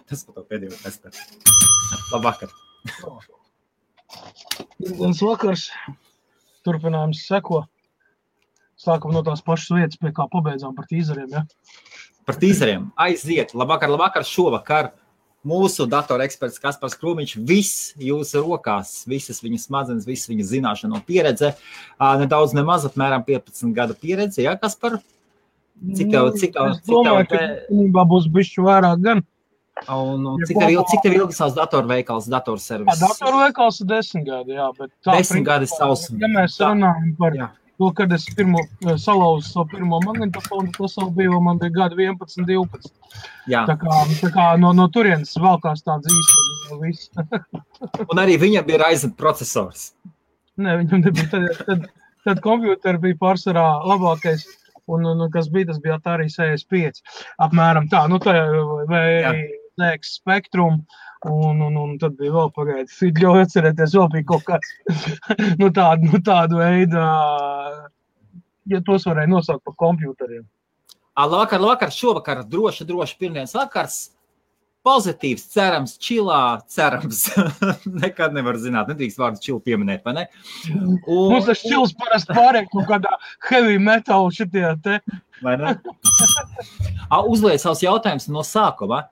Tas par to pēdējo testu. Labvakar. Dienas vakars. Turpinājums seko. Sākam no tās pašas vietas, pie kā pabeidzām par tīzeriem, ja? Par tīzeriem. Aiziet. Labvakar. Šovakar mūsu datoreksperts Kaspars Krūmiņš, viss jūsu rokās, visas viņa smadzenes, visas viņa zināšana un pieredze. Nedaudz nemaz, apmēram 15 gadu pieredze, ja, Kaspar? Cik tev Es domāju, ka būs bišķi vairāk gan. Un cik tev ilgi savs datorveikals, datorservis? Datorveikals ir 10 gadi, jā, bet tā 10 gadi savs. Ja mēs runājam par to, kad es salauzu savu pirmo magnetofonu, tas jau bija, man bija gadi 11, 12. Jā. Tā kā no turienes valkās tāds īsti viss. Un arī viņam bija Ryzen procesors. Nē, viņam nebija. Tad kompjūteri bija pārsvarā labākais. Un kas bija, tas bija Atari 65. Apmēram tā, vai ZX Spectrum, un tad bija vēl pagaidi. Ļauj atcerēties, vēl bija kaut kāds, tādu veidu, ja tos varēja nosaukt par kompjūteriem. Labvakar, šovakar, droši pirmdienas vakars. Pozitīvs, cerams, čilā, cerams. Nekad nevar zināt, nedrīkst vārdu čilu pieminēt, vai ne? Mums tas čils parasti pārēk kaut kādā heavy metal šitie te. Vai ne? Uzliet savus jautājumus no sākuma.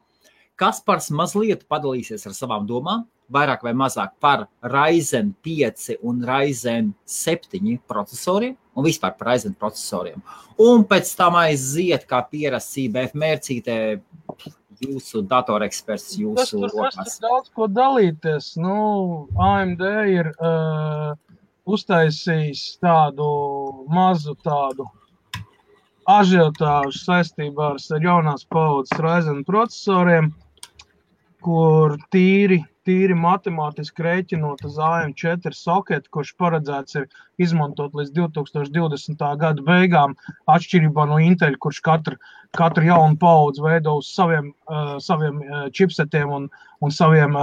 Kaspars mazliet padalīsies ar savām domām, vairāk vai mazāk par Ryzen 5 un Ryzen 7 procesoriem un vispār par Ryzen procesoriem. Un pēc tam aiziet, kā pierasts IBF mērcītē, jūsu datoreksperts, jūsu rokās. Tas daudz ko dalīties. AMD ir uztaisījis tādu mazu ažiotāžu saistībā ar jaunās paudzes Ryzen procesoriem, kur tīri matemātiski rēķinot uz AM4 soketu, kurš paredzēts ir izmantot līdz 2020. Gada beigām, atšķirībā no Intel, kurš katru jaunu paudzi veido uz saviem čipsetiem un saviem,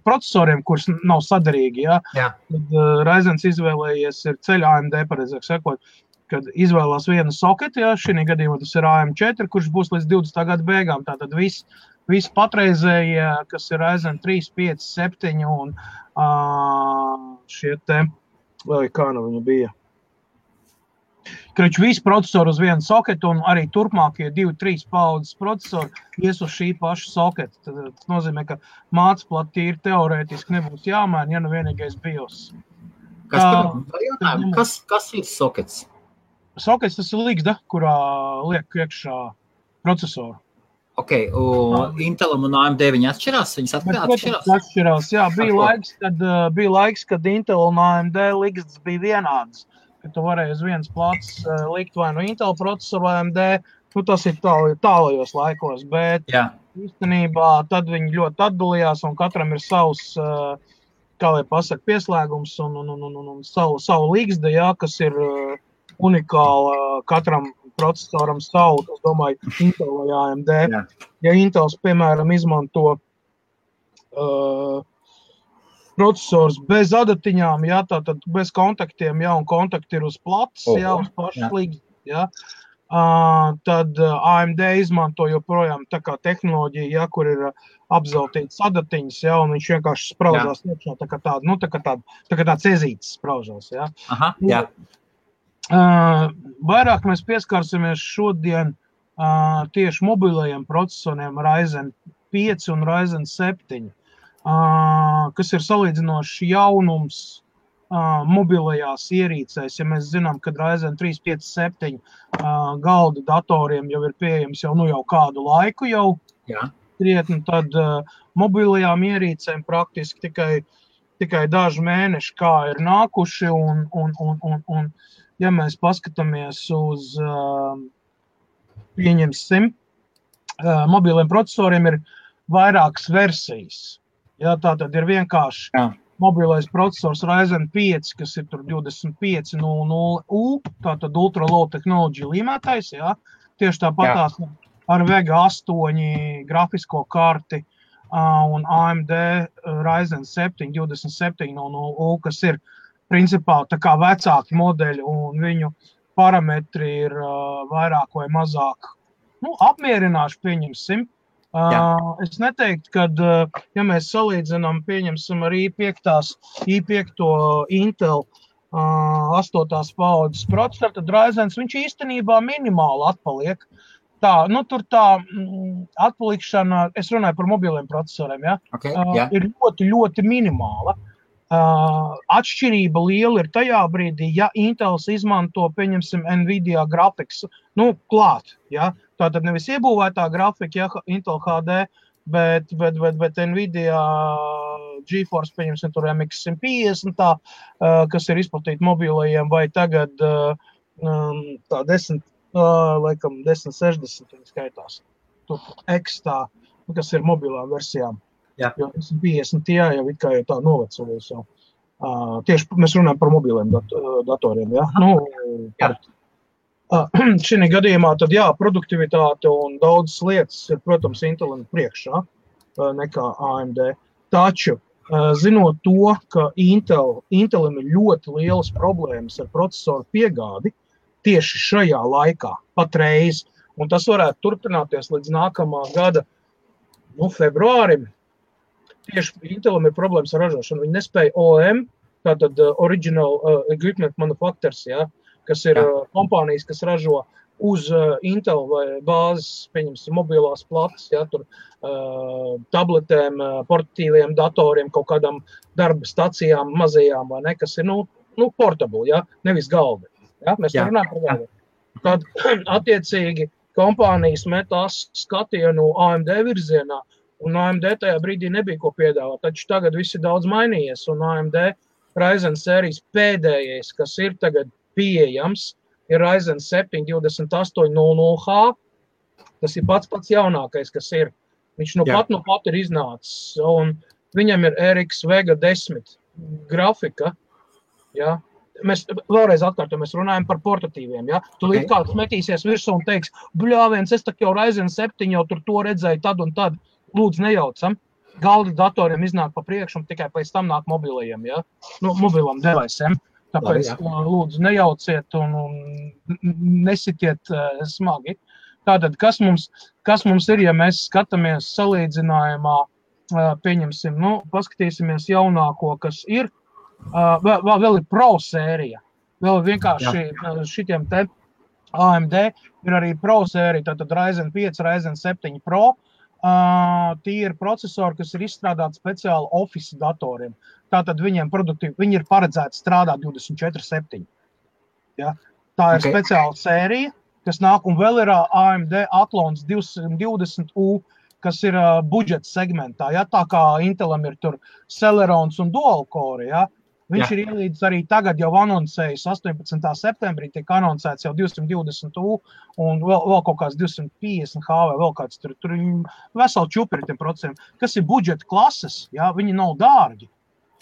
procesoriem, kurš nav saderīgi. Ja? Tad Ryzens izvēlējies ir ceļa AMD, pareizāk sakot, kad izvēlās vienu soketu, ja? Šī gadījumā tas ir AM4, kurš būs līdz 20. Gada beigām. Tātad viss patreizējie, kas ir Ryzen 3, 5, 7 un šie te, vai kā viņa bija. Krič, visi procesori uz vienu soketu un arī turpmākie 2-3 paudzes procesori ies uz šī paša soketa. Tas nozīmē, ka mācplati tīri teorētiski nebūs jāmaina, ja vienīgais BIOS. Kas ir sokets? Sokets tas ir ligzda, kurā liek iekšā procesoru. Ok, Intelam un AMD viņi atšķirās? Viņas atšķirās? Atšķirās, jā. Bija laiks, kad Intel un AMD ligzdas bija vienādas. Kad tu varēji uz vienas plāts likt vai no Intel procesoru vai AMD, tas ir tālajos laikos, bet īstenībā tad viņi ļoti atdalījās un katram ir savs, kā lai pasaka, pieslēgums un savu ligzda, kas ir unikāla katram procesoram savu, es domāju, Intel vai AMD. Ja Intels, piemēram, izmanto procesors bez adatiņām, tātad bez kontaktiem, un kontakti ir uz plats, uz pašas ligzdas, tad AMD izmanto joprojām tā kā tehnoloģija, kur ir apzeltītas adatiņas, un viņš vienkārši spraužās iekšā, tā kā tāds ezītis spraužās, Aha, jā. Vairāk mēs pieskārsimies šodien tieši mobilajiem procesoriem Ryzen 5 un Ryzen 7, kas ir salīdzinoši jaunums mobilajās ierīcēs. Ja mēs zinām, ka Ryzen 3, 5, 7 galda datoriem jau ir pieejams jau kādu laiku krietni, tad mobilajām ierīcēm praktiski tikai daži mēneši kā ir nākuši un ja mēs paskatāmies uz, pieņemsim, mobiliem procesoriem ir vairākas versijas. Tātad ir vienkārši mobilais procesors Ryzen 5, kas ir tur 2500U, tātad Ultra Low Technology līmētais, tieši tāpatās ar Vega 8 grafisko karti un AMD Ryzen 7 2700U, kas ir principā tā kā vecāki modeļi un viņu parametri ir vairāk vai mazāk apmierināši, pieņemsim. Es neteiktu, ka, ja mēs salīdzinām, pieņemsim ar i5 Intel 8. paudzes procesoru, tad Ryzens viņš īstenībā minimāli atpaliek. Tur tā atpalikšana, es runāju par mobiliem procesoriem, ja? Ir ļoti, ļoti minimāla. Atšķirība liela ir tajā brīdī, ja Intels izmanto, pieņemsim, Nvidia grafikas, klāt, ja? Tātad nevis iebūvētā grafika, ja, Intel HD, bet Nvidia GeForce, pieņemsim, tur MX 150, kas ir izplatīta mobilajiem, vai tagad tā 1060 skaitās. Tur X tā, kas ir mobilām versijām. Jā. Jo 150 jau it kā jau tā novecojas jau. Tieši mēs runājam par mobiliem datoriem, ja? Jā. Šī gadījumā tad produktivitāte un daudzas lietas ir, protams, Intelim priekšā nekā AMD. Taču, zinot to, ka Intelim ir ļoti lielas problēmas ar procesoru piegādi tieši šajā laikā, patreiz, un tas varētu turpināties līdz nākamā gada februārim, tieši Intelim ir problēmas ar ražošanu. Viņi nespēja OEM, tātad Original Equipment Manufacturers, ja, kas ir kompānijas, kas ražo uz Intel vai bāzes, pieņemsim, mobilās plates, ja, tur tabletēm, portatīviem datoriem, kaut kādām darba stacijām, mazajām, vai ne, kas ir, portable, ja, nevis galdi. Ja, mēs runājam par galdi. Tad, attiecīgi, kompānijas metās skatienu AMD virzienā, un AMD tajā brīdī nebija ko piedāvāt, taču tagad viss ir daudz mainījies, un AMD Ryzen sērijas pēdējais, kas ir tagad pieejams, ir Ryzen 7 2800H, tas ir pats jaunākais, kas ir. Viņš pat ir iznācis, un viņam ir RX Vega 10 grafika, ja. Mēs vēlreiz atkārtojam, mēs runājam par portatīviem, ja. Tu līdz kāds metīsies virsū un teiks, bļāviens, es tak jau Ryzen 7 jau tur to redzēju tad un tad, lūdzu nejaucam. Galda datoriem iznāk pa priekšu un tikai pēc tam nāk mobilajiem, ja. Mobilam device'iem. Tāpēc lūdzu nejauciet un nesitiet smagi. Tātad, kas mums ir, ja mēs skatāmies salīdzinājumā, pieņemsim, paskatīsimies jaunāko, kas ir, vēl ir Pro sērija. Vēl vienkārši šitiem te AMD ir arī Pro sērija, tātad Ryzen 5, Ryzen 7 Pro. Tie ir procesori, kas ir izstrādāti speciāli Office datoriem. Tātad viņi ir paredzēti strādāt 24/7. Ja? Tā ir speciāla sērija, kas nāk, un vēl ir AMD Athlons 220U, kas ir budžeta segmentā. Ja? Tā kā Intelam ir tur Celerons un Dual Core, ja? Viņš ir ielīdz arī tagad jau anoncējis 18. septembrī, tiek anoncēts jau 220U un vēl kaut kāds 250H vai vēl kāds tur veseli čupiri tiem procesiem, kas ir budžeta klases, ja, viņi nav dārgi.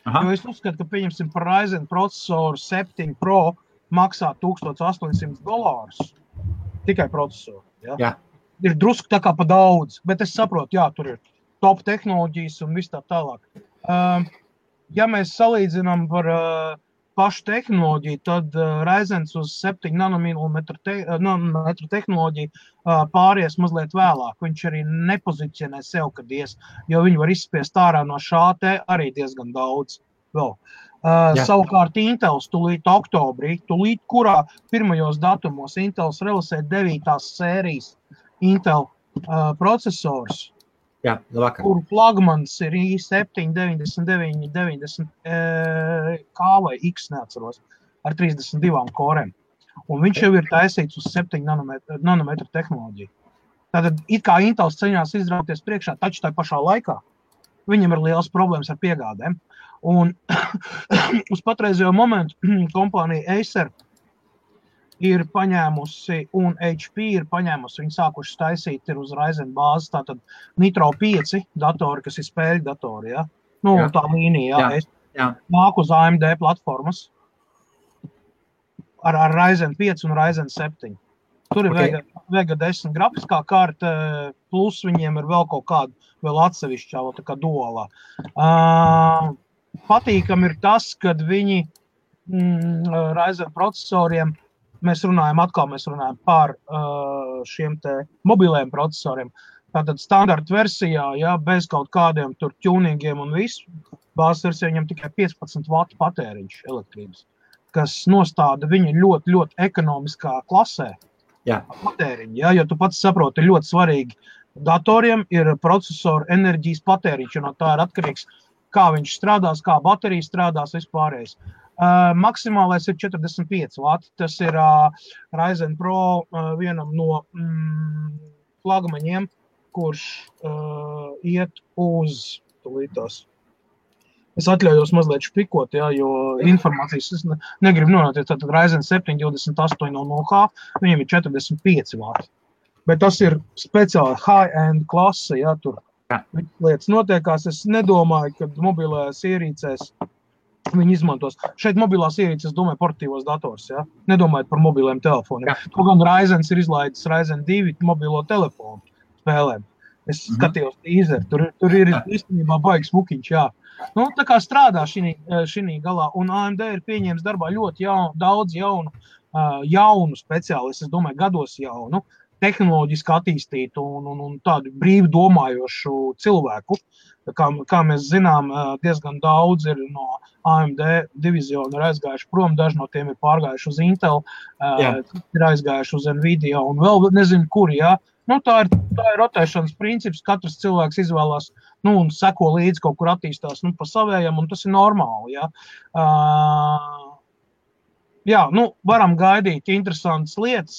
Aha. Jo es uzskatu, ka pieņemsim par Ryzen procesoru 7 Pro maksā $1800 tikai procesoru. Ja. Jā. Ir drusku tā kā pa daudz, bet es saprotu, tur ir top tehnoloģijas un viss tā tālāk. Ja mēs salīdzinām par pašu tehnoloģiju, tad Ryzens uz 7 nanometru tehnoloģiju pāries mazliet vēlāk. Viņš arī nepozicionē sev, kad jo viņi var izspiest ārā no šā te arī diezgan daudz vēl. Savukārt Intels tūlīt oktobrī, kurā pirmajos datumos Intels realizē 9. sērijas Intel procesors, kur flagmans ir i7 9990 K vai X, neatceros, ar 32 korem. Un viņš jau ir taisīts uz 7 nanometru tehnoloģiju. Tātad, it kā Intels ceņās izrauties priekšā, taču tā pašā laikā viņam ir liels problēmas ar piegādēm. Un uz patreizējo momentu kompānija Acer ir paņēmusi un HP ir paņēmusi, viņi sākuši taisīt ir uz Ryzen bāzes, tātad Nitro 5 datori, kas ir spēļu datori, ja? Tā līnija, nāk uz AMD platformas ar Ryzen 5 un Ryzen 7. Tur ir Vega 10 grafiskā kārta, plus viņiem ir vēl kaut kāda, vēl atsevišķā, tā kā dualā. Patīkam ir tas, kad viņi Ryzen procesoriem, mēs runājam par šiem te mobiliem procesoriem, Tātad standarta versijā, ja, bez kaut kādiem tur tuningiem un visu, bāzes versijā viņam tikai 15 vatu patēriņš elektrības, kas nostāda viņu ļoti, ļoti ekonomiskā klasē patēriņu. Ja, jo tu pats saproti, ļoti svarīgi datoriem ir procesoru enerģijas patēriņš, un no tā ir atkarīgs, kā viņš strādās, kā baterija strādās, vispārējais. Maksimālais ir 45 vati. Tas ir Ryzen Pro vienam no flagmaņiem, kurš iet uz tūlītās. Es atļaujos mazliet špikot, ja, jo informācijas es negribu nonākt. Tātad Ryzen 7 2800H, viņiem ir 45 vati. Bet tas ir speciāli high-end klase, ja, tur lietas notiekās. Es nedomāju, ka mobilajās ierīcēs viņi izmantos. Šeit mobilās ierīces, domāju, portatīvos dators, ja, nedomājot par mobiliem telefoniem. To gan Ryzens ir izlaidis Ryzen 2 mobilo telefonu spēlēm. Es skatījos teaser, tur ir īstenībā baigs mukiņš, jā. Nu, tā kā strādā šī galā, un AMD ir pieņēmis darbā ļoti daudz jaunu speciālistu, es domāju, gados jaunu, tehnoloģiski attīstītu un tādu brīvi domājošu cilvēku. Kā mēs zinām, diezgan daudz ir no AMD diviziona ir aizgājuši prom, daži no tiem ir pārgājuši uz Intel, ir aizgājuši uz Nvidia un vēl nezinu kuri, jā. Nu, tā ir rotēšanas princips, katrs cilvēks izvēlās, nu, un seko līdzi kaut kur attīstās, nu, pa savējam, un tas ir normāli, jā. Jā, nu, varam gaidīt interesantas lietas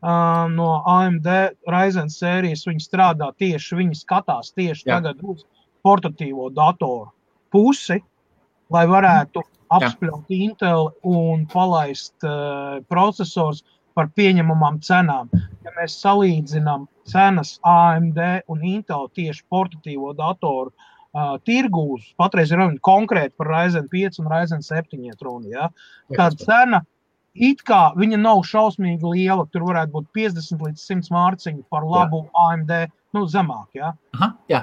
no AMD Ryzen sērijas, viņi strādā tieši, viņi skatās tieši tagad uz portatīvo datoru pusi, lai varētu apspļaut Intel un palaist procesors par pieņemamām cenām. Ja mēs salīdzinām cenas AMD un Intel tieši portatīvo datoru tirgūs, patreiz ir runa konkrēti par Ryzen 5 un Ryzen 7 runa, ja? Tā cena, it kā viņa nav šausmīgi liela, tur varētu būt 50 līdz 100 mārciņu par labu AMD, nu, zemāk, ja? Aha, jā.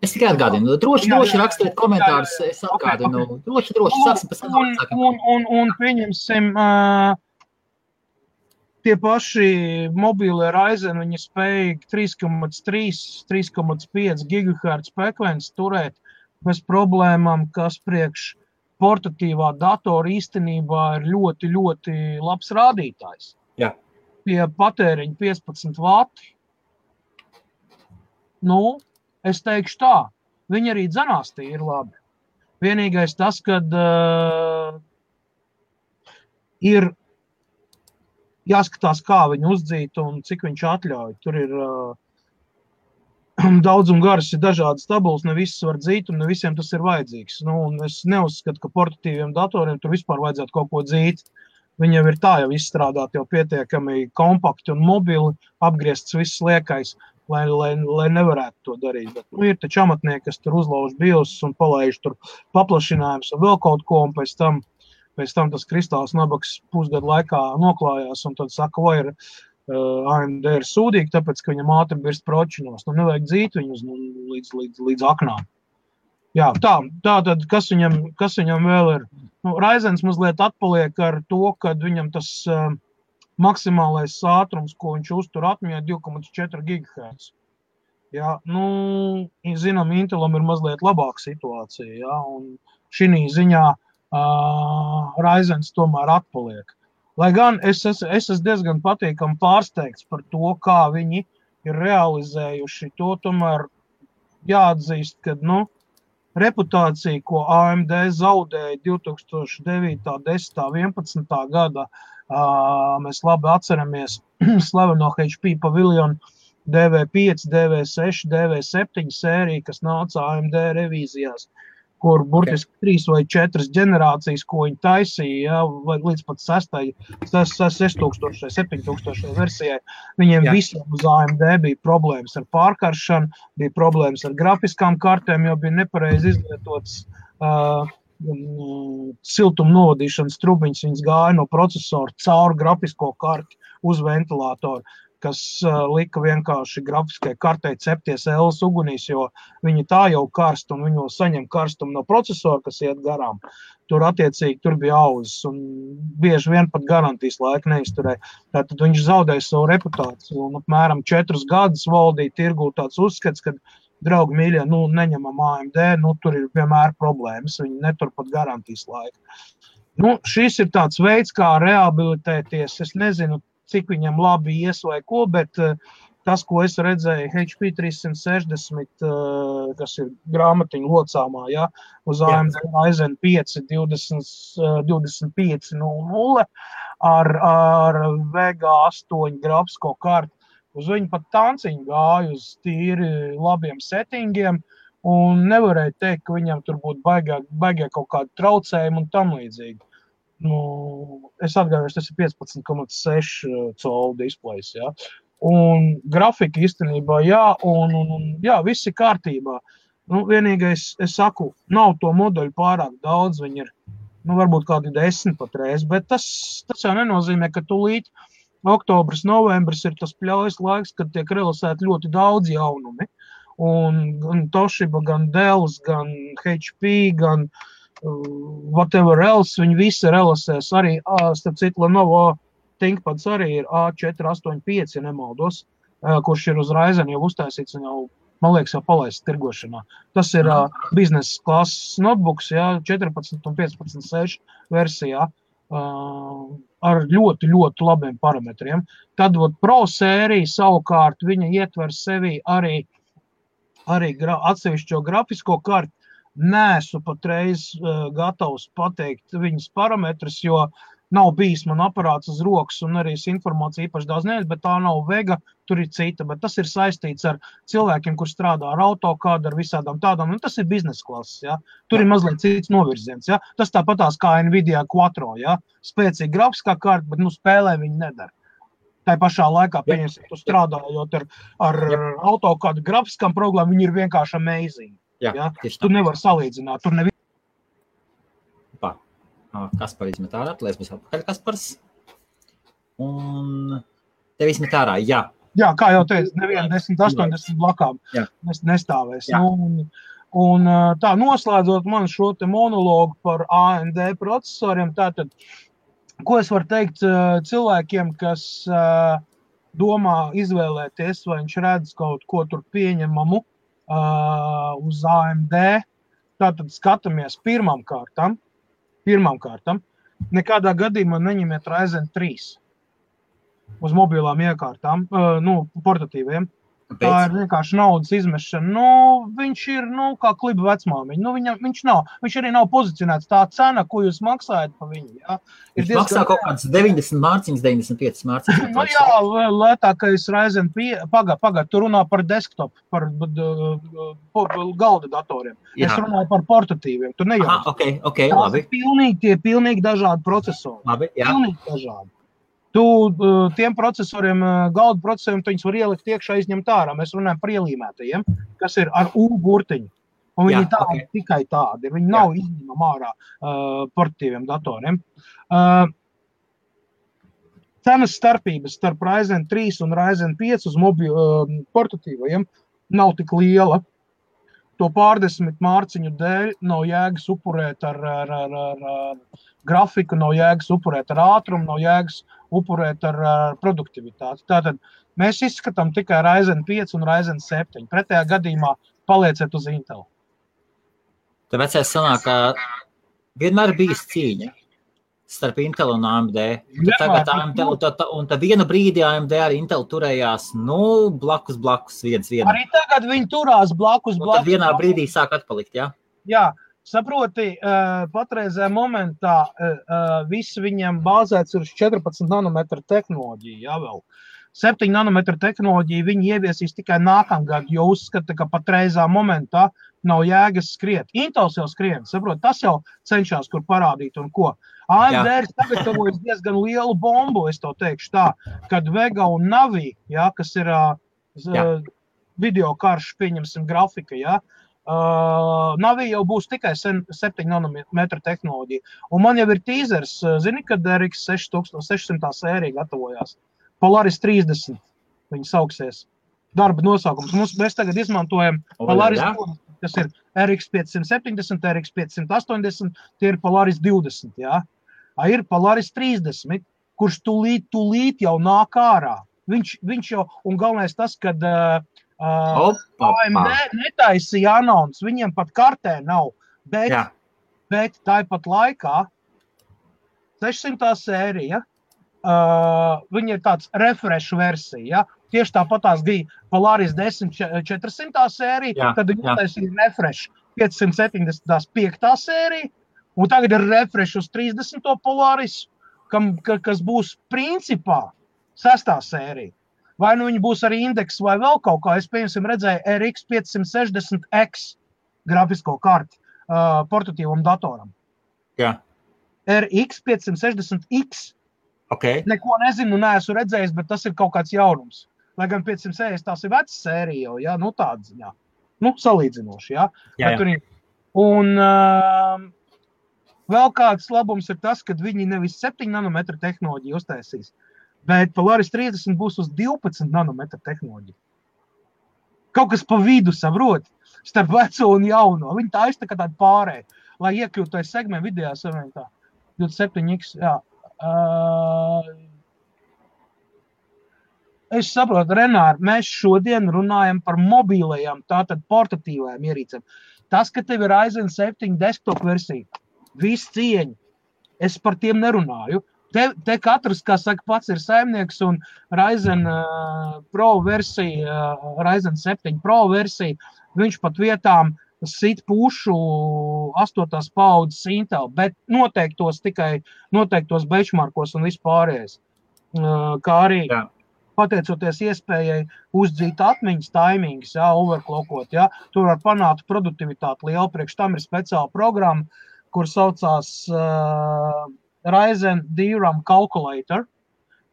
Es tikai atgādinu, droši rakstiet komentārus, es atgādinu, droši, sāksim pēc tam. Un pieņemsim, tie paši mobīlie Ryzen, viņi spēj 3,5 GHz frekvenci turēt bez problēmām, kas priekš portatīvā datora īstenībā ir ļoti, ļoti labs rādītājs. Jā. Pie patēriņa 15 vati. Nu, es teikšu tā, viņi arī dzenās tie ir labi. Vienīgais tas, kad ir jāskatās, kā viņu uzdzīt un cik viņš atļauj. Tur ir daudz un garas ir dažādas tabulas, ne visas var dzīt un ne visiem tas ir vajadzīgs. Nu, un es neuzskatu, ka portatīviem datoriem tur vispār vajadzētu kaut ko dzīt. Viņi jau ir tā jau izstrādāt jau pietiekami kompakti un mobili, apgriezts viss liekais, lai nevarētu to darīt. Bet, nu, ir taču amatnieki, kas tur uzlauž BIOS un palaiž tur paplašinājums un vēl kaut ko, un pēc tam tas kristāls nabaks pusgadu laikā noklājās, un tad saka, vai ir AMD ir sūdīgi, tāpēc, ka viņam ātri birst pročinos. Nu, nevajag dzīt viņus līdz aknām. Jā, tā tad, kas viņam vēl ir? Nu, Ryzens mazliet atpaliek ar to, kad viņam tas maksimālais ātrums, ko viņš uztur atmiņā, 2,4 GHz. Jā, nu, zinām, Intelam ir mazliet labāka situācija, jā, un šī ziņā Ryzens tomēr atpaliek. Lai gan es esmu diezgan patīkami pārsteigts par to, kā viņi ir realizējuši to, tomēr jāatzīst, ka, nu, reputācija, ko AMD zaudēja 2009, 10, 11. gada, mēs labi atceramies slaveno HP Pavilion DV5, DV6, DV7 sēriju, kas nāca AMD revīzijās, kur burtiski 3 vai 4 ģenerācijas, ko viņi taisīja, ja, līdz pat 6000, 7000 versijai. Viņiem visiem uz AMD bija problēmas ar pārkaršanu, bija problēmas ar grafiskām kartēm, jo bija nepareizi izlietots siltuma novadīšanas trubiņas, viņas gāja no procesora caur grafisko karti uz ventilātoru. kas lika vienkārši grafiskai kartei cepties Ls ugunīs, jo viņi tā jau karst un viņi saņem karstumu no procesora, kas iet garām. Tur attiecīgi tur bija auzas un bieži vien pat garantijas laika neizturēja. Tātad viņš zaudēja savu reputāciju un apmēram 4 gadus valdīja tirgū tāds uzskats, ka draugi mīļie, neņemam AMD, tur ir vienmēr problēmas, viņi netur pat garantijas laika. Šis ir tāds veids, kā rehabilitēties, es nezinu, cik viņam labi ies vai ko, bet tas, ko es redzēju HP 360, kas ir grāmatiņu locāmā, ja, uz AMD Ryzen 5 2500 ar Vega 8 grafisko karti. Uz viņu pat tanciņu gāja uz tīri labiem settingiem un nevarēja teikt, ka viņam tur būtu baigā kaut kādu traucējumu un tam līdzīgi. Es atgādāšu, tas ir 15,6 colu displejs, ja. Un grafika īstenībā, jā, viss ir kārtībā. Vienīgais, es saku, nav to modeļu pārāk daudz, viņi ir, varbūt kādi 10 patreiz, bet tas jau nenozīmē, ka tūlīt oktobris, novembris ir tas pļaujas laiks, kad tiek realizēti ļoti daudz jaunumi. Un gan Toshiba, gan Dells, gan HP, gan whatever else, viņi visi realizēs arī, starp citu, Lenovo ThinkPads arī ir A485, ja nemaldos, kurš ir uz Ryzen jau uztaisīts un jau, man liekas, jau palaists tirgošanā. Tas ir biznesa klases notebooks, 14 un 15.6 versijā. Ar ļoti, ļoti labiem parametriem. Tad Pro sērija savukārt viņa ietver sevī arī atsevišķo grafisko karti. Neesmu patreiz gatavs pateikt viņas parametrus, jo nav bijis man aparāts uz rokas un arī informācija īpaši daudz nevies, bet tā nav Vega, tur ir cita, bet tas ir saistīts ar cilvēkiem, kur strādā ar AutoCAD, ar visādām tādām, un tas ir biznesa klases, ja. Tur ir mazliet cits novirziens, ja. Tas tāpatās kā Nvidia Quattro, ja. Spēcīga grafiskā karta, bet spēlē viņi nedara. Tā pašā laikā, pieņemsim, tu strādājot ar AutoCAD grafiskām programmām, viņi ir vienkārši amazing. Ja. Tu nevar salīdzināt, tur neviens. Kaspar izmet ārā, lai es būs atpakaļ Kaspars. Un tev izmet ārā, jā. Jā, kā jau teicu, neviena 10-80 blakām nestāvēs. Jā. Un tā noslēdzot man šo te monologu par AMD procesoriem, tātad, ko es varu teikt cilvēkiem, kas domā izvēlēties, vai viņš redz kaut ko tur pieņemamu uz AMD, tātad skatāmies pirmām kārtām, nekādā gadījumā neņemiet Ryzen 3 uz mobilām iekārtām, portatīviem. Tā ir vienkārši naudas izmešana. Viņš ir, kā kliba vecmāmiņa. Viņš nav. Viņš arī nav pozicionēts tā cena, ko jūs maksājat pa viņu. Ja? Viņš maksā kaut kāds 90 mārciņas, 95 mārciņas. Jā, lētākais Ryzen 5. Pagad, tu runā par desktop, par galda datoriem. Jā. Es runāju par portatīviem. Tu nejaus. Ok, labi. Tie pilnīgi dažādi procesori. Labi, jā. Pilnīgi dažādi. Tu tiem procesoriem, galda procesoriem, tu viņus var ielikt iekšā, izņemt ārā. Mēs runājam par ielīmētajiem, kas ir ar U burtiņu. Un viņi tādi, tikai tādi. Viņi nav izņemam ārā portatīviem datoriem. Cenas starpības starp Ryzen 3 un Ryzen 5 uz portatīvajiem nav tik liela. To pārdesmit mārciņu dēļ nav jēgas upurēt ar grafiku, nav jēgas upurēt ar ātrumu, nav jēgas upurēt ar produktivitāti. Tātad mēs izskatām tikai Ryzen 5 un Ryzen 7. Pretējā gadījumā palieciet uz Intel. Tāpēc es sanāk, ka vienmēr bijis cīņa starp Intel un AMD. Tagad AMD, un tad vienu brīdi AMD ar Intel turējās, blakus viens. Arī tagad viņi turās blakus. Tad vienā brīdī sāk atpalikt, jā? Jā, saproti, patreizē momentā viss viņiem bāzēts uz 14 nanometru tehnoloģiju, jā vēl. 7 nanometru tehnoloģiju viņi ieviesīs tikai nākamgad, jo uzskata, ka patreizā momentā nav jēgas skriet. Intels jau skrien, saprot, tas jau cenšas kur parādīt un ko. AMD ir sagatavojis diezgan lielu bombu, es to teikšu tā, kad Vega un Navi, kas ir video karš, pieņemsim grafika, Navi jau būs tikai 7 nanometru tehnoloģija. Un man jau ir teasers, zini, kad RX 600 sērija gatavojās. Polaris 30. viņi sauksies. Darba nosaukums. Mēs tagad izmantojam Polaris 20, kas ir RX 570, RX 580, tie ir Polaris 20, jā. Ir Polaris 30, kurš tūlīt jau nāk ārā. Viņš jau, un galvenais tas, kad AMD netaisīja anons, viņiem pat kartē nav, bet tāpat laikā 600. sērija, viņa ir tāds refresh versija, ja? Tieši tāpatās bija Polaris 10 400. sērija, tad viņi taisīja refresh 575. sērija, un tagad ir refresh uz 30. Polaris, kas būs principā 6. sērija. Vai nu viņi būs arī indeks vai vēl kaut kā, es piemēram redzēju RX 560X grafisko karti portatīvam datoram. Jā. RX 560X. Okay. Neko nezinu, neesmu redzējis, bet tas ir kaut kāds jaunums. Lai gan 560 tās ir vecas sērija, ja? Nu tāda ziņā. Nu, salīdzinoši, ja? Jā. Un vēl kāds labums ir tas, ka viņi nevis 7 nanometru tehnoloģiju uztaisīs, bet Polaris 30 būs uz 12 nanometru tehnoloģiju. Kaut kas pa vidu, saprot, starp veco un jauno. Viņi tā iztaka tādu pārēju, lai iekļūtu tajā segmentu vidējā savienotā. 27X, jā. Es saprotu, Renār, mēs šodien runājam par mobīlajām, tātad portatīvajām ierīcēm. Tas, ka tev ir Ryzen 7 desktop versija, viss cieņa, es par tiem nerunāju. Te katrs, kā saka, pats ir saimnieks un Ryzen Pro versija, Ryzen 7 Pro versija, viņš pat vietām sit pušu 8. paudzes Intel, bet noteiktos benchmarkos un vispārējais. Kā arī pateicoties iespējai uzdzīt atmiņas taimings, overclockot, tur var panākt produktivitāti lielu, priekš tam ir speciāla programma, kur saucās Ryzen DRAM Calculator,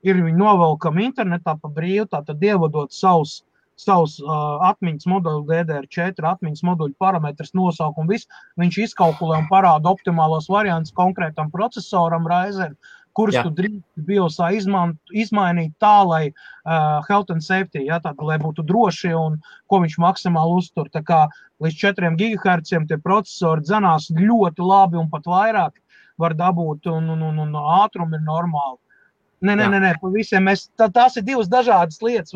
ir viņi novelkami internetā pa brīvu, tātad ievadot savus atmiņas moduļu DDR4, atmiņas moduļu parametrus, nosaukumu visu, viņš izkalkulē un parāda optimālos variantus konkrētam procesoram Ryzen, kurus tu drīkst BIOSā izmainīt tā, lai health and safety, tātad, lai būtu droši un ko viņš maksimāli uztur. Tā kā līdz 4 GHz tie procesori dzenās ļoti labi un pat vairāk var dabūt un ātrumi ir normāli. Nē, pa visiem tās ir divas dažādas lietas.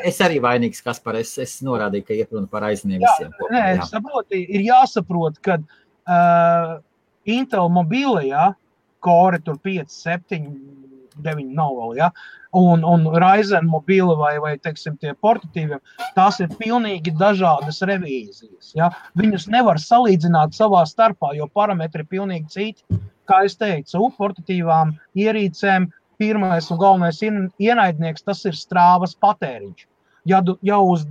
Es arī vainīgs, Kaspar, es norādīju, ka iet runa par aizniem visiem. Es saprotu, ir jāsaprot, ka Intel mobīlajā Core tur 5, 7, 9 nav vēl, un Ryzen mobīla vai teiksim, tie portatīviem, tās ir pilnīgi dažādas revīzijas, Viņus nevar salīdzināt savā starpā, jo parametri ir pilnīgi citi. Kā es teicu, portatīvām ierīcēm pirmais un galvenais ienaidnieks, tas ir strāvas patēriņš. Ja uz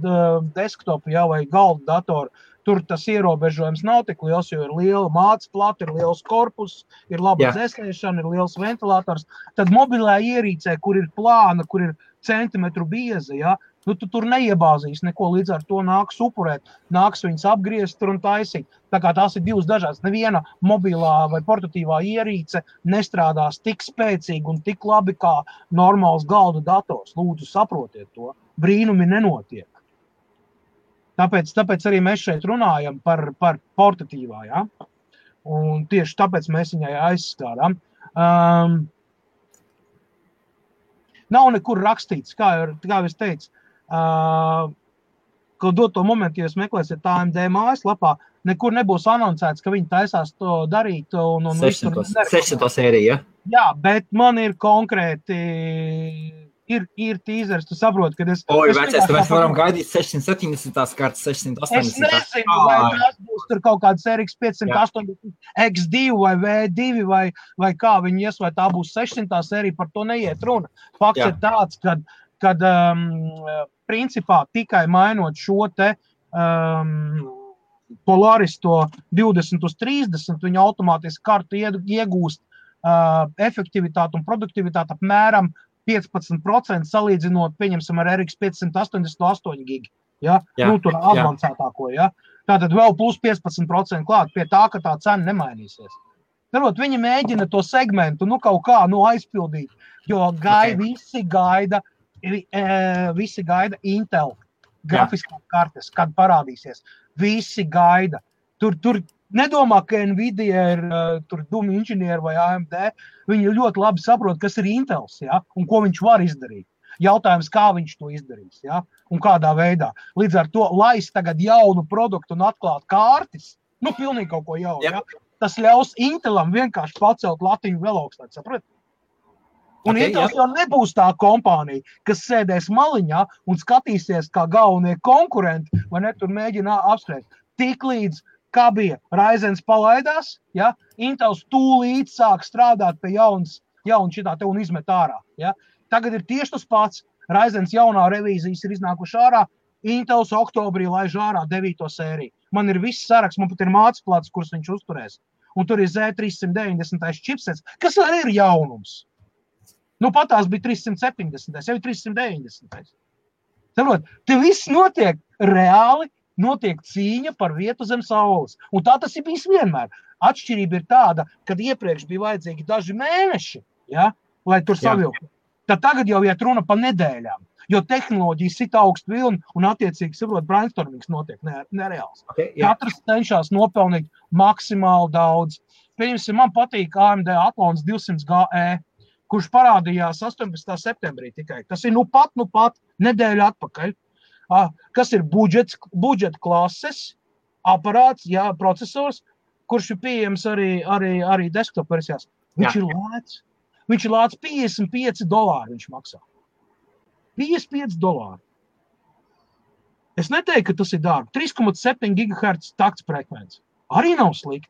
desktopu, vai galda datoru, tur tas ierobežojums nav tik liels, jo ir liela mātes plata, ir liels korpus, ir laba dzēsēšana, ir liels ventilators. Tad mobilā ierīcē, kur ir plāna, kur ir centimetru bieza, tu tur neiebāzīs neko, līdz ar to nāks upurēt, nāks viņas apgriezt tur un taisīt. Tā kā tās ir divas dažādas. Neviena mobilā vai portatīvā ierīce nestrādās tik spēcīgi un tik labi kā normāls galda dators. Lūdzu, saprotiet to. Brīnumi nenotiek. Tāpēc arī mēs šeit runājam par portatīvā, Un tieši tāpēc mēs viņai aizskādām. Nav nekur rakstīts, kā es teicu, ka doto momentu, ja jūs meklēsiet AMD mājaslapā, nekur nebūs anoncēts, ka viņi taisās to darīt. 600. sērija, Jā, bet man ir konkrēti, ir tīzers, tu saproti, kad es... Mēs varam gaidīt 670. kartas, 680. Es nezinu, vai tās būs tur kaut kāds RX 580 X2 vai V2 vai kā viņi ies, vai tā būs 600. sērija, par to neiet runa. Fakts ir tāds, kad principā tikai mainot šo te Polaris to 20 uz 30, viņa automātiski kartu iegūst efektivitāti un produktivitāti apmēram 15% salīdzinot, pieņemsim, ar RX 588 gigi. Tur advancētāko, Tātad vēl plus 15% klāt pie tā, ka tā cena nemainīsies. Darot, viņi mēģina to segmentu, kaut kā aizpildīt, jo visi gaida visi gaida Intel grafiskās kartes, kad parādīsies. Visi gaida. Tur nedomā, ka Nvidia ir tur dumi inženieri vai AMD. Viņi ļoti labi saprot, kas ir Intels, ja? Un ko viņš var izdarīt. Jautājums, kā viņš to izdarīs, ja? Un kādā veidā. Līdz ar to, laist tagad jaunu produktu un atklāt kārtis, pilnīgi kaut ko jaunu, ja? Tas ļaus Intelam vienkārši pacelt latiņu vēl augstāk, saprat? Un Intels jau nebūs tā kompānija, kas sēdēs maliņā un skatīsies, kā galvenie konkurenti, vai ne, tur mēģina apspriest. Tiklīdz, kā bija, Ryzens palaidās, ja, Intels tūlīt sāk strādāt pie jauna šitā te un izmet ārā. Ja. Tagad ir tieši tas pats. Ryzens jaunā revīzijas ir iznākuši ārā, Intels oktobrī laiž ārā 9. sēriju. Man ir viss saraksts, man pat ir mācplats, kurus viņš uzturēs. Un tur ir Z390 čipsets, kas arī ir jaunums. Patās bija 370, jau ir 390. Saprot, te viss notiek reāli, notiek cīņa par vietu zem saules. Un tā tas ir bijis vienmēr. Atšķirība ir tāda, kad iepriekš bija vajadzīgi daži mēneši, ja, lai tur savilktu. Tad tagad jau iet runa pa nedēļām, jo tehnoloģija sit augstu vilni un attiecīgi, saprot, brainstormings notiek nereāls. Katrs cenšas nopelnīt maksimāli daudz. Pieņemsim, man patīk AMD Athlons 200 GE, kurš parādījās 18. septembrī tikai. Tas ir nu pat nedēļu atpakaļ. Kas ir budžeta klases aparāts, procesors, kurš ir pieejams arī desktop versijās. Viņš ir lēts. Viņš ir lēts $55 viņš maksā. $55. Es neteiktu, ka tas ir dārgi. 3,7 GHz takts frekvence. Arī nav slikti.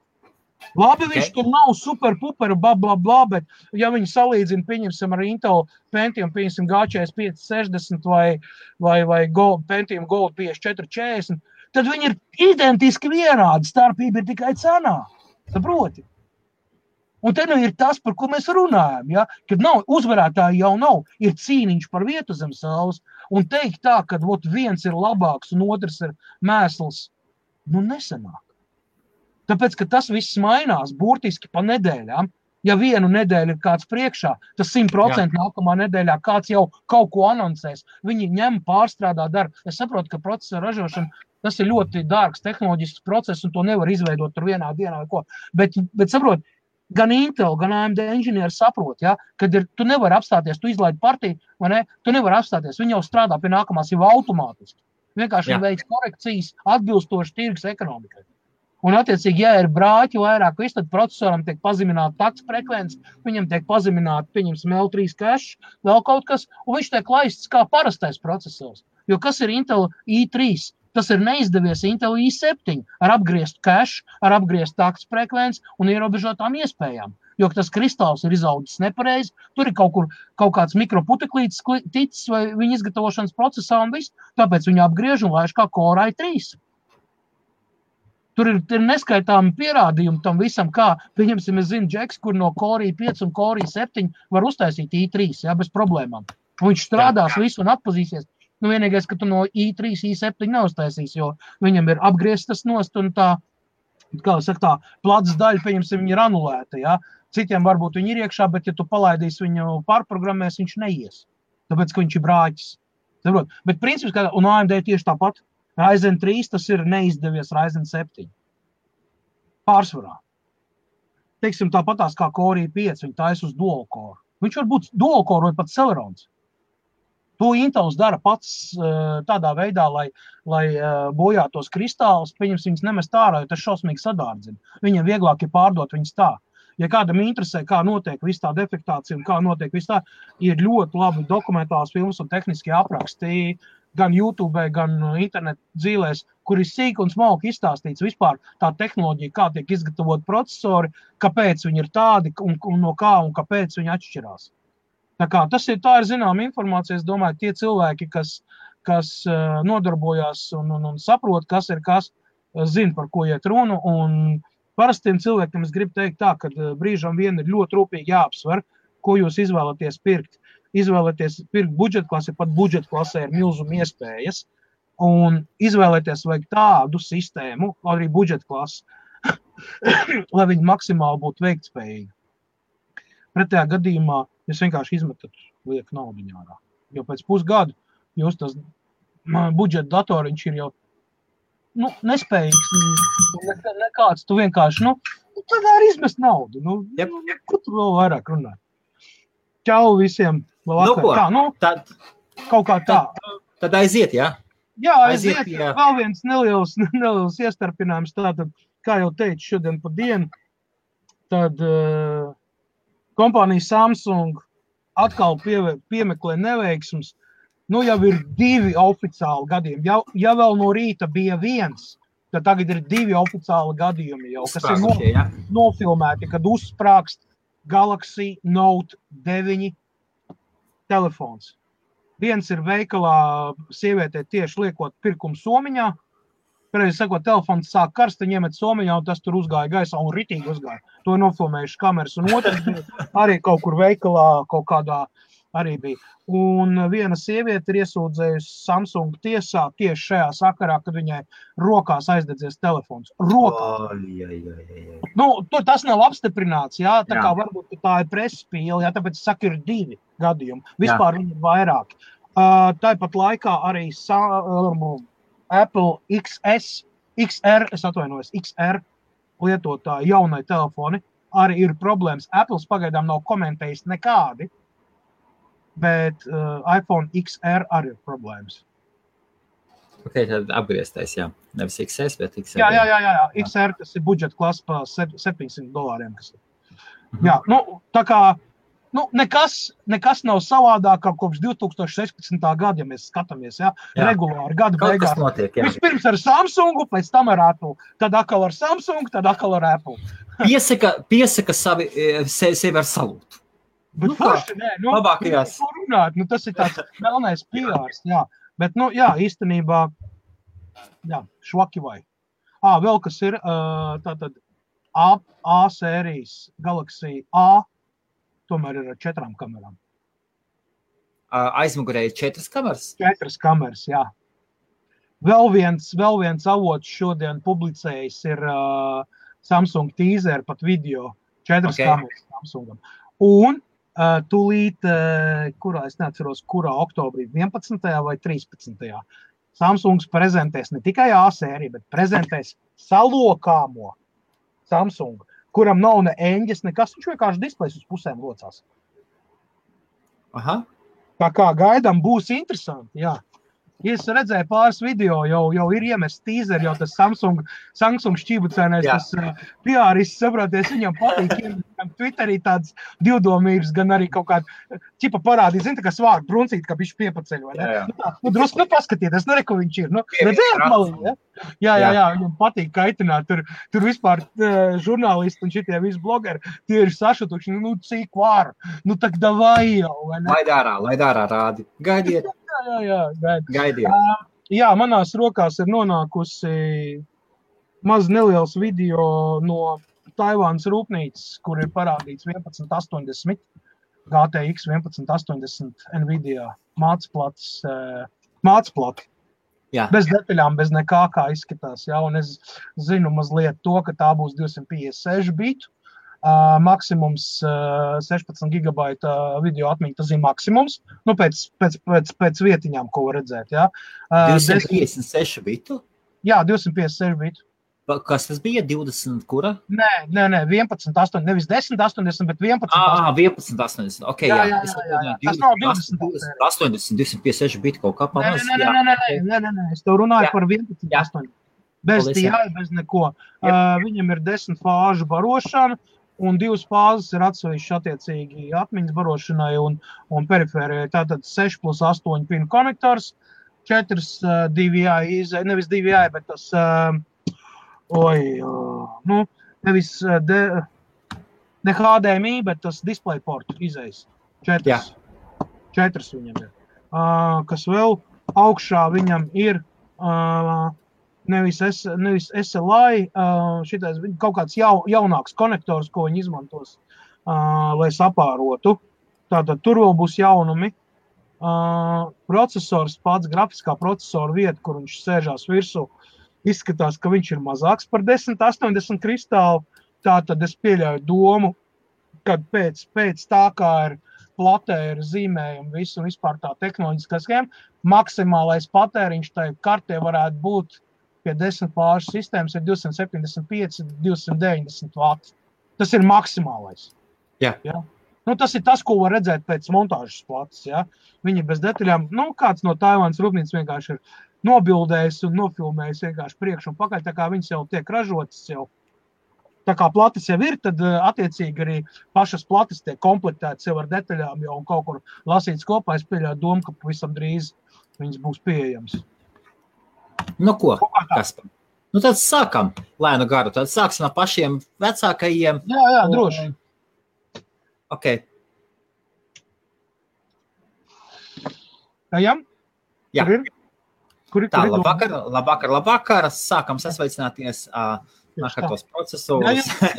Labi, viņš tur nav super-puper, bla, bet ja viņi salīdzina, pieņemsim ar Intel Pentium, pieņemsim G4560 vai Pentium Gold 5440, tad viņi ir identiski vienādi, starpība ir tikai cenā. Saproti? Un te ir tas, par ko mēs runājam, ja? Kad nav, uzvarētāji jau nav, ir cīniņš par vietu zem saules, un teikt tā, ka viens ir labāks un otrs ir mēsls, nesanāk. Tāpēc, ka tas viss mainās burtiski pa nedēļām. Ja vienu nedēļu ir kāds priekšā, tas 100% nākamā nedēļā kāds jau kaut ko anoncēs. Viņi ņem, pārstrādā, dara. Es saprotu, ka procesa ražošana, tas ir ļoti dārgs tehnoloģisks process, un to nevar izveidot tur vienā dienā vai ko. Bet saprot, gan Intel, gan AMD inženieri saprot, ja, kad tu nevari apstāties, tu izlaidi partiju, vai ne? Tu nevari apstāties, viņi jau strādā pie nākamās jau automātiski. Vienkārši veids korekcijas atbilstoši tirgus ekonomikai. Un, attiecīgi, ja ir brāķi vairāk, tad procesoram tiek pazemināta takts frekvence, viņam tiek pazemināta, pieņemsim, L3 cache, vēl kaut kas, un viņš tiek laists kā parastais procesors. Jo kas ir Intel i3? Tas ir neizdevies Intel i7 ar apgriestu cache, ar apgriestu takts frekvence un ierobežotām iespējām. Jo tas kristāls ir izaudzis nepareizi, tur ir kaut kāds mikroputeklītis ticis vai viņa izgatavošanas procesā un viss, tāpēc viņi apgriež un laiž kā Core i3. Tur ir neskaitāmi pierādījumi tam visam, kā, pieņemsim, es zinu, Džeks, kur no Core i5 un Core i7 var uztaisīt i3, bez problēmām. Un viņš strādās visu un atpazīsies. Vienīgais, ka tu no i3, i7 neuztaisīs, jo viņam ir apgrieztas nost un tā, kā saka, tā plats daļa, pieņemsim, viņa ir anulēta, ja. Citiem varbūt viņi ir iekšā, bet ja tu palaidīsi viņu pārprogrammēs, viņš neies. Tāpēc, ka viņš ir brāķis. Bet princips, un AMD tieši tāpat. Ryzen 3, tas ir neizdevies Ryzen 7. Pārsvarā. Teiksim, tāpatās kā Core i5, viņi taisa uz dual core. Viņš var būt dual core vai pat Celerons. To Intels dara pats tādā veidā, lai bojātos kristālus, pieņems viņus nemest ārā, jo tas šausmīgi sadārdzina. Viņam vieglāk ir pārdot viņus tā. Ja kādam interesē, kā notiek viss tā defektācija un kā notiek viss tā, ir ļoti labi dokumentāls filmas un tehniskie apraksti, gan YouTube, gan internet dzīvēs, kur ir sīk un smalki izstāstīts vispār tā tehnoloģija, kā tiek izgatavot procesori, kāpēc viņi ir tādi un no kā un kāpēc viņi atšķirās. Tā kā tā ir zināma informācija, es domāju, tie cilvēki, kas nodarbojās un saprot, kas ir kas, zina, par ko iet runu, un parastiem cilvēkiem es gribu teikt tā, ka brīžam vien ir ļoti rūpīgi jāapsver, ko jūs izvēlaties pirkt. Izvēlēties pirkt budžeta klasi, pat budžeta klasē ir milzuma iespējas, un izvēlēties vajag tādu sistēmu, arī budžeta klasi, lai viņi maksimāli būtu veiktspējīgi. Pretējā gadījumā jūs vienkārši izmetat lieku naudiņu ārā. jo pēc pusgadu jūs tas budžeta datoriņš ir jau nespējīgs, nekāds, tu vienkārši, tad arī izmest naudu, kur tu vēl vairāk runāt? Čau visiem, vēl vakar. Kaut kā tā. Tad aiziet, jā? Jā, aiziet, vēl viens neliels iestarpinājums, tātad, kā jau teicu, šodien pa dienu, tad kompānija Samsung atkal piemeklē neveiksmus, jau ir 2 oficiāli gadījumi. Ja vēl no rīta bija 1, tad tagad ir 2 oficiāli gadījumi jau, kas ir nofilmēti, kad uzsprākst Galaxy Note 9 telefons. Viens ir veikalā sievietē tieši liekot pirkumu somiņā, pareizi sakot, telefons sāk karst, ņemet somiņā, un tas tur uzgāja gaisā un ritīgi uzgāja. To ir nofilmējuši kameras, un otrs bija arī kaut kur veikalā, kaut kādā arī bija. Un viena sieviete ir iesūdzējusi Samsung tiesā tieši šajā sakarā, kad viņai rokās aizdedzies telefons. Rokā. Tas nav apstiprināts, jā, tā kā varbūt tā ir presspīle, jā, tāpēc saka, ir 2 gadījumi. Vispār viņi ir vairāki. Tāpat laikā arī Apple XR lietotāji jaunai telefoni arī ir problēmas. Apple pagaidām nav komentējis nekādi, bet iPhone XR arī ir problēmas. Ok, tad apgrieztais, jā. Nevis XS, bet XR. Jā. XR, tas ir budžeta klasa pa $700, kas ir. Jā, tā kā, nekas nav savādāk kā kopš 2016. gada, ja mēs skatāmies, jā, regulāri gada beigās. Kaut kas notiek, jā. Vispirms ar Samsungu, pēc tam ar Apple, tad atkal ar Samsung, tad atkal ar Apple. Piesaka sevi ar salūtu. Bet forši, labākajās. Runāt, tas ir tāds melnais PRs, jā. Bet, īstenībā, švaki vai. Vēl kas ir, tātad A sērijas Galaxy A, tomēr ir ar 4 kamerām. Aizmugurēji 4 kameras? 4 kameras, jā. Vēl viens avots šodien publicējis ir Samsung teaser, pat video, 4 kameras Samsungam. Un tūlīt, es neatceros, kurā oktobrī, 11. vai 13. Samsungs prezentēs ne tikai A sēriju, bet prezentēs salokāmo Samsungu, kuram nav ne eņģes, nekas, viņš vienkārši displejs uz pusēm locās. Aha. Tā kā gaidām būs interesanti, jā. Ja es redzēju pāris video, jau ir iemests teaser, jau tas Samsung šķībucēnais, tas PR-ists, saproties, viņam patīk, viņam Twitterī tāds divdomības, gan arī kaut kāda ķipa parādīt, zin, tā kā svārku bruncīt, kā bišķi piepaceļ, vai ne? Drusku, paskatieties, ko viņš ir, redzējāt malī, jā, viņam patīk kaitināt, tur vispār žurnālisti un šitie visi blogeri, tie ir sašutuši, cik var, tak davai jau, vai ne? Laid ārā rādi, gaidiet. Jā, gaidiet. Jā, manās rokās ir nonākusi maz neliels video no Taivānas rūpnīcas, kur ir parādīts 1180, GTX 1180 Nvidia mācplati. Jā. Bez detaļām, bez nekā kā izskatās. Jā, un es zinu mazliet to, ka tā būs 256 bitu. Maksimums 16 gigabaita video atmiņa, tas ir maksimums, pēc vietiņām, ko var redzēt, jā. 256 bitu? Jā, 256 bitu. Kas tas bija? 20 kura? Nē, 11.80, nevis 10.80, bet 11.80. 11.80, ok, jā. Tas nav 20. 80, 256 bitu kaut kā pamaz. Nē, es tev runāju par 11.80. Bez DI, bez neko. Viņam ir 10 fāžu barošana, un 2 fāzes ir atsevišķi attiecīgi atmiņas barošanai un perifērijai. Tātad 6+8 pinu konektors, 4 DVI, nevis DVI, bet tas, ne HDMI, bet tas DisplayPort izejas. 4 viņam ir. Kas vēl augšā viņam ir nevis SLI, šitais kaut kāds jaunāks konektors, ko viņi izmantos, lai sapārotu. Tātad tur vēl būs jaunumi. Procesors pats, grafiskā procesora vieta, kur viņš sēžās virsū, izskatās, ka viņš ir mazāks par 1080 kristālu. Tātad es pieļauju domu, kad pēc tā, kā ir platē ir zīmējumi, visu un vispār tā tehnoloģiskā schēma, maksimālais patēriņš tai kartē varētu būt pie 10 plāšu sistēmas ir 275-290 vati. Tas ir maksimālais. Jā. Ja? Nu, tas ir tas, ko var redzēt pēc montāžas plates. Ja? Viņi bez detaļām, kāds no Taivānas rūpnīcas vienkārši ir nobildējis un nofilmējis vienkārši priekš un pakaļ, tā kā viņas jau tiek ražotas jau. Tā kā plates jau ir, tad attiecīgi arī pašas plates tiek komplektētas jau ar detaļām jau un kaut kur lasītas kopā. Es pieļauju domu, ka pavisam drīz viņas būs pieejams. Nu ko, Kaspar? Nu tad sākam lēnu garu. Tad sāksim no pašiem vecākajiem. Jā, droši. Ok. Ejam? Jā. Kur ir? Tā, labvakar. Sākam sasveicināties tos procesorus. Ja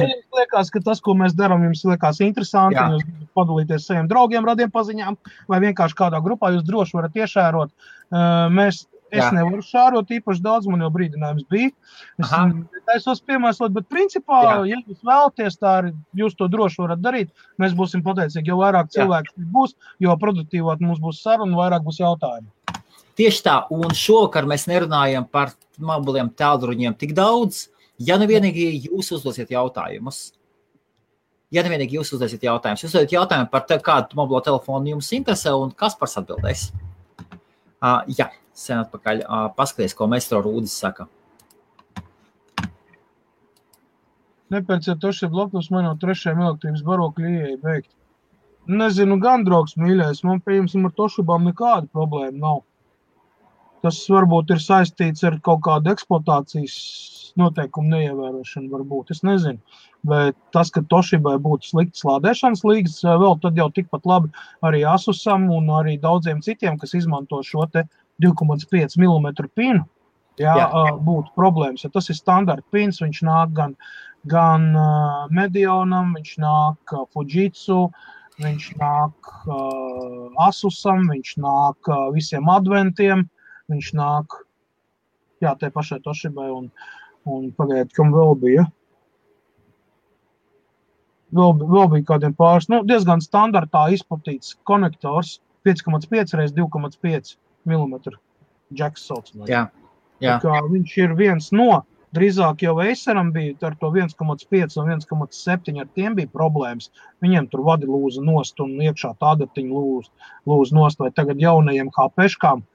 jums liekas, ka tas, ko mēs darām, jums liekas interesanti, Jā. jūs gribat padalīties saviem draugiem, radiem paziņām, vai vienkārši kādā grupā jūs droši varat iešērot. Es nevaru šārot īpaši daudz, man jau brīdinājums bija. Es taisos piemēslot, bet principā, ja jūs vēlaties, tā arī jūs to droši varat darīt. Mēs būsim pateicīgi, jo vairāk cilvēku būs, jo produktīvāk mums būs saruna, vairāk būs jautājumi. Tieši tā, un šovakar mēs nerunājam par mobiliem tālruņiem tik daudz, ja nu vienīgi jūs uzdosiet jautājumus. Jūs uzdosiet jautājumu par kādu mobilo telefonu jums interesē, un Kaspars atbildēs. Jā, sen atpakaļ. Paskaties, ko Maestro Rūdis saka. Nepērciet Toshiba laptops, man no 3. elektrības barokļa ieeja beigt. Nezinu, gan draugs mīļais, man pieņemsim ar Toshibām nekāda problēma nav. Tas varbūt ir saistīts ar kaut kādu eksploatācijas noteikumu neievērošanu varbūt, es nezinu. Bet tas, ka Toshibai būtu slikts lādēšanas līgas, vēl tad jau tikpat labi arī Asusam un arī daudziem citiem, kas izmanto šo te 2,5 mm pinu, būtu problēmas. Ja tas ir standarta pins, viņš nāk gan Medionam, viņš nāk Fujitsu, viņš nāk Asusam, viņš nāk visiem adventiem, viņš nāk, te pašai Toshibai un pagaidiet, kam vēl bija. Vēl bija kādiem pāris, diezgan standartā izplatīts konektors 5,5 x 2,5 mm jacks saucamais. Jā. Viņš ir viens no, drīzāk jau Aceram bija ar to 1,5 un 1,7, ar tiem bija problēmas. Viņiem tur vadi lūza nost un iekšā tādatiņa lūza nost, vai tagad jaunajiem HP-škām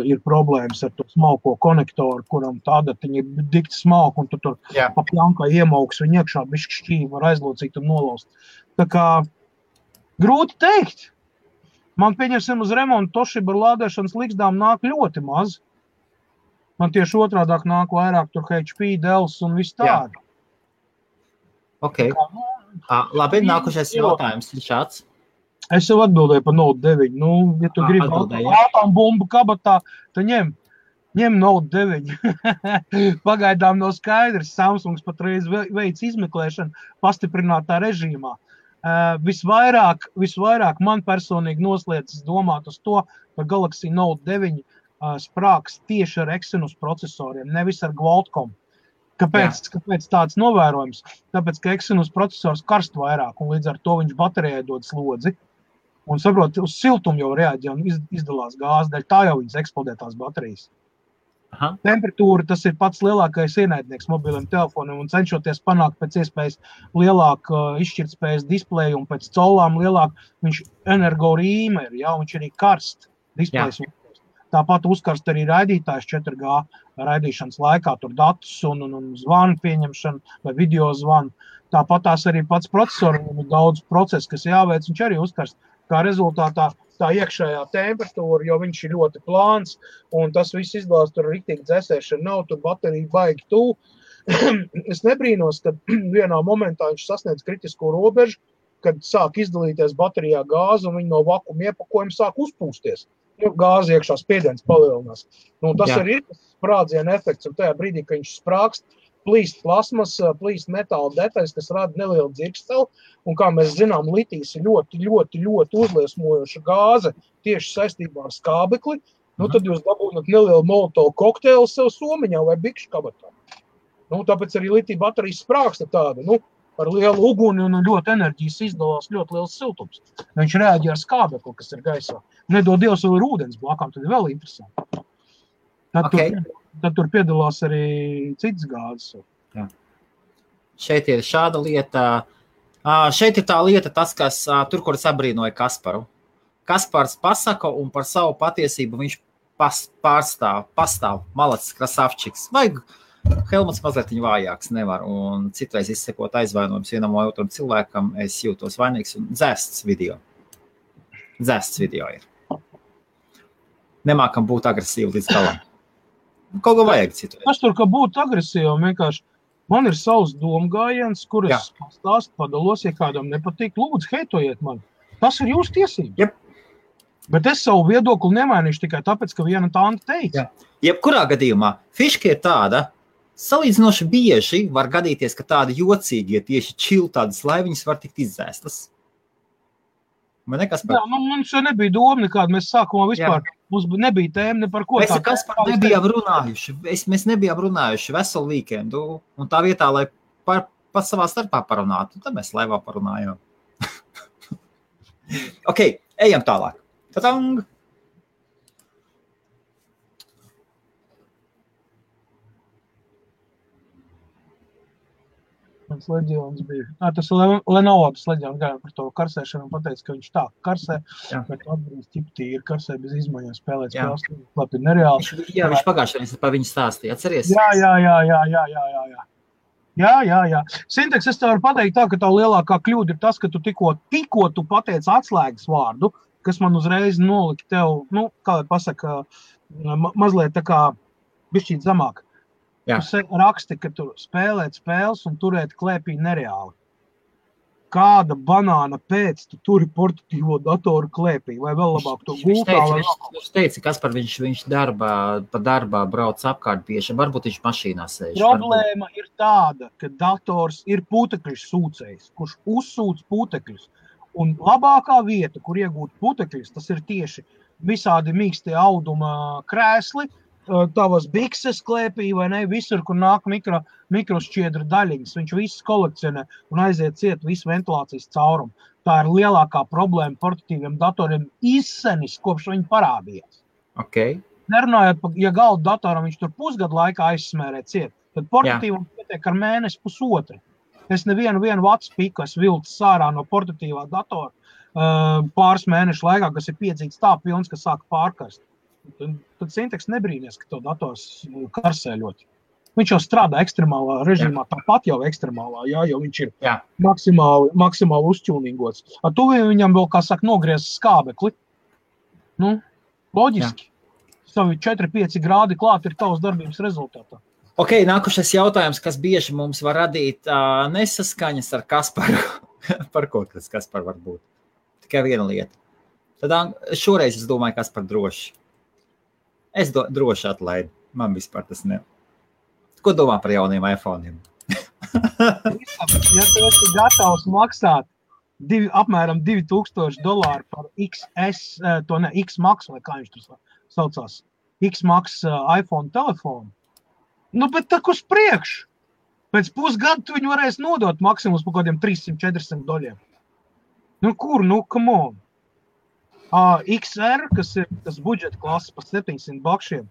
ir problēmas ar to smalko konektoru, kuram tādatiņa ir dikti smalka, un tu tur pa pjankā iemauks viņu iekšā, bišķi šķīvi var aizlocīt un nolaust. Tā kā grūti teikt. Man pieņemsim uz remontu Toshiba ar lādēšanas ligzdām nāk ļoti maz. Man tieši otrādāk nāk vairāk tur HP, Dells un viss tādi. Ok. Labi, nākošais jautājums ir šāds. Es jau atbildēju par Note 9. Ja tu gribi ātām bumbu kabatā, tad ņem Note 9. Pagaidām nav skaidrs. Samsungs patreiz veic izmeklēšanu pastiprinātā režīmā. Visvairāk man personīgi noslēdzas domāt uz to, ka Galaxy Note 9 sprāks tieši ar Exynos procesoriem, nevis ar Qualcomm. Kāpēc tāds novērojums? Tāpēc, ka Exynos procesors karst vairāk, un līdz ar to viņš baterijai dod slodzi. Un saprot, uz siltumu jau reaģē un izdalās gāzi, dēļ tā jau viņas eksplodē tās baterijas. Temperatūra, tas ir pats lielākais ienaidnieks mobiliem telefoniem, un cenšoties panākt pēc iespējas lielāku izšķirtspējas displeju un pēc caulām lielāku, viņš energo rīme ir, viņš arī karst displejs. Tāpat uzkarst arī raidītājs 4G raidīšanas laikā, tur datus un zvanu pieņemšanu vai video zvanu. Tāpat tās arī pats procesoram ir daudz procesu, kas jāveic, viņš arī uzkarst. Kā rezultātā tā iekšējā temperatūra, jo viņš ir ļoti plāns, un tas viss izdalās tur riktīgi dzēsēšana nav, tur baterija baigi tuvu. Es nebrīnos, kad vienā momentā viņš sasniedz kritisko robežu, kad sāk izdalīties baterijā gāze, un viņi no vakuma iepakojuma sāk uzpūsties. Gāze iekšā spiediens palielinās. Tas arī ir sprādziena efekts, un tajā brīdī, kad viņš sprākst, plīst plasmas, plīst metāla detaļas, kas rada nelielu dzirksteli, un kā mēs zinām, litijs ir ļoti, ļoti, ļoti uzliesmojoša gāze tieši saistībā ar skābekli, tad jūs dabūnat nelielu molotovu kokteili sev somiņā vai bikšu kabatā. Tāpēc arī litija baterijas sprāksta tāda, ar lielu uguni un ļoti enerģijas izdalās ļoti liels siltums. Viņš reaģē ar skābekli, kas ir gaisā. Nedod Dievs vēl ir ūdens blakām, tad ir vēl interesanti. Tad tur piedalās arī citas gāzes. Jā. Šeit ir šāda lieta. Šeit ir tā lieta, tas, kas tur, kur es abrīnoju Kasparu. Kaspars pasaka un par savu patiesību viņš pastāv. Malacis Krasavčiks. Vajag Helmuts mazliet vājāks nevar, un citreiz izsekot aizvainojums vienam vai otram cilvēkam, es jūtos vainīgs, un dzēsts video ir. Nemākam būt agresīvi līdz galam. Kaut ko vajag citu. Tas tur, ka būt agresīvi, vienkārši man ir savs domgājiens, kuras stāst padalos, ja kādam nepatīk, lūdzu, heitojiet man. Tas ir jūsu tiesības. Yep. Bet es savu viedokli nemainīšu tikai tāpēc, ka viena tanta teica. Jebkurā gadījumā fiška ir tāda, salīdzinoši bieži var gadīties, ka tādi jocīgi, ja tieši čil tādas laiviņas var tikt izdzēstas. Man nekas par... Jā, mums jau nebija doma nekāda, mēs sākumā vispār, mums nebija tēma ne par ko. Mēs ar Kasparu nebijām runājuši, mēs nebijām runājuši veselu weekendu, un tā vietā, lai pat savā starpā parunātu, tad mēs laivā parunājām. Ok, ejam tālāk. Tatang! Mans leģions bija. Tas Lenovo leģions gājām par to karsēšanu un pateica, ka viņš tā karsē, bet atbrīz ķip tīri karsē bez izmaiņām spēlēt spēles. Labi, nereāli. Jā, viņš pagājušajā par viņu stāstīja. Atceries? Jā. Sinteks, es tev varu pateikt tā, ka tā lielākā kļūda ir tas, ka tu tikko tu pateici atslēgas vārdu, kas man uzreiz nolika tev, kā lai pasaka, mazliet tā kā bišķīt zamāk. Jā. Tu raksti, ka tu spēlēt spēles un turēt klēpī nereāli. Kāda banāna pēc tu turi portatīvo datoru klēpī? Vai vēl labāk to gultā? Viņš teica, Kaspar, viņš pa darbā brauc apkārt bieži. Varbūt viņš mašīnā sēž. Problēma ir tāda, ka dators ir putekļus sūcējs, kurš uzsūc putekļus. Un labākā vieta, kur iegūt putekļus, tas ir tieši visādi mīkstie auduma krēsli, tavas bikses klēpī vai ne, visur, kur nāk mikrošķiedra daļiņas. Viņš visus kolekcionē un aiziet ciet visu ventilācijas caurumu. Tā ir lielākā problēma portatīviem datoriem izsenis, kopš viņi parādījās. Okay. Nerunājot, ja galdu datoram viņš tur pusgadu laikā aizsmērē ciet, tad portatīvam pietiek ar mēnesi pusotru. Es nevienu vats piku es vilcis sārā no portatīvā datora pāris mēnešu laikā, kas ir piedzīts tā pilns, ka sāka pārkarst. Tad Sinteks nebrīnies, ka to dators karsē ļoti. Viņš jau strādā ekstremālā režīmā, tāpat jau ekstremālā, jo viņš ir maksimāli uzķūnīgots. Ar to viņam vēl, kā saka, nogriez skābekli. Loģiski. Savi 4-5 grādi klāt ir tavas darbības rezultātā. Ok, nākušais jautājums, kas bieži mums var radīt nesaskaņas ar Kasparu. Par ko tas Kaspar var būt? Tikai viena lieta. Tad šoreiz es domāju, Kaspar droši. Es droši atlaidu. Man vispār tas ne. Ko domā par jauniem iPhone'iem? Ja tu esi gatavs maksāt apmēram $2000 par XS, X-Max, vai kā viņš tur saucās, X-Max iPhone telefonu, bet tak uz priekšu. Pēc pusgadu tu viņu varēs nodot maksimums par kādiem $300-400. Come on. XR, kas ir tas budžeta klases par $700.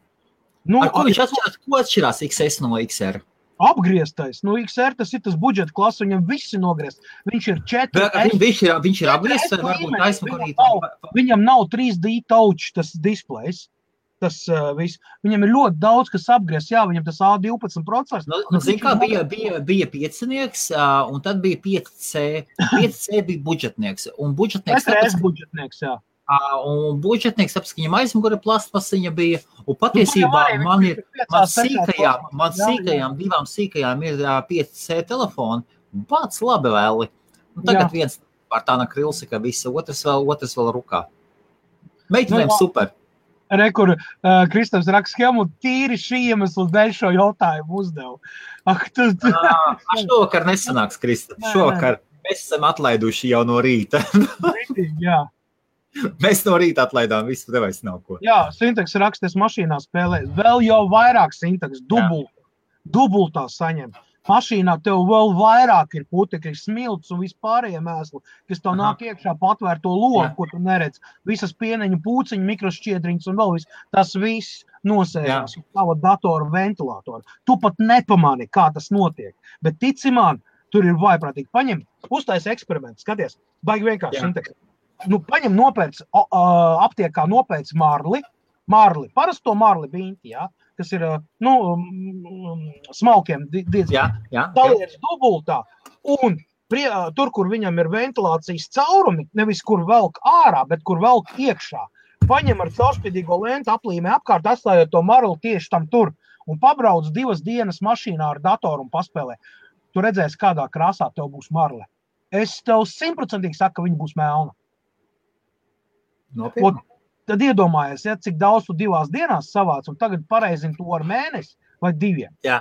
Ko atšķirās XS no XR? Apgrieztais. XR tas ir tas budžeta klases, viņam visi nogriezt. Viņš ir 4S. Viņš ir apgriezts, varbūt aizmakarīt. Viņam nav 3D touch tas displejs. Tas viss. Viņam ir ļoti daudz, kas apgriezt. Jā, viņam tas A12 procesors. Zin kā, bija 5-nieks, un tad bija 5C. 5C bija budžetnieks. Un budžetnieks... 4S budžetnieks, jā. Un budžetnieks, tāpēc, ka viņam aizmugure plastmasiņa bija, un patiesībā divām sīkajām ir 5C telefoni, un pats labi vēli. Un tagad viens pār tāna krilsi, ka visi otrs vēl rukā. Meitenēm super. Kur Kristaps raksta schēmu, tīri šī iemesla dēļ šo jautājumu uzdevu. Šovakar nesanāks, Kristaps. Šovakar mēs esam atlaiduši jau no rīta. Jā. Mēs no rīta atlaidām visu, tev vairs nav ko. Jā, Sinteks raksties mašīnā spēlē. Vēl jau vairāk Sinteks, dubultā saņem. Mašīnā tev vēl vairāk ir putekļi, smilts un vispārējie mēsli, kas tev nāk iekšā patvērto logu, ko tu neredz. Visas pieneņu pūciņu, mikrošķiedriņas un vēl viss. Tas viss nosēžās uz tava datora ventilātora. Tu pat nepamani, kā tas notiek. Bet tici man, tur ir vaiprātīgi. Paņem, uztais eksperimentu, skaties, baigi vienkārši sinteks. Nu, paņem nopēc, aptiekā nopēc marli, parasto marli biņķi, kas ir, smalkiem diezgan. Taliec dubultā, un tur, kur viņam ir ventilācijas caurumi, nevis kur velk ārā, bet kur velk iekšā. Paņem ar caurspīdīgo lentu, aplīmē apkārt, atstājot to marli tieši tam tur, un pabrauc 2 dienas mašīnā ar datoru un paspēlē. Tu redzēsi, kādā krāsā tev būs marle. Es tev 100% saku, ka viņa būs melna. Nopietni. Tad iedomājies, cik daudz tu 2 dienās savāc, un tagad pareizini to ar mēnesi vai 2. Jā.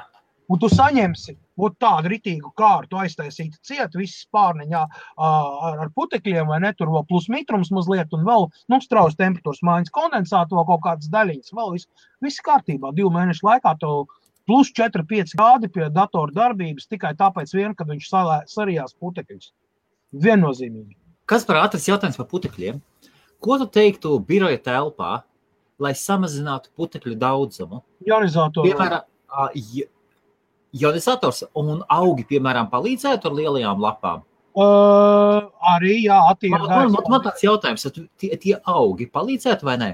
Un tu saņemsi tādu ritīgu kārtu, aiztaisītu ciet, visas pārneņā ar putekļiem, vai ne, tur vēl plus mitrums mazliet, un vēl, straujas temperatūras maiņas kondensātu, vēl kaut kādas daļiņas, vēl viss kārtībā. 2 mēnešu laikā tev plus 4-5 grādi pie datora darbības, tikai tāpēc vien, kad viņš sarijās putekļus. Viennozīmīgi. Kas par ātras jautājums par putekļiem? Ko tu teiktu biroja telpā, lai samazinātu putekļu daudzumu? Ionizatoru. Piemēram, ionizators un augi, piemēram, palīdzētu ar lielajām lapām? Arī, jā, attīra gaisa. Man tāds jautājums, tie augi palīdzētu vai ne?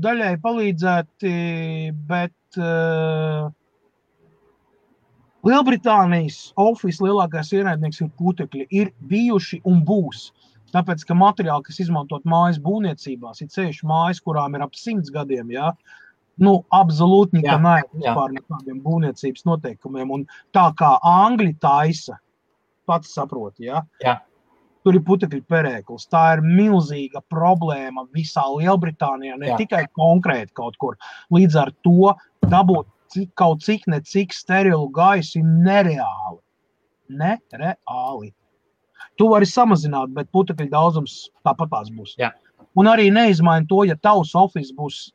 Daļai palīdzēti, bet Lielbritānijas Office lielākais ienaidnieks ir putekļi, ir bijuši un būs. Tāpēc, ka materiāli, kas izmantot mājas būvniecībās, ir ceļš mājas, kurām ir ap 100 gadiem, absolūti nekā vispār nekādiem būvniecības noteikumiem. Un tā kā Angļi taisa, pats saproti, tur ir putekļu perēklis. Tā ir milzīga problēma visā Lielbritānijā, ne tikai konkrēti kaut kur. Līdz ar to dabūt kaut cik sterilu gaisu ir nereāli. Nereāli. Tu vari samazināt, bet putekļu daudzums tāpatās būs. Jā. Un arī neizmaini to, ja tavs office būs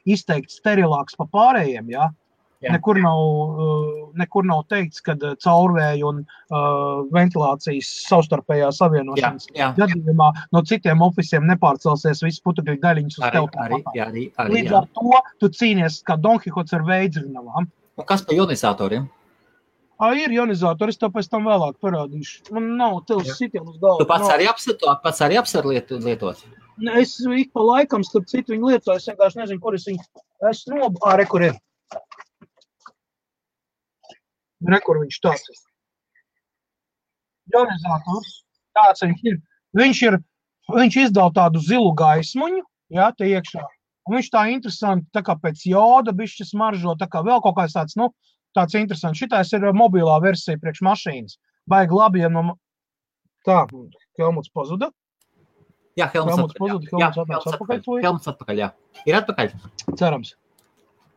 izteikti sterilāks pa pārējiem, Nekur nav teikts, ka caurvēju un ventilācijas savstarpējā savienošanas gadījumā no citiem officiem nepārcelsies visas putekļu daļiņas uz tev tāpatā. Līdz ar to tu cīnies kā Don Kihots ar veidzrinavām. Un kas par ionizatoriem? Ir ionizatori, es tev pēc tam vēlāk parādīšu. Man nav tevs sitien uz galvu. Tu pats arī apsver lietot? Es ik pa laikam starp citu viņu lietoju, es vienkārši nezinu, kur es viņu kur ir. Kur viņš tāds ir. Ionizators, tāds viņš ir. Viņš izdala tādu zilu gaismuņu, te iekšā. Un viņš tā interesanti, tā kā pēc joda bišķi smaržo, tā kā vēl kaut kāds tāds, tāds interesants. Šitais ir mobilā versija priekš mašīnas. Baigi labi, ja Tā, Helmuts pazuda. Jā, Helmuts atpakaļ. Ir atpakaļ? Cerams.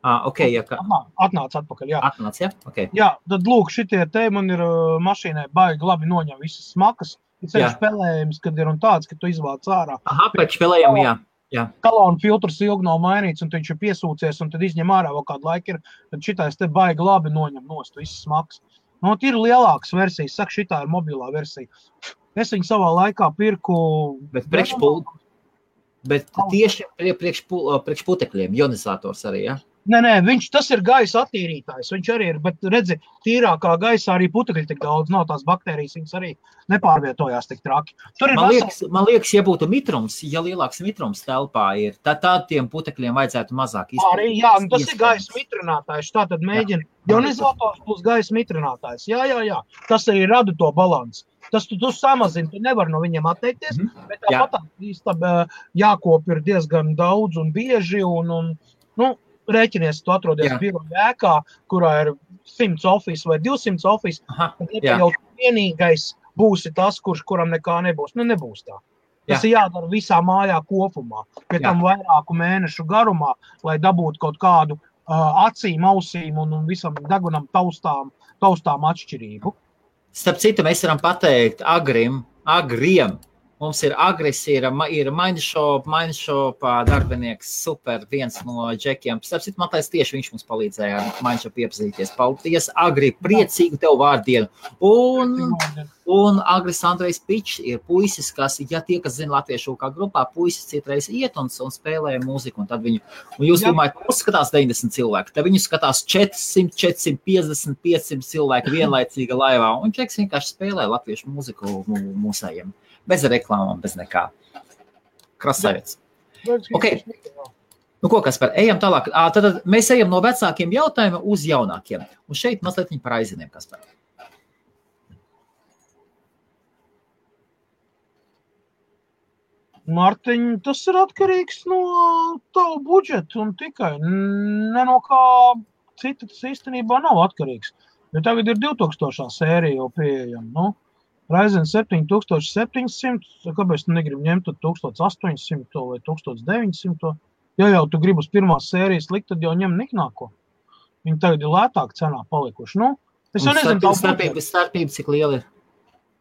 Atnāc atpakaļ, Atnāc, okay. Tad lūk, šitie te man ir mašīnai baigi labi noņem visas smakas. Ir ceļš spēlējums, kad ir un tāds, ka tu izvāc ārā. Pēc spēlējumu, Kalona filtrs ilgi nav mainīts, un viņš ir piesūcies, un tad izņem ārā vēl kādu laiku ir, tad šitais te baigi labi noņem nost visas smakas. Ir lielākas versijas, saka, šitā ir mobilā versija. Es viņu savā laikā pirku... Bet tieši priekš putekļiem, ionizators arī, Nē, tas ir gaisa attīrītājs, viņš arī ir, bet redzi, tīrākā gaisā arī putekļi tik daudz, nav tās baktērijas, viņas arī nepārvietojās tik traki. Man liekas, ja būtu mitrums, ja lielāks mitrums telpā ir, tad tiem putekļiem vajadzētu mazāk izpildīt. Arī, tas ir gaisa mitrinātājs, tātad mēģina ionizators plus gaisa mitrinātājs, jā, tas arī rada to balansu. Tas tu samazini, tu nevar no viņiem atteikties, bet tāpat jākop ir diezgan daudz un bieži, un rēķinies, tu atrodies biroja ēkā, kurā ir 100 office vai 200 office, tad jau vienīgais būsi tas, kuram nekā nebūs. Nebūs tā. Tas ir jādara visā mājā kopumā, pie tam vairāku mēnešu garumā, lai dabūtu kaut kādu acīm, ausīm un visam degunam taustām atšķirību. Starp citu, mēs varam pateikt agriem Mums ir Agris, ir Mindshop darbinieks, super, viens no džekiem. Starp citu, Matais tieši viņš mums palīdzēja ar Mindshop iepazīties. Paldies, Agri, priecīgu tev vārdienu. Un Agris Andrejs Pičs ir puisis, kas, ja tie, kas zina latviešu kā grupā, puisis citreiz iet un spēlē mūziku, un tad viņu, un jūs domājat, skatās 90 cilvēki, tad viņu skatās 400, 450, 500 cilvēki vienlaicīga laivā, un Džeks vienkārši spēlē latviešu mūziku mūsējiem. Bez reklāmām, bez nekā. Krasavets. Okay. Nu ko, Kaspar, ejam tālāk. Tad mēs ejam no vecākiem jautājumiem uz jaunākiem. Un šeit mazliet par aiziniem, Kaspar. Mārtiņ, tas ir atkarīgs no tavu budžetu un tikai. Ne no kā cita tas īstenībā nav atkarīgs. Jo tagad ir 2000. sērija jau pieejama, nu. Ryzen 7700, kāpēc tu negribi ņemt 1800 vai 1900? Ja jau tu gribi uz pirmās sērijas likt, tad jau ņem niknāko. Viņi tagad ir lētāk cenā palikuši. Nu, es jau nezinu, starpība cik liela ir?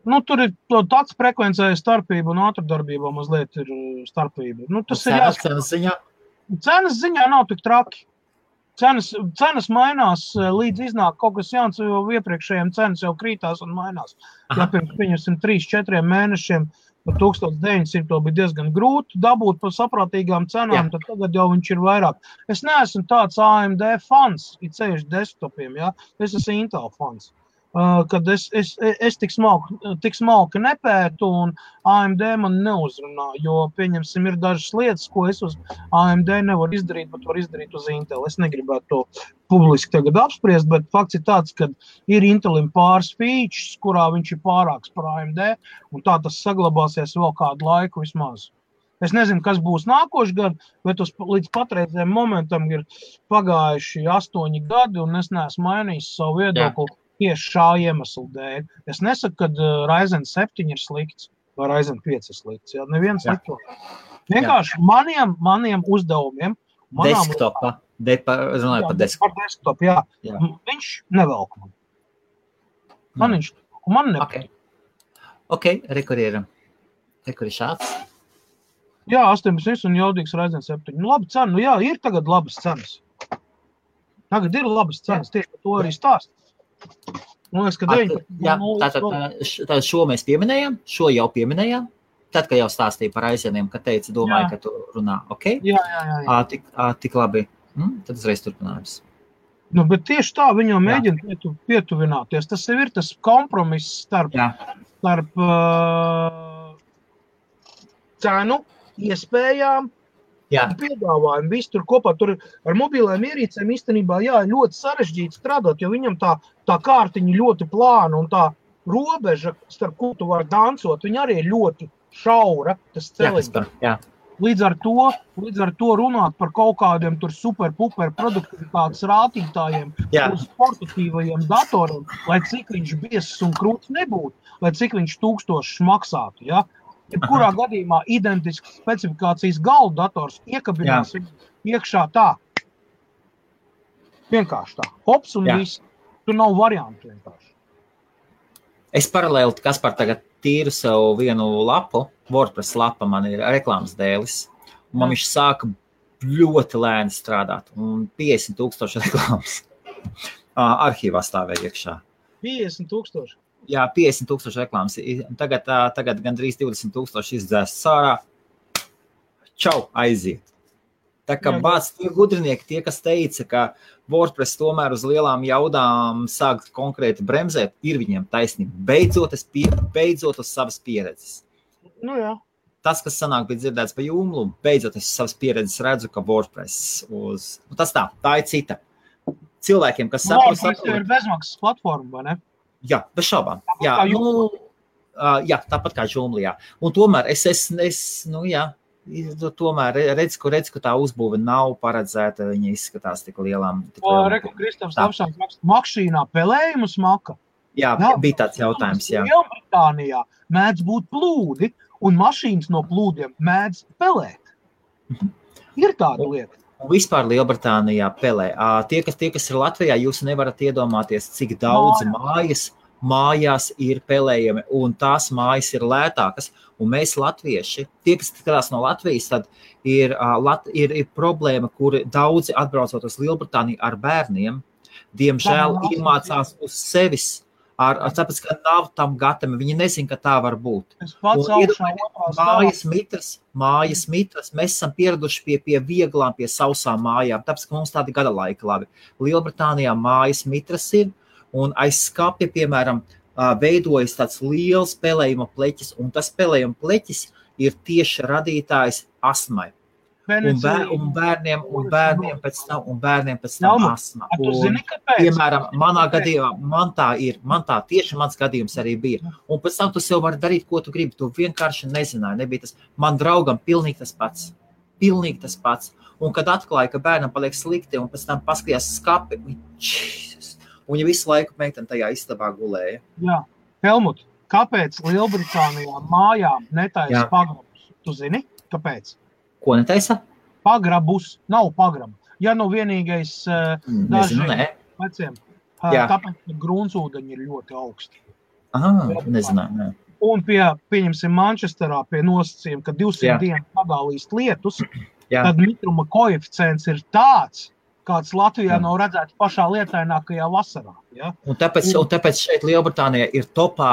Nu, tur ir tāds frekvencēja starpība un ātrdarbībā mazliet ir starpība. Nu, tas ir cenas ziņā? Cenas ziņā nav tik traki. Cenas mainās, līdz iznāk kaut kas jauns, jo iepriekšējiem cenas jau krītās un mainās. Ja pirms 3-4 mēnešiem par 1900 bija diezgan grūti dabūt par saprātīgām cenām, tad tagad jau viņš ir vairāk. Es neesmu tāds AMD fans, it sevišķi desktopiem, ja? Es esmu Intel fans. Kad es tik smalki nepētu un AMD man neuzrunā, jo, pieņemsim, ir dažas lietas, ko es uz AMD nevaru izdarīt, bet var izdarīt uz Intel. Es negribētu to publiski tagad apspriest, bet fakts ir tāds, ka ir Intelim pāris features, kurā viņš ir pārāks par AMD, un tā tas saglabāsies vēl kādu laiku vismaz. Es nezinu, kas būs nākošais gadu, bet līdz patreizējiem momentam ir pagājuši 8 gadi, un es neesmu mainījis savu viedokli. Tieši šā iemesla dēļ. Es nesaku, ka Ryzen 7 ir slikts vai Ryzen 5 ir slikts. Ja? Neviens slikto. Vienkārši maniem uzdevumiem. Desktopā. Runāju par desktopu. Par desktopu, jā. Viņš nevelk man. Man nepatīk. Ok, rekur ir šāds. Jā, 18 un jaudīgs Ryzen 7. Nu, labi cena. Nu jā, ir tagad labas cenas. Tagad ir labas cenas. Tieši par to arī stāst. Tātad šo mēs pieminējām, šo jau pieminējām, tad, kad jau stāstīja par aizieniem, kad teica, domāju, ka tu runā, ok? Jā. Tik labi. Tad uzreiz turpinājums. Nu, bet tieši tā viņam mēģina pietuvināties. Tas ir tas kompromiss starp cenu, iespējām, piedāvājumu, visu tur kopā. Tur ar mobilēm ierīcēm īstenībā ļoti sarežģīti strādāt, jo viņam tā kārtiņa ļoti plāna un tā robeža, starp ko tu vari dancot, viņa arī ir ļoti šaura, tas celiņš. Līdz ar to runāt par kaut kādiem tur super-puper produktivitātes rātītājiem, uz portatīvajiem datoriem, lai cik viņš biezs un krūts nebūtu, lai cik viņš 1000 maksātu, ja? Jebkurā gadījumā identisks specifikācijas galda dators iekabinās iekšā tā. Vienkārši tā. Hops un viss. Tur nav variantu vienkārši. Es paralēli, Kaspar, tagad tīru sev vienu lapu. WordPress lapa man ir reklāmas dēlis. Un man viņš sāka ļoti lēni strādāt. Un 50,000 reklāmas arhīvā stāvēja iekšā. 50,000? Jā, 50,000 reklāmas. Tagad gandrīz 20,000 izdzēst sārā. Čau, aiziet. Tā kā bāc tie gudrinieki, tie, kas teica, ka WordPress tomēr uz lielām jaudām sāk konkrēti bremzēt, ir viņiem taisnība. Beidzot uz savas pieredzes. Nu jā. Tas, kas sanāk bija dzirdēts pa Joomla, beidzot es savas pieredzes redzu, ka WordPress tā ir cita. Cilvēkiem, kas saprot... WordPress ir bezmaksas platforma, vai ne? Jā, bez šaubām. Tāpat kā Joomla, Un tomēr tomēr redz, ka tā uzbūve nav paredzēta, viņa izskatās tik lielām. Reku Kristaps Lapšāns mašīnā pelējumus maka. Jā, bija tāds jautājums, jā. Lielbritānijā mēdz būt plūdi, un mašīnas no plūdiem mēdz pelēt. Ir tāda lieta. Un vispār Lielbritānijā pelē. Tie, kas ir Latvijā, jūs nevarat iedomāties, cik daudz mājas mājās ir pelējami, un tās mājas ir lētākas. Un mēs latvieši, tie, kas skatās no Latvijas, tad ir problēma, kur daudzi atbraucot uz Lielbritāniju ar bērniem, diemžēl iemācās uz sevis, tāpēc, ka nav tam gatavi, viņi nezin, ka tā var būt. Mājas mitras, mēs esam pieraduši pie vieglām, pie sausām mājām, tāpēc, ka mums tādi gada laika labi. Lielbritānijā mājas mitras ir, un aiz skapja, piemēram, veidojas tāds liels pelējuma pleķis, un tas pelējuma pleķis ir tieši radītājs astmai. Un bērniem pēc tam astma. Piemēram, manā gadījumā, man tā tieši mans gadījums arī bija. Un pēc tam tu sev vari darīt, ko tu gribi. Tu vienkārši nezināji, nebija tas. Man draugam pilnīgi tas pats. Un kad atklāja, ka bērnam paliek slikti, un pēc tam paskatījās skapi, un viņa visu laiku meitene tajā istabā gulēja. Jā. Helmut, kāpēc Lielbritānijā mājām netaisa pagrabus? Tu zini, kāpēc? Ko netaisa? Pagrabus, nav pagrabu. Ja nu vienīgais Nezinu, veciem, tāpēc, ka gruntsūdeņi ir ļoti augsti. Nezinu. Un pieņemsim Manchesterā pie nosacījuma, ka 200 dienu pagālīst lietus, tad mitruma koeficients ir tāds, kāds Latvijā nav redzēts pašā lietainākajā vasarā. Ja? Un tāpēc šeit Lielbritānijā ir topā,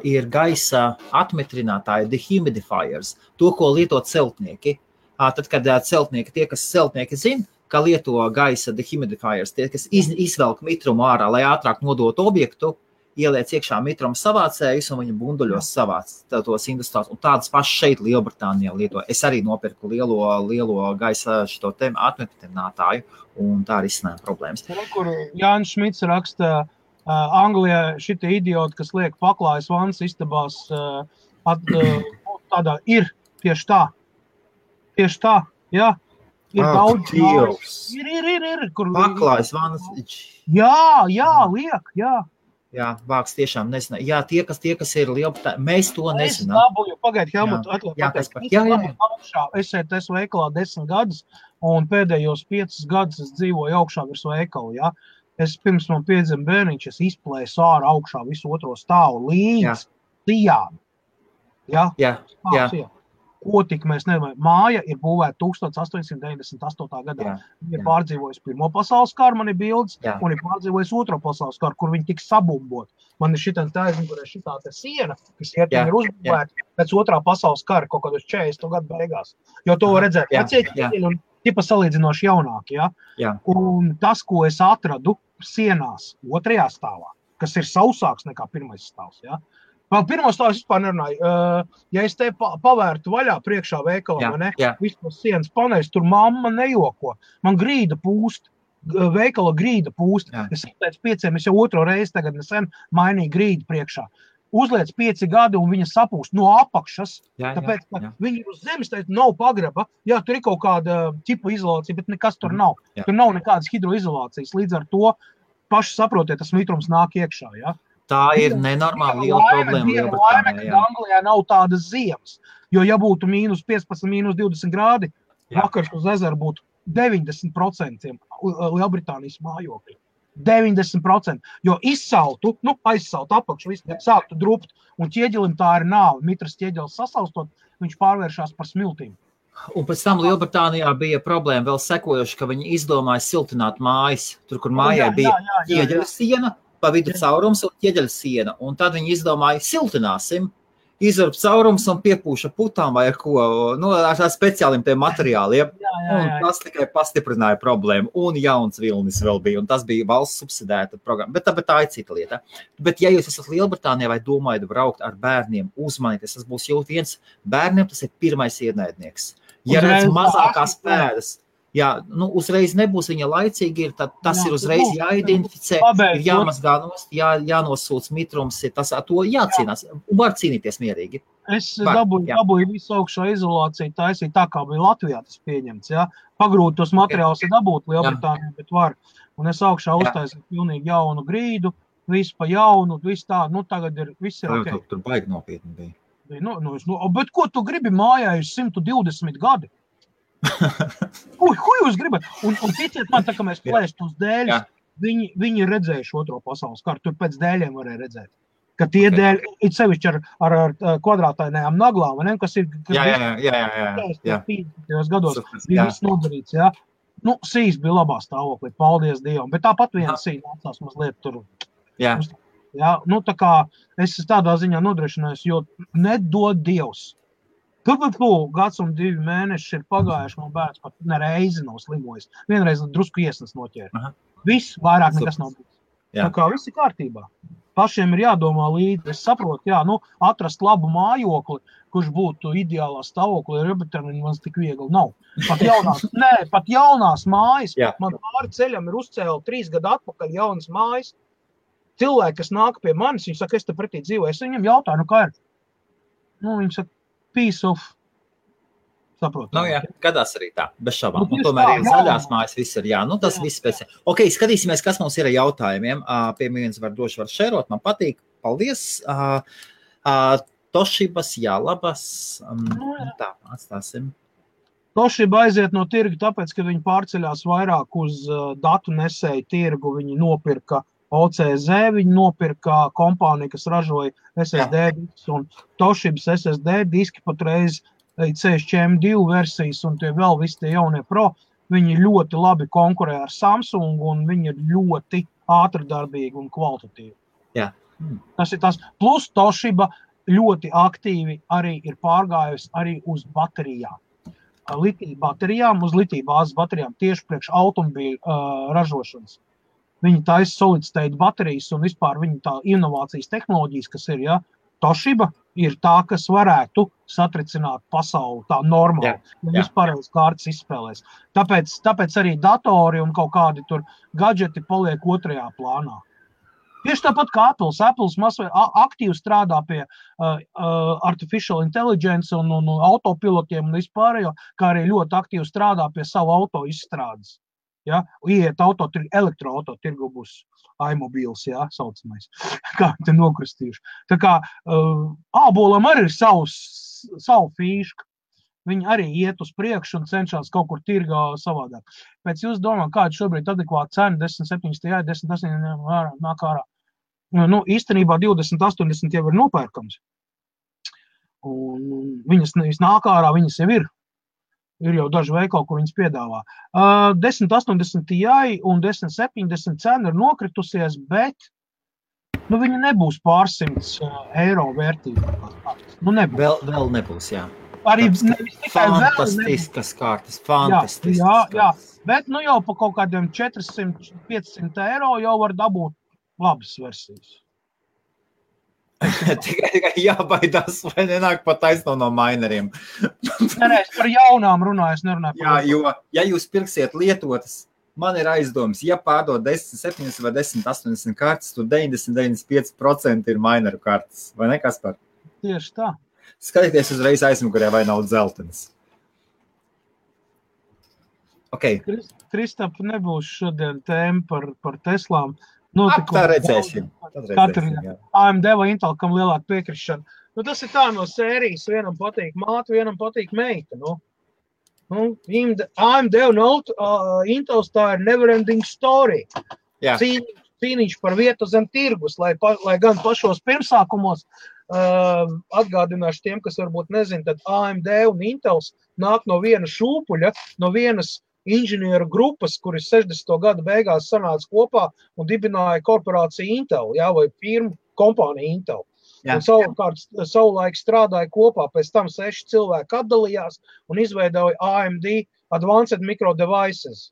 ir gaisa atmetrinātāji, dehumidifiers, to, ko lieto celtnieki. Tad, kad celtnieki, tie, kas celtnieki zina, ka lieto gaisa dehumidifiers, tie, kas izvelk mitrumu ārā, lai ātrāk nodotu objektu, ieliec iekšā mitruma savācējus un viņa bunduļos savāc tos industriāls. Un tādas pašas šeit Lielbritānijā lieto. Es arī nopirku lielo gaisa šito atmetrinātāju, un tā arī izsnēja problēmas. Kur Jānis Šmits raksta, Anglijā šitie idioti, kas liek paklājas vannas istabās, tādā ir tieši tā. Tieši tā, jā. Ir daudz. Ir. Paklājas vannas. Jā, liek, jā. Jā, vāks tiešām nezina. Jā, tie, kas ir Lielbritānijā, mēs to nezinām. Es dabūju, pagaidi, Helmut, es esmu veikalā 10 gadus, un pēdējos 5 gadus es dzīvoju augšā virs veikalu, jā. Es pirms man piedzima bērniņš, es izplēsu ārā augšā visu otro stāvu līdz sijām. Jā. Ko tik mēs nedomājam. Māja ir būvēta 1898. gadā. Viņa ir pārdzīvojusi Pirmo pasaules karu, man ir bildes, un ir pārdzīvojusi Otro pasaules karu, kur viņi tika sabumbot. Man ir šitā siena, kas ir uzbūvēta pēc Otrā pasaules kara, kaut kādos 40 gadu beigās. Jo to var redzēt vecieķi un tipa salīdzinoši jaunāki. Ja? Un tas, ko es atradu sienās otrajā stāvā, kas ir sausāks nekā pirmais stāvs, ja? Pirmo stāvu es vispār nerunāju. Ja es te pavērtu vaļā priekšā veikalā, vispār sienas paneļus, tur mamma nejoko. Man grīda pūst, veikala grīda pūst. Es pēc 5, es jau otro reizi tagad nesen mainīju grīdu priekšā. Uzliec 5 gadi un viņa sapūst no apakšas, tāpēc, ka viņi uz zemes teica, nav pagraba. Jā, tur ir kaut kāda ķipa izolācija, bet nekas tur nav. Tur nav nekādas hidroizolācijas. Līdz ar to paši saprotiet, tas mitrums nāk iekšā, ja? Tā ir nenormāli liela problēma Lielbritānijā. Anglijā nav tādas ziemas, jo ja būtu -15, -20 grādi, vakars uz ezeru būtu 90% Lielbritānijas mājokļi. 90%, jo izsaltu, aizsaltu apakšu, sāktu drupt, un ķieģelim tā ir nāve. Mitras ķieģelis sasaustot, viņš pārvēršās par smiltīm. Un pēc tam Lielbritānijā bija problēma vēl sekojoši, ka viņi izdomāja siltināt mājas, tur, kur mājai bija ķieģeļa siena, pa vidu caurums un ķieģeļa siena. Un tad viņi izdomāja, siltināsim, izvarp caurums un piepūša putām vai ar ko, ar speciāliem tiem materiāliem. Un tas tikai pastiprināja problēmu. Un jauns vilnis vēl bija, un tas bija valsts subsidēta programma. Bet tā ir cita lieta. Bet ja jūs esat Lielbritānijā vai domājat braukt ar bērniem, uzmanieties, tas būs jau viens bērniem, tas ir pirmais ienaidnieks. Ja redz mazākās pēdas, uzreiz nebūs viņa laicīgi, tad tas ir uzreiz jāidentificē, ir jāmazgā nost, jānosūc mitrums, to jācīnās, un var cīnīties mierīgi. Es dabūju visu augšā izolāciju, taisīt tā, kā bija Latvijā tas pieņemts, ja? Pagrūt tos materiālus ir dabūt Lielbritānijā, bet var. Un es augšā uztaisīju pilnīgi jaunu grīdu, visu pa jaunu, visu tā, tagad viss ir ok. Tur baigi nopietni bija. Bet ko tu gribi mājā uz 120 gadi? Ko jūs gribat? Un ticiet man, tā kā mēs plēst uz dēļus, viņi ir redzējuši otro pasaules karu, tur pēc dēļiem varēja redzēt. Ka tie dēļ, it sevišķi ar kvadrātainajām naglām, vai ne, kas ir... Jā. 50. gados bija viss nodarīts, jā. Nu, sīs bija labā stāvoklī, paldies Dievam, bet tāpat viena sīs nācās mazliet tur. Jā. Jā, nu tā kā es tādā ziņā nodrošinājos, jo nedod Dievs. Gads un 2 mēneši ir pagājuši, man bērns pat nereizi nav slimojis. Vienreiz drusku iesnas noķēra. Viss, vairāk nekas nav bijis. Tā kā viss ir kārtībā. Pašiem ir jādomā līdzi. Es saprotu, atrast labu mājokli, kurš būtu ideālā stāvoklī, man tik viegli nav. Pat jaunās mājas. Man pāri ceļam ir uzcēla 3 gadu atpakaļ jaunas mājas. Cilvēki, kas nāk pie manis, viņi saka, es te pretī dzīvoju. Es viņam jautāju, kā ir? Viņi saka, piece of... Saprotu. Gadās arī tā, bez šabām. Tomēr ir zaļās mājas, viss ir tas viss pēc. Ok, skatīsimies, kas mums ir ar jautājumiem. Pie viens var šērot, man patīk. Paldies. Toshibas, labas. Tā, atstāsim. Toshiba aiziet no tirga, tāpēc, ka viņi pārceļās vairāk uz datu nesēju tirgu. Viņi nopirka OCZ, viņi nopirka kompāniju, kas ražoja SSD diskus, un Toshibas SSD diski patreiz CSM2 versijas un tie vēl visi tie jaunie Pro, viņi ļoti labi konkurē ar Samsung un viņi ir ļoti ātrdarbīgi un kvalitatīvi. Jā. Tas ir tas. Plus Toshiba ļoti aktīvi arī ir pārgājusi arī uz baterijām. Litija baterijām, uz litija bāzes baterijām tieši priekš automobīļu ražošanas. Viņi taisa solid state baterijas un vispār viņi tā inovācijas tehnoloģijas, kas ir, Toshiba ir tā, kas varētu satricināt pasauli tā normāli. Vispārējais kārtas izspēlēs. Tāpēc arī datori un kaut kādi tur gadžeti paliek otrajā plānā. Tieši tāpat kā Apples. Apples aktīvi strādā pie artificial intelligence un autopilotiem un vispārējo, kā arī ļoti aktīvi strādā pie savu auto izstrādes. Iet elektroauto tirgu būs iMobils, saucamais, kā te nokristījuši. Tā kā ābolam arī ir savu fīšku. Viņi arī iet uz priekšu un cenšas kaut kur tirgā savādāk. Pēc jūs domā, kāda šobrīd adekvāta cena 10,70, 10,80 nāk ārā. Īstenībā 20,80 jau ir nopērkams. Un viņas nāk ārā, viņas jau ir. Ir jau daži veikali, kur viņas piedāvā. 10,80 Ti un 10,70 cena ir nokritusies, bet viņa nebūs pārsimts eiro vērtība. Vēl nebūs, jā. Arī fantastiskas kārtas, fantastiskas. Jā, bet jau pa kaut kādiem 400-500 eiro jau var dabūt labas versijas. Tikai jābaidās, vai nenāk pat taisno no maineriem. Nē, es par jaunām runāju, es nerunāju par jaunām. Jo, ja jūs pirksiet lietotas, man ir aizdoms, ja pārdod 10,70 vai 10,80 kartas, tad 90-95% ir maineru kartas, vai ne, Kaspar? Tieši tā. Skatieties uzreiz aizmugurē, vai nav dzeltenis. Ok. Kristap, nebūs šodien tēma par Teslām. Tā redzēsim. AMD vai Intel, kam lielāka piekrišana. Tas ir tā no sērijas, vienam patīk māte, vienam patīk meita. AMD un Intels tā ir never-ending story. Cīniņš par vietu zem tirgus, lai gan pašos pirmsākumos atgādināšu tiem, kas varbūt nezin, tad AMD un Intels nāk no viena šūpuļa, no vienas inženieru grupas, kuris 60. gada beigās sanāca kopā un dibināja korporāciju Intel, vai firmu kompāniju Intel. Un savulaik strādāja kopā, pēc tam 6 cilvēki atdalījās un izveidoja AMD Advanced Micro Devices.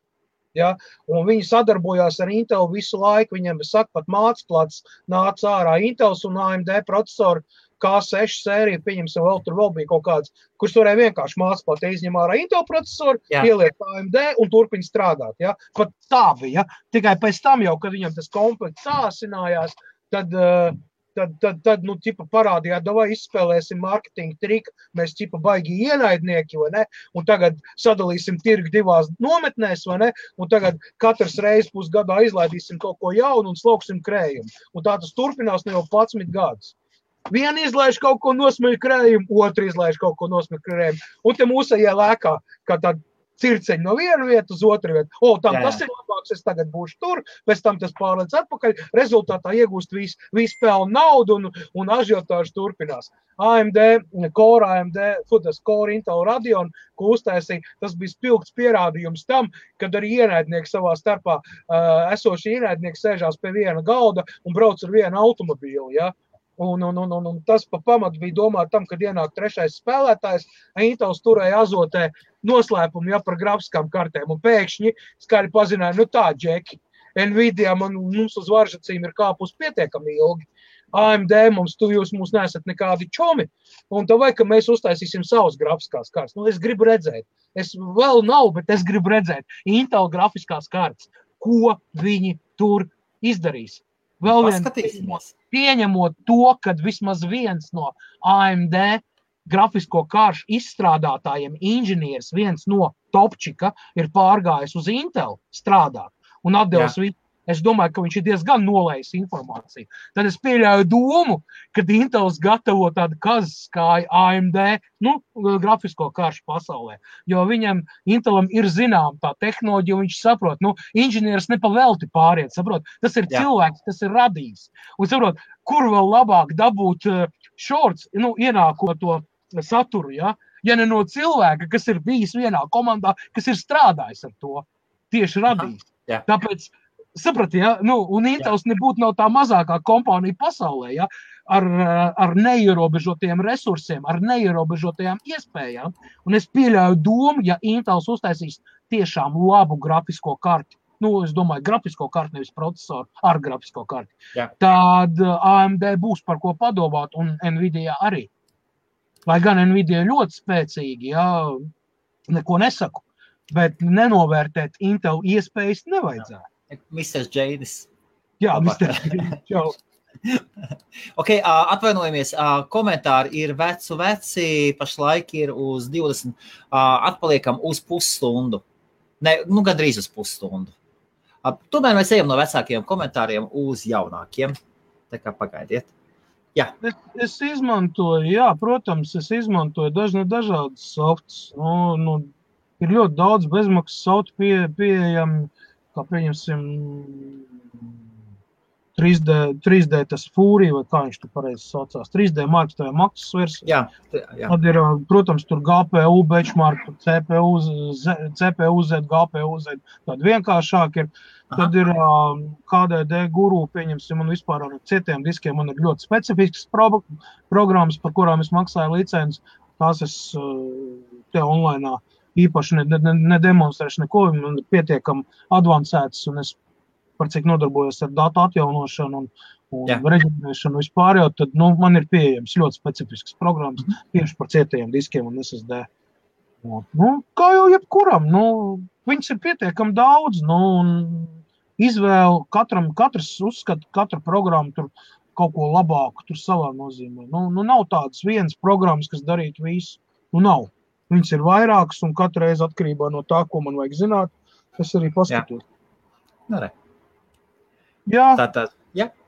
Un viņi sadarbojās ar Intel visu laiku, viņiem pat mācplats nāca ārā Intels un AMD procesori K6 sērija, pieņemsim, vēl bija kaut kāds, kurš varēja vienkārši mācplāt izņem ārā Intel procesoru, ieliek AMD un turpina strādāt. Pat tā bija. Tikai pēc tam jau, kad viņam tas komplekts sāsinājās, tad parādījāt, davai izspēlēsim marketinga triku, mēs baigi ienaidnieki, vai ne? Un tagad sadalīsim tirgu 2 nometnēs, vai ne? Un tagad katrs reiz pusgadā izlaidīsim kaut ko jaunu un slauksim krējumu. Un tā tas turpinās jau 11 gadus. Viena izlaiž kaut ko nosmeļ krējumu, otra izlaiž kaut ko nosmeļ krējumu. Un te mūsējie lēkā, kā tāda circeņi no viena vietu uz otru vietu. Tas ir labāks, es tagad būšu tur, pēc tam tas pārlēc atpakaļ, rezultātā iegūst visu pelnu naudu un ažiotāžu turpinās. AMD Core Intel Radeon, ko uztaisīja, tas bija spilgts pierādījums tam, kad arī ienaidnieki savā starpā esoši ienaidnieki sēžās pie viena galda un brauc ar vienu automobīli, ja? Un tas pa pamatu bija domāt tam, kad ienāk trešais spēlētājs, Intels turēja azotē noslēpumu, ja, par grafiskām kartēm, un pēkšņi skaļi pazināja, tā, Džeki, Nvidia mums uz varžacīm ir kāpus pietiekami ilgi, AMD jūs mūs neesat nekādi čomi, un tā vai, ka mēs uztaisīsim savus grafiskās kartes. Es gribu redzēt, es vēl nav, bet es gribu redzēt Intel grafiskās kartes, ko viņi tur izdarīs. Vēl pieņemot to, kad vismaz viens no AMD grafisko karšu izstrādātājiem inženieris, viens no topčika, ir pārgājis uz Intel strādāt un atdevis visu. Es domāju, ka viņš ir diezgan nolējis informāciju. Tad es pieļauju domu, kad Intels gatavo tādu kazas kā AMD, grafisko karšu pasaulē. Jo Intelam ir zinām tā tehnoloģija, un viņš saprot, inženieris nepavelti pāriet, saprot, tas ir cilvēks, tas ir radījis. Un saprot, kur vēl labāk dabūt shorts, ienākot to saturu, ja ne no cilvēka, kas ir bijis vienā komandā, kas ir strādājis ar to, tieši radījis. Tāpēc saprati, un Intels nebūtu nav tā mazākā kompānija pasaulē, ja, ar neierobežotiem resursiem, ar neierobežotajām iespējām. Un es pieļauju domu, ja Intels uztaisīs tiešām labu grafisko karti, es domāju, grafisko karti, nevis procesoru, ar grafisko karti, tad AMD būs par ko padomāt, un Nvidia arī. Lai gan Nvidia ļoti spēcīgi, neko nesaku, bet nenovērtēt Intel iespējas nevajadzētu. Mr. Jadis. Jā, Mr. Jadis. Čau. Atvainojamies, komentāri ir veci, pašlaik ir uz 20, atpaliekam uz pusstundu. Gandrīz uz pusstundu. Tomēr mēs ejam no vecākiem komentāriem uz jaunākiem. Tā kā pagaidiet. Jā. Es izmantoju, protams, dažādas softs. Ir ļoti daudz bezmaksas softu pieejami, kā pieņemsim 3D tas Fury, vai kā viņš tu pareizi saucās, 3D Mark, tā ir maksas versija. Tad ir, protams, tur GPU, benchmark, CPU Z, GPU Z, tad vienkāršāk ir. Tad ir KDD Guru, pieņemsim, un vispār ar citiem diskiem man ir ļoti specifiskas programmas, par kurām es maksāju licenci. Tās es te online īpaši nedemonstrēšu neko, man ir pietiekami advancētas, un es par cik nodarbojos ar datu atjaunošanu un reģistrēšanu vispār, tad man ir pieejams ļoti specifiskas programmas tieši par cietajiem diskiem un SSD. Kā jau jebkuram, viņas ir pietiekami daudz, un izvēle, katrs uzskata, katra programma tur kaut ko labāku, tur savā nozīmē. Nav tādas vienas programmas, kas darītu visu. Nav. Viņas ir vairākas, un katru reizi atkarībā no tā, ko man vajag zināt, es arī paskatos.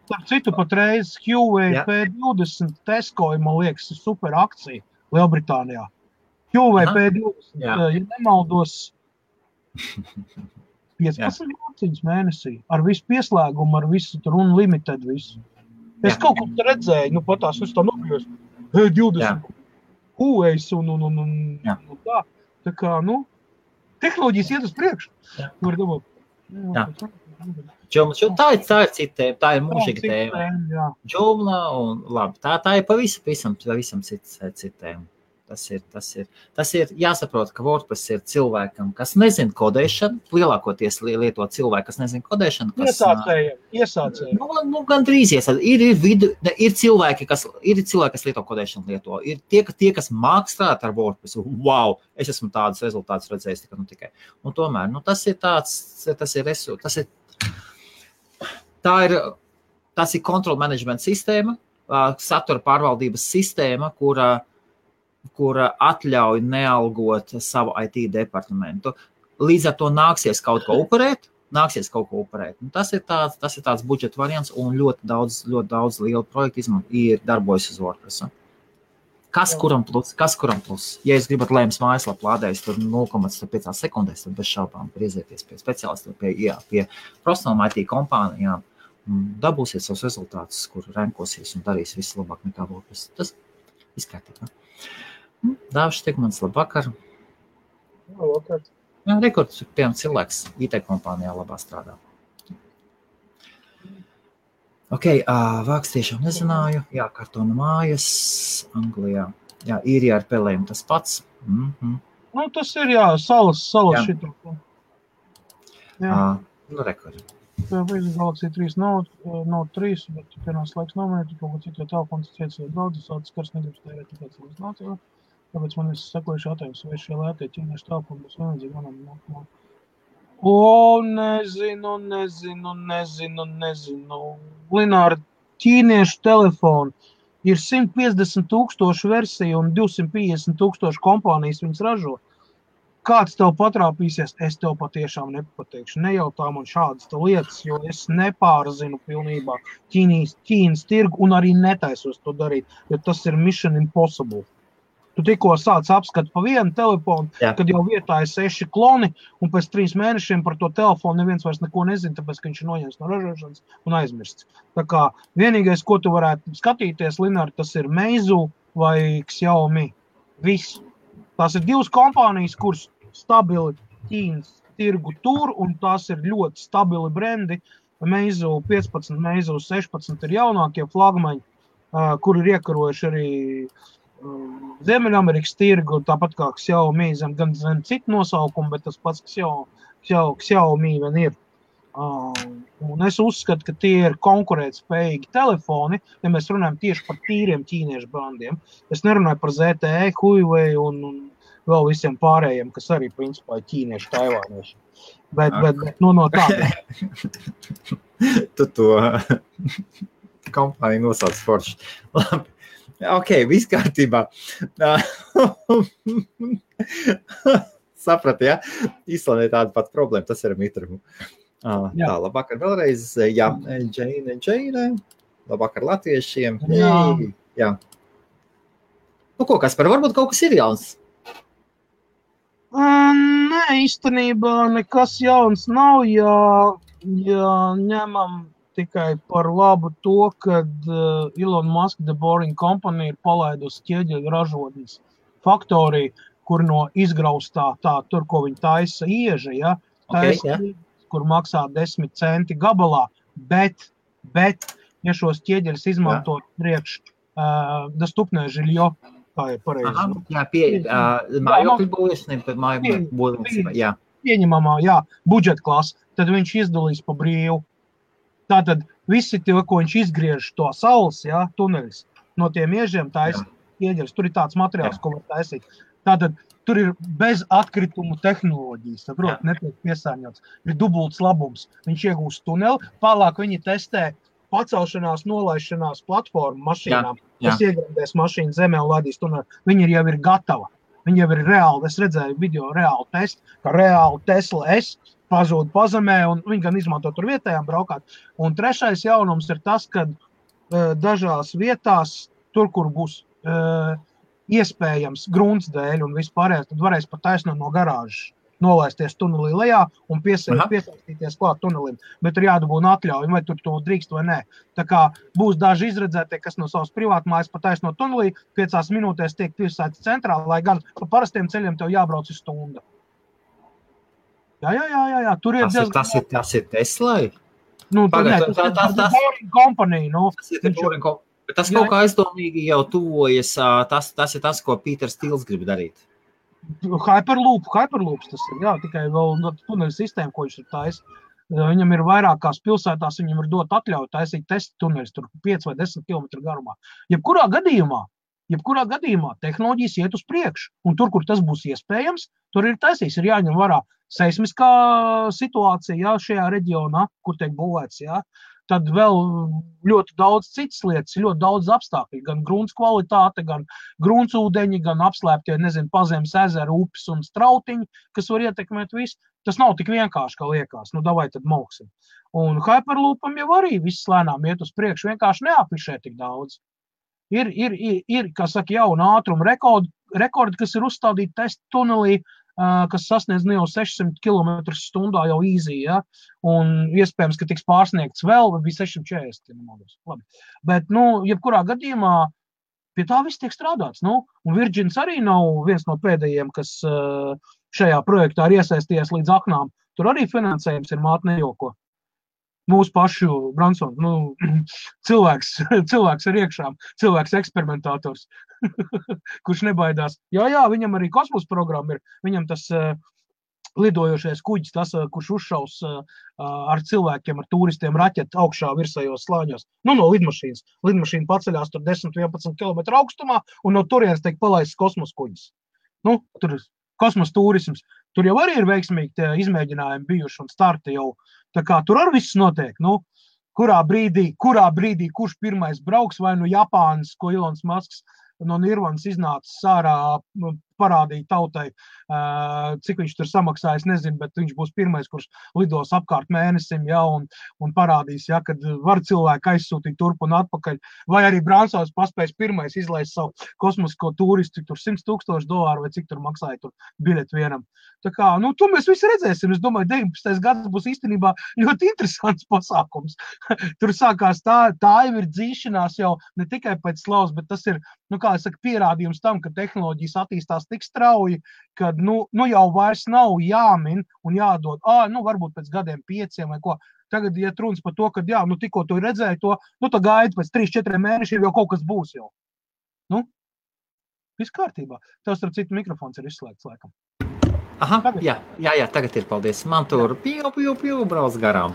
Par citu patreiz Huawei P20 Tesco, man liekas, ir super akcija Lielbritānijā. Huawei P20, ja nemaldos, 15 mēnesī, ar visu pieslēgumu, ar visu tur unlimited visu. Es kaut ko redzēju, patās, es tā nokļos, P20 Huawei un tā. Tā kā, tehnoloģijas iet uz priekšu. Var domāt. Tā ir cita tēma, tā ir mūžīga tēma. Džumla un labi, tā ir pavisam cita tēma. Tas ir jāsaprot, ka WordPress ir cilvēkam, kas nezina kodēšanu, lielākoties lieto cilvēku, kas nezina kodēšanu. Iesācēji. Gandrīz iesācēji. Ir cilvēki, kas lieto kodēšanu lieto. Ir tie, kas māk strādāt ar WordPress. Wow, es esmu tādus rezultātus redzējis tikai. Un tomēr, tas ir control management sistēma, satura pārvaldības sistēma, kura atļauj nealgot savu IT departamentu. Līdz ar to nāksies kaut ko upurēt. Tas ir tāds budžeta variants, un ļoti daudz lielu projektu darbojas uz WordPress. Kas kuram plus? Ja jūs gribat lēmas mājaslapu lādējis tur 0,5 sekundēs, tad bez šaubām griezieties pie speciālistiem, pie profesionālām IT kompānijām, dabūsiet savus rezultātus, kur renkosies un darīs visu labāk nekā būs. Tas izkārtībā. Dāvis Stigmans, labvakar. Labvakar. Jā, rekords, piemēram, cilvēks IT kompānijā labā strādā. Ok, vāks tiešām nezināju. Jā, kartona mājas, Anglijā. Jā, īrijā ar pelēm tas pats. Nu, tas ir, jā, salas šitā. Jā. Rekordi. Tā ir Galaxy 3 Note 3, bet pienās laiks nominēt, kaut ko citu telefons ciets vai daudz, tas skars negribas tērēt, tāpēc man ir sekojuši jautājums, vai šie lētie ķīniešu telefoni būs vienadzīgi manam. Nezinu. Lināra, ķīniešu telefoni ir 150,000 versiju un 250,000 kompānijas viņas ražo. Kāds tev patrāpīsies, es tev patiešām nepateikšu. Nejautā man šādas lietas, jo es nepārzinu pilnībā Ķīnas tirgu un arī netaisos to darīt, jo tas ir mission impossible. Tu tikko sāc apskatu pa vienu telefonu, kad jau vietā ir 6 kloni, un pēc 3 mēnešiem par to telefonu neviens vairs neko nezina, tāpēc, ka viņš ir noņemts no ražošanas un aizmirsts. Tā kā vienīgais, ko tu varētu skatīties, Lināri, tas ir Meizu vai Xiaomi. Viss. Tās ir 2 kompānijas, kuras stabili Ķīnas tirgu tur, un tās ir ļoti stabili brendi. Meizu 15, Meizu 16 ir jaunākie flagmaņi, kur ir iekarojuši arī Ziemeļamerikas tirgu, tāpat kā Xiaomi, gan zem citu nosaukumu, bet tas pats Xiaomi vien ir. Un es uzskatu, ka tie ir konkurētspējīgi telefoni, ja mēs runājam tieši par tīriem ķīniešu brandiem. Es nerunāju par ZTE, Huawei un vēl visiem pārējiem, kas arī principā ir ķīniešu, taivānieši. Bet no tāda. Tu to kompāniju nosauc forši. Labi. Ok, viss kārtībā. Saprati, ja? Īstenībā tāda pat problēma, tas ir mitrumu. Tā, labvakar vēlreiz. Jā, Džeine. Labvakar latviešiem. Jā. Nu, ko, Kaspar, varbūt kaut kas ir jauns? Nē, īstenībā nekas jauns nav, ja ņemam tikai par labu to, kad Elon Musk The Boring Company ir palaidusi ķieģeļu ražotnes faktoriju, kur no izgraustā tur, ko viņi taisa ieža, ja, kur maksā 10 centi gabalā, bet, ja šos ķieģeļus izmantot priekš dostupnē žiļo, kā ir pareizi. Mājokļu būvēšanai, jā. Pieņemamā, budžeta klasa, tad viņš izdalīs pa brīvu. Tātad visi tie, ko viņš izgriež to saules, tuneļus, no tiem iežiem taisa ieģeļus. Tur ir tāds materiāls, ko var taisīt. Tātad tur ir bez atkritumu tehnoloģijas, netiek piesārņots. Ir dubults labums. Viņš iegūst tuneli, tālāk viņi testē pacelšanās, nolaišanās platformu mašīnām, kas iegrandēs mašīnu zemē un ladīs tuneli. Viņi jau ir gatava. Viņi jau ir reāli, es redzēju video reāli testu, ka reāli Tesla S pazūd pazemē, un viņi gan izmanto tur vietējām braukāt. Un trešais jaunums ir tas, ka dažās vietās, tur, kur būs iespējams grunts dēļ un vispārējais, tad varēs pat taisnot no garāžas, nolaisties tunelī lejā un piesaistīties klāt tunelim. Bet ir jādabūna atļauja, vai tur to drīkst vai nē. Tā kā būs daži izredzētie, kas no savas privātmājas pat taisnot tunelī, 5 minūtēs tiek piesaistīts centrā, lai gan pa parastiem ceļiem tev jābrauc uz stundu. Jā. Tur ir tas ir Teslai? Nu, tas ir Boring Company. Bet tas kaut kā aizdomīgi jau tuvojas, tas ir tas, ko Pīters Stīls grib darīt. Hyperloops tas ir, tikai vēl tuneļu sistēma, ko viņš ir taisījis. Viņam ir vairākās pilsētās, viņam ir dot atļauju taisīt testa tuneļus, tur 5 vai 10 km garumā. Jebkurā gadījumā tehnoloģijas iet uz priekšu, un tur, kur tas būs iespējams, tur ir taisīs, ir jāņem vērā seismiskā situācija, šajā reģionā, kur tiek būvēts, tad vēl ļoti daudz citas lietas, ļoti daudz apstākļi, gan grunts kvalitāte, gan gruntsūdeņi, gan apslēptie, pazemes ezeri, upes un strautiņi, kas var ietekmēt visu. Tas nav tik vienkārši, kā liekas. Davai tad mauksim. Un Hyperloopam jau arī viss lēnām iet uz priekšu, vienkārši neafišē tik daudz. Ir kā saka, jauna ātruma rekordi, kas ir uzstādīti testa tunelī, kas sasniedz jau 600 km/h jau easy, ja? Un iespējams, ka tiks pārsniegts vēl, bija 640 km/h. Labi. Bet, jebkurā gadījumā pie tā viss tiek strādāts. Un Virgins arī nav viens no pēdējiem, kas šajā projektā ir iesaistījies līdz aknām. Tur arī finansējums ir māt nejoko. Mūsu pašu Bransons, cilvēks ar iekšām, cilvēks eksperimentātors, kurš nebaidās. Jā, viņam arī kosmosa programma ir, viņam tas lidojošais kuģis, tas, kurš uzšaus ar cilvēkiem, ar turistiem raķeti augšā virsējos slāņos. No lidmašīnas. Lidmašīna paceļās tur 10-11 km augstumā, un no turienes tiek palaists kosmosa kuģis. Tur kosmosa turisms. Tur jau arī ir veiksmīgi izmēģinājumi bijuši un starti jau. Tā kā tur arī viss notiek. Kurā brīdī, kurš pirmais brauks, vai Japānas, ko Ilons Masks no Nirvanas iznācis ārā, parādīja tautai, cik viņš tur samaksājas, nezinu, bet viņš būs pirmais, kurš lidos apkārt mēnesim, un parādīs, kad var cilvēku aizsūtīt turp un atpakaļ, vai arī Bransons paspējas pirmais izlaist savu kosmisko turistu, cik tur $100,000 vai cik tur maksāja tur biļeti vienam. Tā kā, to mēs visi redzēsim. Es domāju, 19. gads būs īstenībā ļoti interesants pasākums. Tur sākās tā jau ir dzīšanās jau ne tikai pēc slavas, bet tas ir, kā es saku, pierādījums tam, ka tehnoloģijas attīstās tik strauji, kad, jau vairs nav jāmin un jādod, varbūt pēc gadiem 5 vai ko. Tagad iet runas par to, ka, tikko tu redzēji to, tā gaida pēc 3-4 mēnešiem jau kaut kas būs jau. Viss kārtībā. Tev starp citu mikrofons ir izslēgts laikam. Aha, jā, tagad ir, paldies. Man tur pju brauc garām.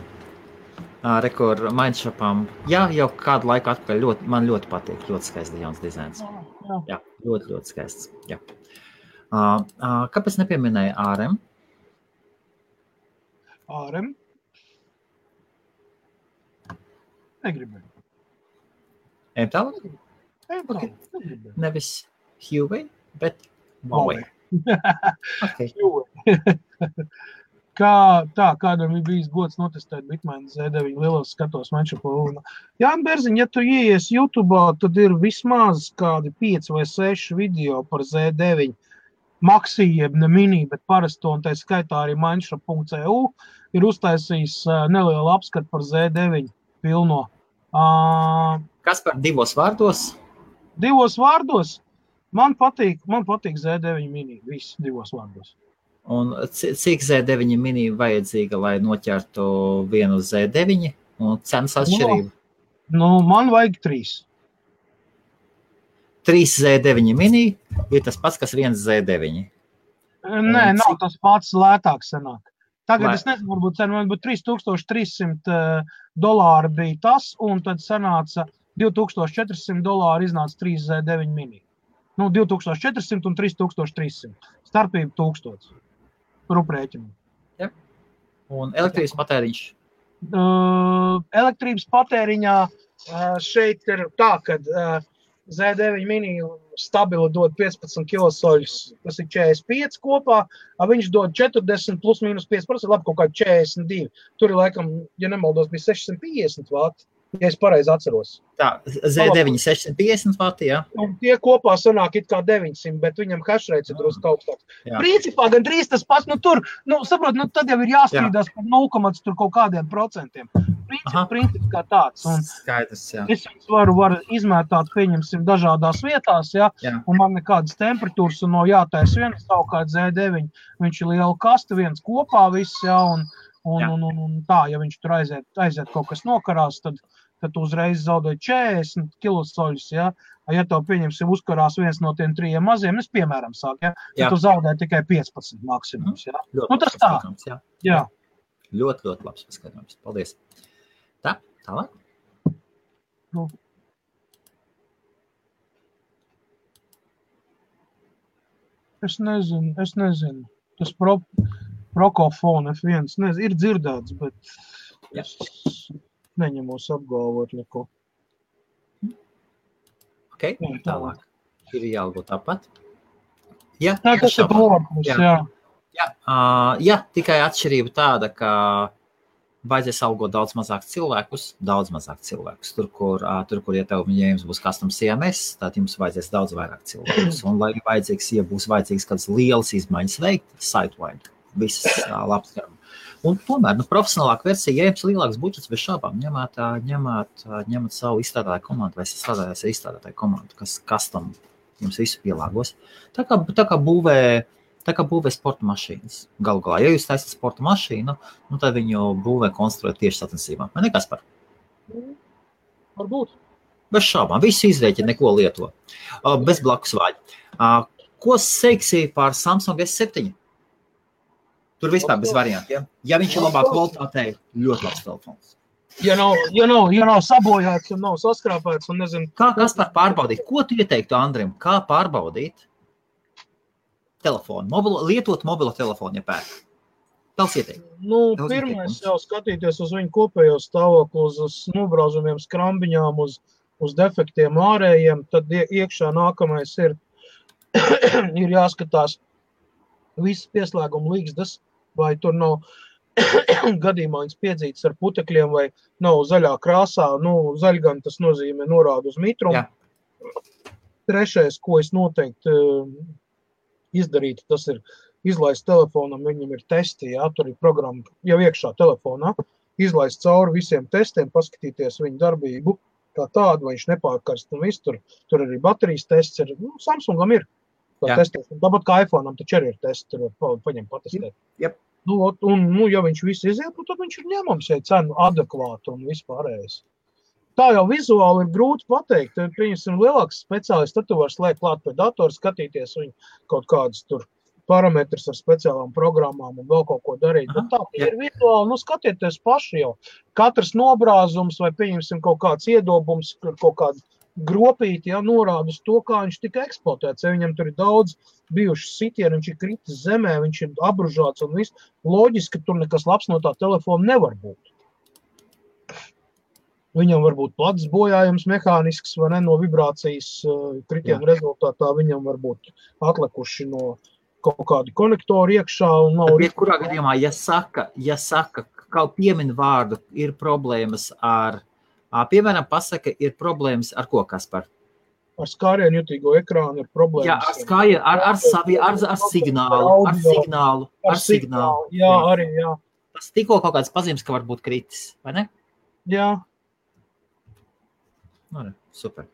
Rekord Mindshopam. Jā, jau kādu laiku atpakaļ man ļoti patīk. Ļoti skaists jauns dizains. Jā, ļoti skaists. Jā. Kāpēc nepieminēja ARM? ARM? Negribēju. Ejam tālāk? Okay. Nevis Huawei, bet Huawei. Okay. Kādam ir bijis gods notestēt Bitmain Z9 lielos skatos Mindshopā. Jāni Berziņ, ja tu ieies YouTube'ā, tad ir vismaz kādi 5 vai 6 video par Z9 Maxi, jeb ne mini, bet parasto, un tā skaitā arī Mindshop.eu ir uztaisījis nelielu apskatu par Z9 pilno. Kas par 2 vārdos? 2 vārdos? Man patīk Z9 mini, viss 2 vārdos. Un cik Z9 mini vajadzīga, lai noķertu vienu Z9 un cenas atšķirību? Man vajag 3. 3 Z9 mini ir tas pats, kas 1 Z9. Nē, nav tas pats, lētāk sanāk. Tagad es nezinu, varbūt $3,300 bija tas, un tad sanāca $2,400 iznāca 3 Z9 mini. 2,400 un 3,300. Starpība 1,000. Ruprēķinu. Ja. Un elektrības patēriņš? Elektrības patēriņā šeit ir tā, kad Z9 mini stabili dod 15 kilosoļus, tas ir 45 kopā, viņš dod 40 plus mīnus 5%, labi, kaut kā 42. Tur ir laikam, ja nemaldos, bija 650 vati, ja es pareizi atceros. Tā, Z9 650 vati, jā? Un tie kopā sanāk it kā 900, bet viņam hashrates ir drusku augstāks. Principā gan drīz tas pats, tur, saprot, tad jau ir jāstrīdās par 0, tur kaut kādiem procentiem. Princips kā tāds. Un skaidrs, jā. Es viņus varu izmētāt, pieņemsim, dažādās vietās, jā, un man nekādas temperatūras un no jātais viens, savukārt Z9, viņš ir liela kasta, viens kopā viss, jā, un tā, ja viņš tur aiziet kaut kas nokarās, tad tu uzreiz zaudēji 40 kilosoļus, jā. Ja tev, pieņemsim, uzkarās viens no tiem 3 maziem, es piemēram sāku, jā, tad tu zaudēji tikai 15 maksimums, jā. Tas tā. Jā. Ļoti labs paskatījums. Paldies. Tā, tālāk. Es nezinu. Tas Procofone F1, ir dzirdēts, bet es neņemos apgalvot neko. Ok, tālāk. Ir jābūt tāpat. Jā, tas ir Procofone, jā. Jā, tikai atšķirība tāda, ka vajadzēs algot daudz mazāk cilvēkus. Tur, kur ja jums būs custom CMS, tad jums vajadzēs daudz vairāk cilvēkus. Un, lai būs vajadzīgs kādas lielas izmaiņas veikt, site-wide, visas labs. Un tomēr, profesionālāka versija, ja jums lielāks budžets, bez šābām, ņemat savu izstrādātāju komandu vai strādājās ar izstrādātāju komandu, kas custom jums visu pielāgos. Tā kā būvē sporta mašīnas. Galu galā, ja jūs taisat sporta mašīnu, tad viņu būvē konstruēt tieši sacensībām. Vai ne, Kaspar? Varbūt. Bez šābām. Visu izrēķina, neko lieto. Bez blakus vāļa. Ko seiksi par Samsung S7? Tur vispār bez variantiem. Ja viņš ir labāk kvalitātei, ļoti labs telefons. Ja nav sabojāts un nav saskrāpēts un nezinu. Kā Kaspar pārbaudīt? Ko tu ieteiktu Andrim? Kā pārbaudīt telefonu? Lietot mobilo telefonu, ja pērk. Tals ieteikt. Pirmais jau skatīties uz viņu kopējo stāvokli, uz nobrauzumiem, skrambiņām, uz defektiem ārējiem, tad iekšā nākamais ir jāskatās visas pieslēguma līgzdas, vai tur nav gadījumā viņas piedzītas ar putekļiem, vai nav zaļā krāsā. Zaļgan tas nozīmē norādu uz mitrumu. Jā. Trešais, ko es noteikti izdarītu, tas ir izlaist telefonam, viņam ir testi, tur ir programma jau iekšā telefonā, izlaist cauri visiem testiem, paskatīties viņu darbību, kā tādu, vai viņš nepārkarst un viss, tur arī baterijas tests ir, Samsungam ir testēs, tāpat kā iPhone'am taču arī ir tests, tur paņem patestēt. Yep. Ja viņš viss iziet, tad viņš ir ņemams, ja cenu adekvātu un vispārējais. Tā jau vizuāli ir grūti pateikt. Pieņemsim lielāks speciālists, tad tu vari slēgt klāt pie datora, skatīties viņu kaut kādus tur parametrus ar speciālām programmām un vēl kaut ko darīt. Bet tā ir vizuāli, skatieties paši jau. Katrs nobrāzums vai pieņemsim kaut kāds iedobums, kaut kādu gropīti, norāda uz to, kā viņš tika eksploatēts. Ja viņam tur ir daudz bijuši sitieni, viņš ir kritis zemē, viņš ir abružāts un viss. Loģiski, ka tur nekas labs no tā telefona nevar būt. Viņam var būt plats bojājums mehānisks vai ne, no vibrācijas kritienu rezultātā. Viņam var būt atlikuši no kaut kādi konektori iekšā. Kurā gadījumā, ja saka, kaut piemin vārdu, ir problēmas ar piemēram, pasaka, ir problēmas ar ko, Kaspar? Ar skārienu jutīgo ekrānu ir problēmas. Jā, ar skārienu, ar signālu. Jā, arī, jā. Tas tikko kaut kāds pazīmes, ka var būt kritis, vai ne? Jā. Super.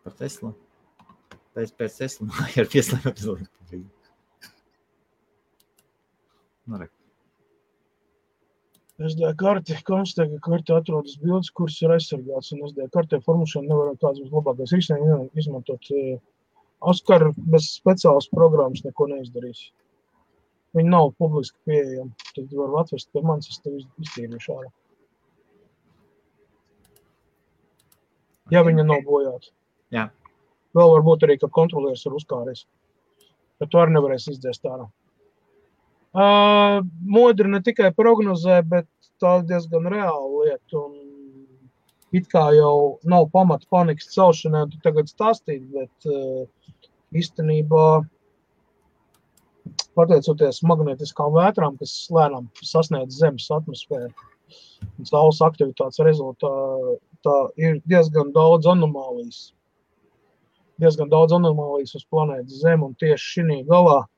Par Teslu. Pēc Teslu ir pieslēgums. SD karti, konstatē, ka karti atrodas bildes, kuras ir aizsargāts, un SD kartē formulēšana nevar kāds būs labākais risinājums izmantot. Oskar bez speciālas programmas neko neizdarīs. Viņi nav publiski pieejami. Tad var atvest pie manis, es tev iztīrīšu ārā. Ja viņa nav bojāta. Jā. Vēl varbūt arī, ka kontrolieris ir uzkāries. Bet tu arī nevarēs izdzēst ārā. Modri ne tikai prognozē, bet tā diezgan reāla lieta. Un it kā jau nav pamata panikas celšanai, tu tagad stāstīt, bet īstenībā pateicoties magnetiskām vētrām, kas lēnām sasniedz Zemes atmosfēru un saules aktivitātes rezultātā, ir diezgan daudz anomālijas. Diezgan daudz anomālijas uz planētas Zemi, un tieši šī galā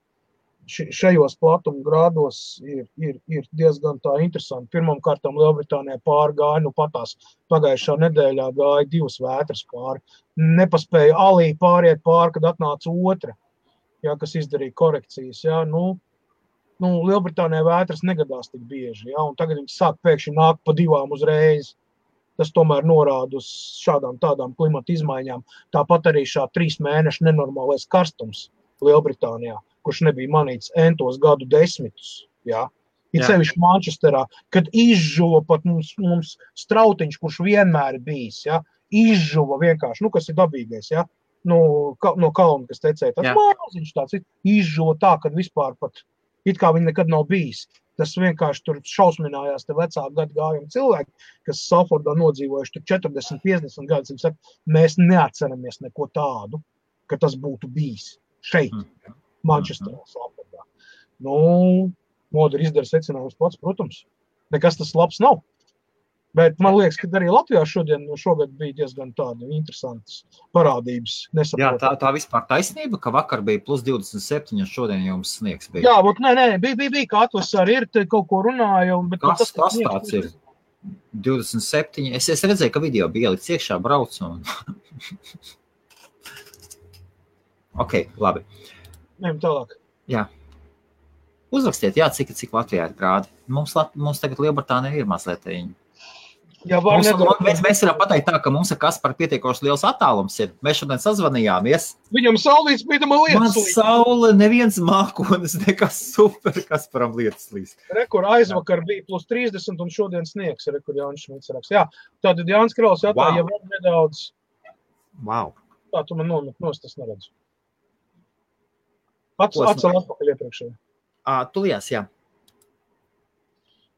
šajos platuma grādos ir diezgan tā interesanti. Pirmam kārtam Lielbritānijā pārgāja, patās pagājušā nedēļā gāja 2 vētras pāri. Nepaspēja alī pāriet pāri, kad atnāca otra, kas izdarīja korekcijas. Lielbritānijā vētras negadās tik bieži, un tagad viņi sāk pēkšņi nākt pa 2 uzreiz. Tas tomēr norāda uz šādām tādām klimata izmaiņām. Tāpat arī šā 3 mēnešu nenormālais karstums Lielbritānijā, kurš nebija manīts entos gadu desmitus, Ir sevišķi Manchesterā, kad izžuva pat mums strautiņš, kurš vienmēr ir bijis, izžuva vienkārši, kas ir dabīgais, no kalna, kas tecēja, tas māziņš tāds, izžuva tā, kad vispār pat, it kā viņi nekad nav bijis. Tas vienkārši tur šausminājās te vecāku gadu gājumi cilvēki, kas Salfordā nodzīvojuši tur 40, 50 gadus, viņi saka, mēs neatceramies neko tādu, ka tas būtu bijis šeit. Manchesterā, Salfordā. Modri izdara secinājums pats, protams. nekas tas labs nav. Bet man liekas, ka arī Latvijā šogad bija diezgan tāda interesantas parādības. Jā, tā vispār taisnība, ka vakar bija plus 27, un šodien jums sniegs bija. Jā, bet nē, bija, ka atvasarī ir, te kaut ko runāja. Bet kas tāds ir? 27. Es redzēju, ka video bija ielikts iekšā, brauc un... Ok, labi. Ejam tālāk. Jā. Uzrakstiet, jā, cik Latvijā ir grādi. Mums tagad Lielbritānija ir mazliet. Jā, mēs varam pateikt tā, ka mums ar Kasparu pietiekoši liels attālums ir. Mēs šodien sazvanījāmies. Viņam saulīts bīdama lietas līdz. Man saule, neviens mākonis, nekas super Kasparam lietas līdz. Rekur aizvakar bija plus 30 un šodien sniegs, rekur Jānis Šmits raksts. Jā, tātad Jānis Krauls jautā, ja vēl nedaudz. Wow. Tā, tu man nomet nost, es neredzu. Atcel atpakaļ iepriekšēji. Tulies, jā.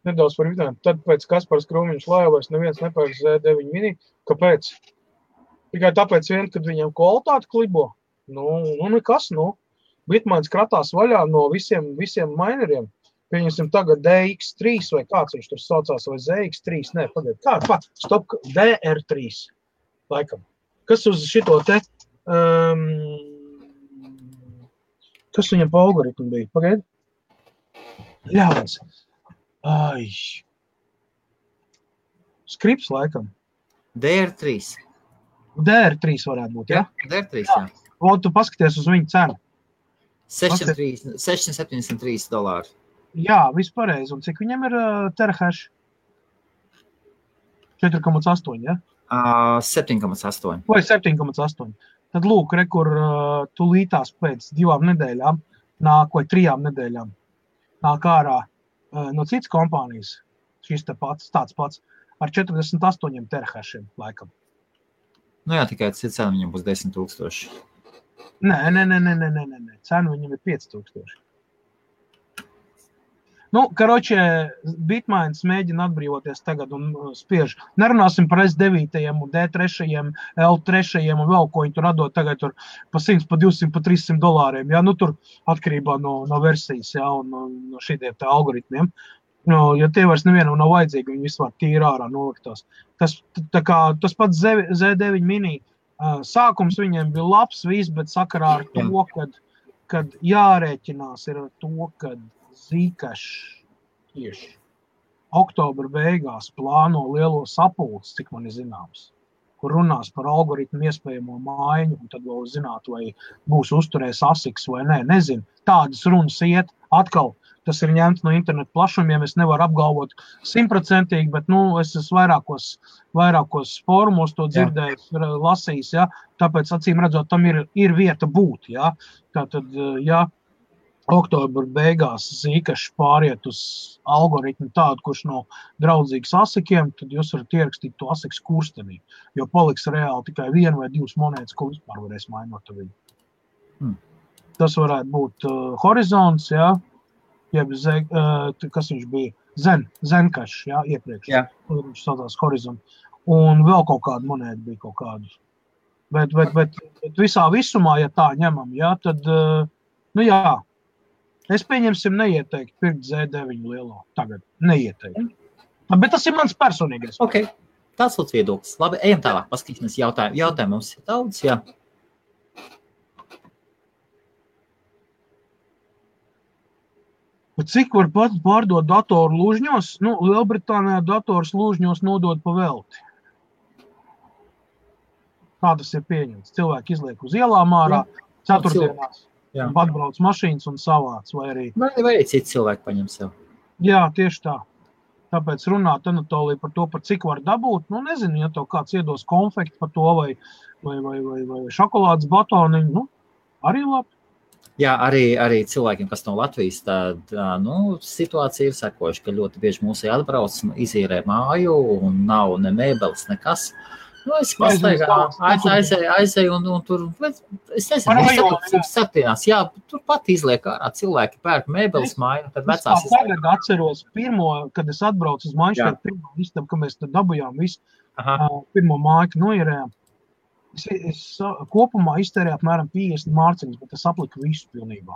Nedaudz par vidēm. Tad pēc Kaspars Krūmiņš laivais neviens nepērk Z9 mini. Kāpēc? Tikai tāpēc vien, kad viņam kvalitāti klibo. Nu nekas, Bitmains kratās vaļā no visiem mineriem. Pieņemsim tagad DX3 vai kāds viņš tur saucās, vai ZX3. Nē, pagaid. Stop, DR3. Laikam. Kas uz šito te... kas viņam pa algoritmu bija? Pagaid. Ļauns. Ai. Skrips laikam. DR3. DR3 varētu būt, ja? DR3, jā. Un tu paskaties uz viņu cenu. $673. Jā, viss pareizi. Un cik viņam ir terahash? 4,8, ja? 7,8. Vai 7,8. Tad lūk, rekur tulītās pēc 2 nedēļām nāk, vai 3 nedēļām nāk ārā no citas kompānijas, šis tāds pats, ar 48 terahashiem laikam. Nu jā, tikai cena viņam būs 10 000. Nē. Cena viņam ir 5 000. Karoče, Bitmains mēģina atbrīvoties tagad un spiež. Nerunāsim par S9 un D3, L3 un vēl, ko viņi tur atdod tagad tur pa 100, pa 200, pa $300. Ja? Tur atkarībā no versijas, ja? Un no šīdiem tā algoritmiem. Ja tie vairs nevienam nav vajadzīgi, viņi vispār tīri ārā noliktās. Tas pats Z9 mini, sākums viņiem bija labs viss, bet sakarā ar to, kad jārēķinās ir ar to, kad Zcash tieši oktobra beigās plāno lielo sapulci, cik man ir zināms, kur runās par algoritmu iespējamo maiņu, un tad vēl zināt, vai būs uzturējis ASICS vai nē. Nezinu, tādas runas iet atkal. Tas ir ņemts no internetu plašumiem, es nevaru apgalvot 100%, bet, es esmu vairākos fórumos to dzirdējis, lasījis, ja? Tāpēc, acīm redzot, tam ir vieta būt, ja? Tātad, ja oktobra beigās Zcash pāriet uz algoritmu tādu, kurš nav draudzīgs ASICiem, tad jūs varat ierakstīt to ASICS kurstenī, jo paliks reāli tikai 1 vai 2 monētas, ko vispār varēs mainot viņu. Tas varētu būt Horizons, ja? Jeb kas viņš bija? Zencash, ja? Iepriekš. Jā. Viņš saucās Horizon. Un vēl kaut kāda monēta bija kaut kāda. Bet visā visumā, ja tā ņemam, ja, tad, jā. Es pieņemsim neieteikti pirkt Z9 lielo. Tagad neieteikti. Bet tas ir mans personīgais. Ok, tāds lūdz viedoklis. Labi, ejam tālāk, paskatīsimies jautājumu. Jautājumu mums ir daudz, jā. Cik var pārdot datoru lūžņos? Lielbritānijā dators lūžņos nodod pa velti. Kā tas ir pieņemts? Cilvēki izliek uz ielām ārā, ceturtdienās. Atbrauc mašīnas un savāc, vai arī... Vai citi cilvēki paņem sev. Jā, tieši tā. Tāpēc runāt Anatolija par to, par cik var dabūt. Nezinu, ja tev kāds iedos konfekti par to, vai šokolādes batoniņu, arī labi. Jā, arī cilvēkiem, kas no Latvijas, tad, situācija ir sekojuši, ka ļoti bieži mūsu atbrauc, izīrē māju un nav ne mēbeles, nekas. Es aizēju un tur, es nezinu, septienās, jā, tur pat izliek ārā cilvēki pērk mēbeles māju, tad vecās. Es tagad atceros kad es atbraucu uz Manšteru, pirmo istabu, ka mēs tad dabujām visu, pirmo māju noierējām. Es kopumā iztērēju apmēram 50 mārciņas, bet es apliku visu pilnībā.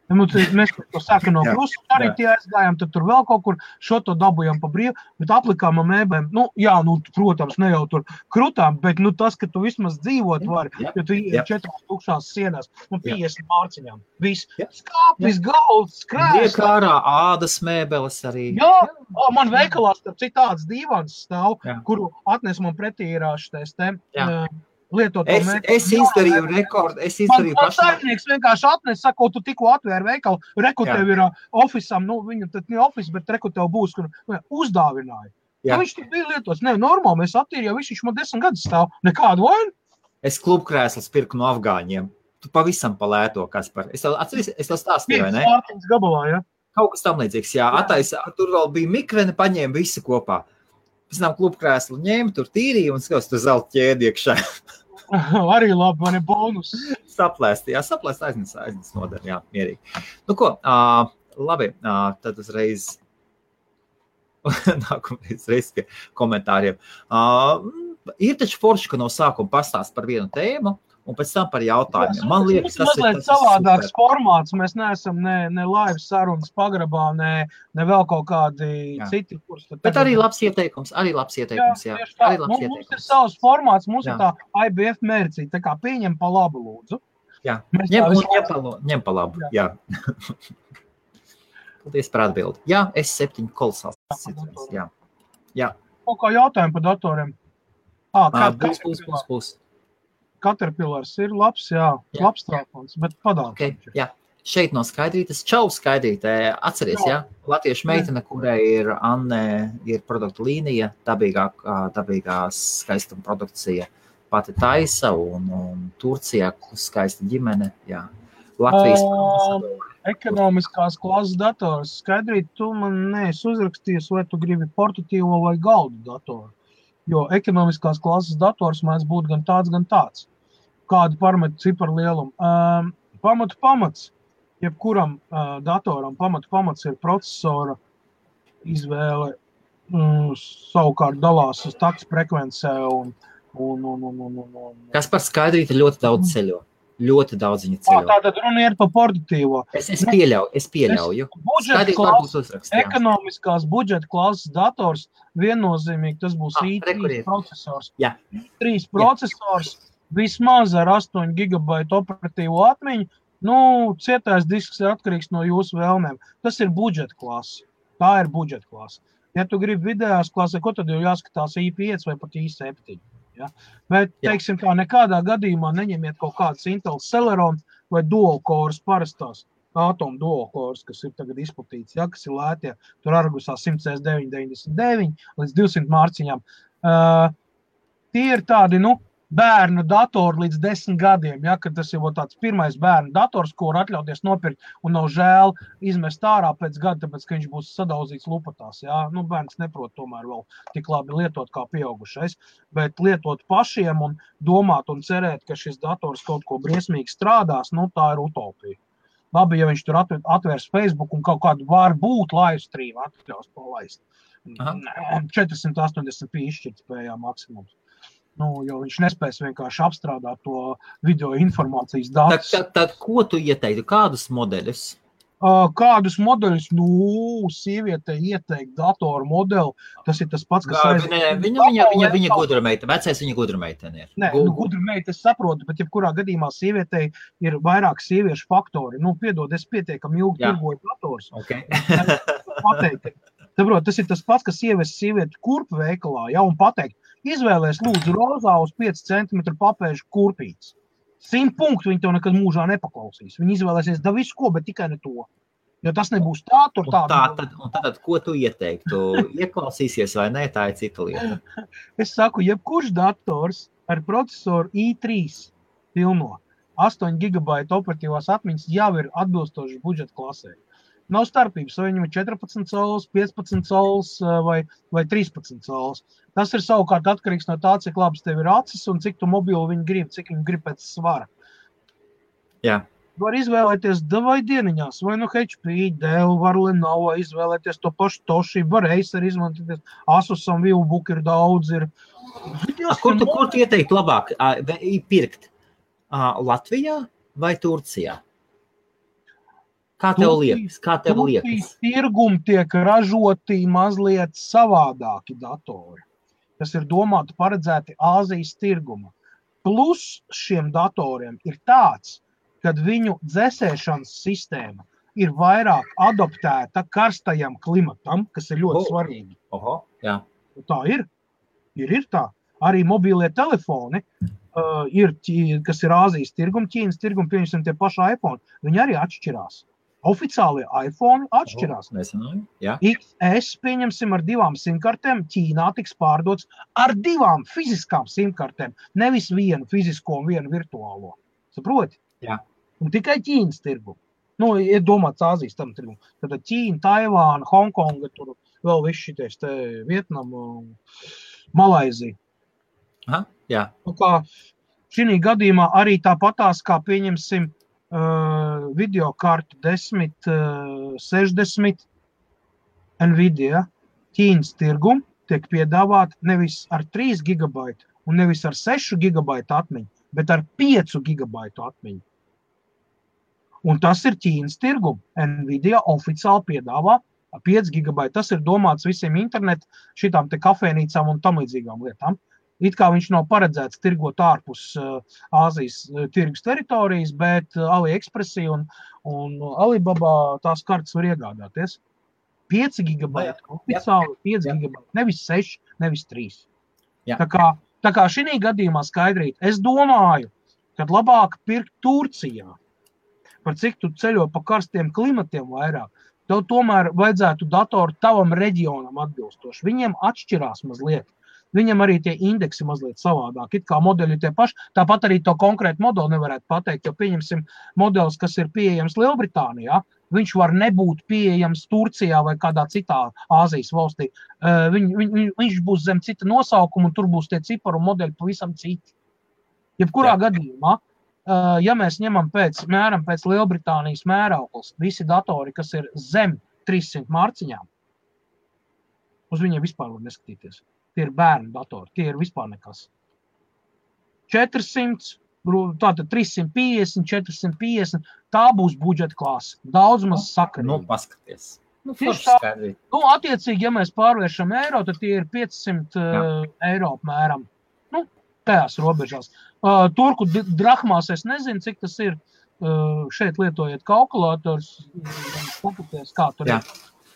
Mēs to sākam no Krusu, arī tie aizgājām, tad tur vēl kaut kur šo to dabujām pa brīvu, bet aplikām ar mēbēm, protams, ne jau tur krutām, bet tas, ka tu vismaz dzīvot vari, jo tu ir 4 tukšās sienās, 50 mārciņām, viss skāpis, galds, krēsls. Iekārā ādas mēbeles arī. Jā, man veikalā starp citāds dīvans stāv, kuru atnes man pretī ir šitais lietoto mēbeli. Es izdarīju rekordu, Man saimnieks vienkārši atnes, saka, tu tikko atvēri veikalu, reku tev ir ofisam, viņu tad ne ofis, bet reku tev būs, kur uzdāvināja. Viņš tur bija lietots, normāli, mēs attīrījām, viņš man 10 gadus stāv, nekādu vainu. Es klubkrēslas pirku no afgāņiem. Tu pavisam palēto, Kaspar. Es tev stāstīju, vai ne? Gabalā, ja? Kaut kas tam līdzīgs, attaisa, tur vēl bija mikreni, paņēma visu kopā. Pēc tam klubkrēslu ņēma, tur tīrīja un skaus, tur zelta ķēdi iekšā. Arī labi, man ir bonus. Saplēst aiznes nodara, mierīgi. Nu ko, labi, tad uzreiz nākamreiz pie komentāriem. Ir taču forši, ka no sākuma pastāst par vienu tēmu, un pēc tam par jautājumiem. Man liekas, tas ir savādāks formāts. Mēs neesam ne live sarunas pagrabā, ne vēl kaut kādi citi kurs. Bet arī labs ieteikums, jā. Arī labs ieteikums. Mums ir savs formāts, mums ir tā IBF mērcīte, tā kā pieņem pa labu lūdzu. Jā, ņem pa labu, jā. Paldies par atbildi. Jā, S7 kolosāls citrons, jā. Kaut kā jautājumu par datoriem. Būs. Caterpillars ir labs, labs telefons, bet padāk. Okay, jā. Šeit no Skaidrītes. Čau, Skaidrīte. Atceries, latviešu meitene, kurai ir Anne, ir produktu līnija, dabīgā skaistuma produkcija pati taisa un Turcijā skaista ģimene, Latvijas. Ekonomiskās klases dators. Skaidrīt, tu man neesi uzrakstījies, vai tu gribi portatīvo vai galdu datoru. Jo ekonomiskās klases dators mēs būtu gan tāds. Kādu parametru ciparu lielumu. Pamats. Jebkuram datoram pamats ir procesora izvēle. Savukārt dalās uz takts frekvencē un. Kas par Skaidrīti ļoti daudz ceļo. Ļoti daudz viņa ceļo. Tātad runa ir par portatīvo. Es pieļauju. Ekonomiskās budžeta klases dators viennozīmīgi tas būs i3 procesors. i3 procesors vismaz ar 8 GB operatīvo atmiņu. Cietais disks ir atkarīgs no jūsu vēlmēm. Tas ir budžeta klase. Tā ir budžeta klase. Ja tu gribi vidējās klasē, ko tad jau jāskatās i5 vai pat i7? Ja? Bet, teiksim tā, nekādā gadījumā neņemiet kaut kādas Intel Celeron vai dual cores parastās Atom dual cores, kas ir tagad izplatīts, kas ir lētie, tur Argusā 100S999 līdz 200 mārciņām. Tie ir tādi, bērnu datori līdz 10 gadiem, kad tas ir tāds pirmais bērnu dators, ko var atļauties nopirkt un nav žēl izmest ārā pēc gada, tāpēc, ka viņš būs sadauzīts lupatās. Bērns neprot tomēr vēl tik labi lietot kā pieaugušais, bet lietot pašiem un domāt un cerēt, ka šis dators kaut ko briesmīgi strādās, tā ir utopija. Labi, ja viņš tur atvērs Facebook un kaut kādu var būt live stream atļaus palaist. 480p izšķirtspējā maksimums. Jo viņš nespēs vienkārši apstrādāt to video informācijas datus. Tad ko tu ieteiktu? Kādus modeļus? Kādus modeļus? Sieviete ieteikt datoru modeli. Tas ir tas pats, kas Viņa gudrumeita. Vecais viņa gudrumeitene ir. Nē, gudrumeita es saprotu, bet jebkurā gadījumā sievietei ir vairāk sieviešu faktori. Piedod, es pietiekami ilgi tirgoju dators. Okay. Saprot, tas ir tas pats, kas ievest sievieti kurpu veikalā, un pateikt, izvēlēs lūdzu rozā uz 5 cm papēžu kurpītes. 100 punktu viņi tev nekad mūžā nepaklausīs. Viņi izvēlēsies da visu ko, bet tikai ne to. Jo tas nebūs tādu. Un tad, ko tu ieteiktu? Ieklausīsies vai nē, tā ir cita lieta. Es saku, jebkurš dators ar procesoru i3 pilno 8 GB operatīvās atmiņas jau ir atbilstoši budžeta klasē. Nav starpības, vai viņam ir 14 cols, 15 cols vai 13 cols. Tas ir savukārt atkarīgs no tā, cik labs tev ir acis un cik tu mobilu viņi grib, cik viņi grib pēc svara. Jā. Var izvēlēties vai dieniņās, vai HP, Dell, var Lenovo izvēlēties to pašu Toshiba, var Acer izmantoties, Asusam, Viewbook ir daudz. Kur tu ieteikt labāk pirkt? Latvijā vai Turcijā? Kā tev liekas? Tirgum tiek ražoti mazliet savādāki datori, kas ir domāti paredzēti Āzijas tirguma. Plus šiem datoriem ir tāds, kad viņu dzēsēšanas sistēma ir vairāk adoptēta karstajam klimatam, kas ir ļoti svarīgi. Jā. Tā ir tā. Arī mobīlie telefoni, kas ir Āzijas tirgum, Ķīnas tirgum, pieņemsim tie paši iPhone, viņi arī atšķirās. Oficiālie iPhone atšķirās. XS, pieņemsim, ar 2 simkartēm, Ķīnā tiks pārdots ar 2 fiziskām simkartēm, nevis vienu fizisko un vienu virtuālo. Saproti? Jā. Un tikai Ķīnas tirgu. Ir domāts Āzijas tam tirgu. Tad Ķīna, Taivāna, Hongkonga, tur vēl viss šities te Vietnama, Malaizija. Aha, jā. Kā šī gadījumā arī tāpatās, kā pieņemsim videokartu 1060 Nvidia Ķīnas tirgum tiek piedāvāt nevis ar 3 GB un nevis ar 6 GB atmiņu, bet ar 5 GB atmiņu. Un tas ir Ķīnas tirgum. Nvidia oficiāli piedāvā 5 GB. Tas ir domāts visiem internetu, šitām te kafēnīcām un tam līdzīgām lietām. It kā viņš nav paredzēts tirgot ārpus Āzijas tirgus teritorijas, bet AliExpressī un Alibaba tās kartas var iegādāties. 5 GB, oficiāli 5 GB, nevis 6, nevis 3. Jā. Tā kā šī gadījumā skaidrīt, es domāju, kad labāk pirkt Turcijā, par cik tu ceļo pa karstiem klimatiem vairāk, tev tomēr vajadzētu datoru tavam reģionam atbilstoši. Viņiem atšķirās mazliet. Viņam arī tie indeksi mazliet savādāk. It kā modeļi tie paši, tāpat arī to konkrētu modeli nevarētu pateikt, jo pieņemsim modelis, kas ir pieejams Lielbritānijā, viņš var nebūt pieejams Turcijā vai kādā citā Āzijas valstī. Viņš būs zem cita nosaukuma un tur būs tie ciparu modeļi pavisam citi. Jebkurā gadījumā, ja mēs ņemam pēc Lielbritānijas mērauklis, visi datori, kas ir zem 300 mārciņām, uz viņiem vispār var neskatīties. Tie ir bērnu datori, tie ir vispār nekas. 400, tātad 350, 450, tā būs budžeta klāsa. Daudz maz sakarīgi. Paskaties. Attiecīgi, ja mēs pārvēršam eiro, tad tie ir 500 eiro apmēram. Tajās robežās. Turku drahmās es nezinu, cik tas ir. Šeit lietojiet kalkulators, skatāties, kā tur ir.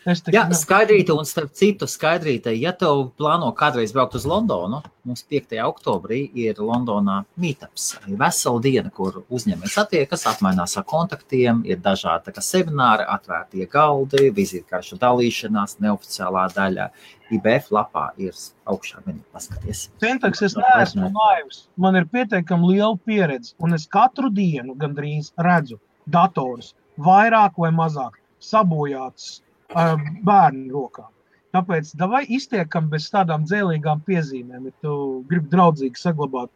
Jā, Skaidrīte, un starp citu Skaidrīte, ja tev plāno kādreiz braukt uz Londonu, mums 5. oktobrī ir Londonā meetups, vesela diena, kur uzņēmējs attiekas, apmainās ar kontaktiem, ir dažādi semināri, atvērtie galdi, vizītkaršu dalīšanās, neoficiālā daļa. IBF lapā ir augšā menu, paskaties. Centaks, es neesmu naivs, man ir pietiekami liela pieredze, un es katru dienu gandrīz redzu datorus, vairāk vai mazāk sabojāts bērnu rokām. Tāpēc davai iztiekam bez tādām dzēlīgām piezīmēm, ja tu gribi draudzīgi saglabāt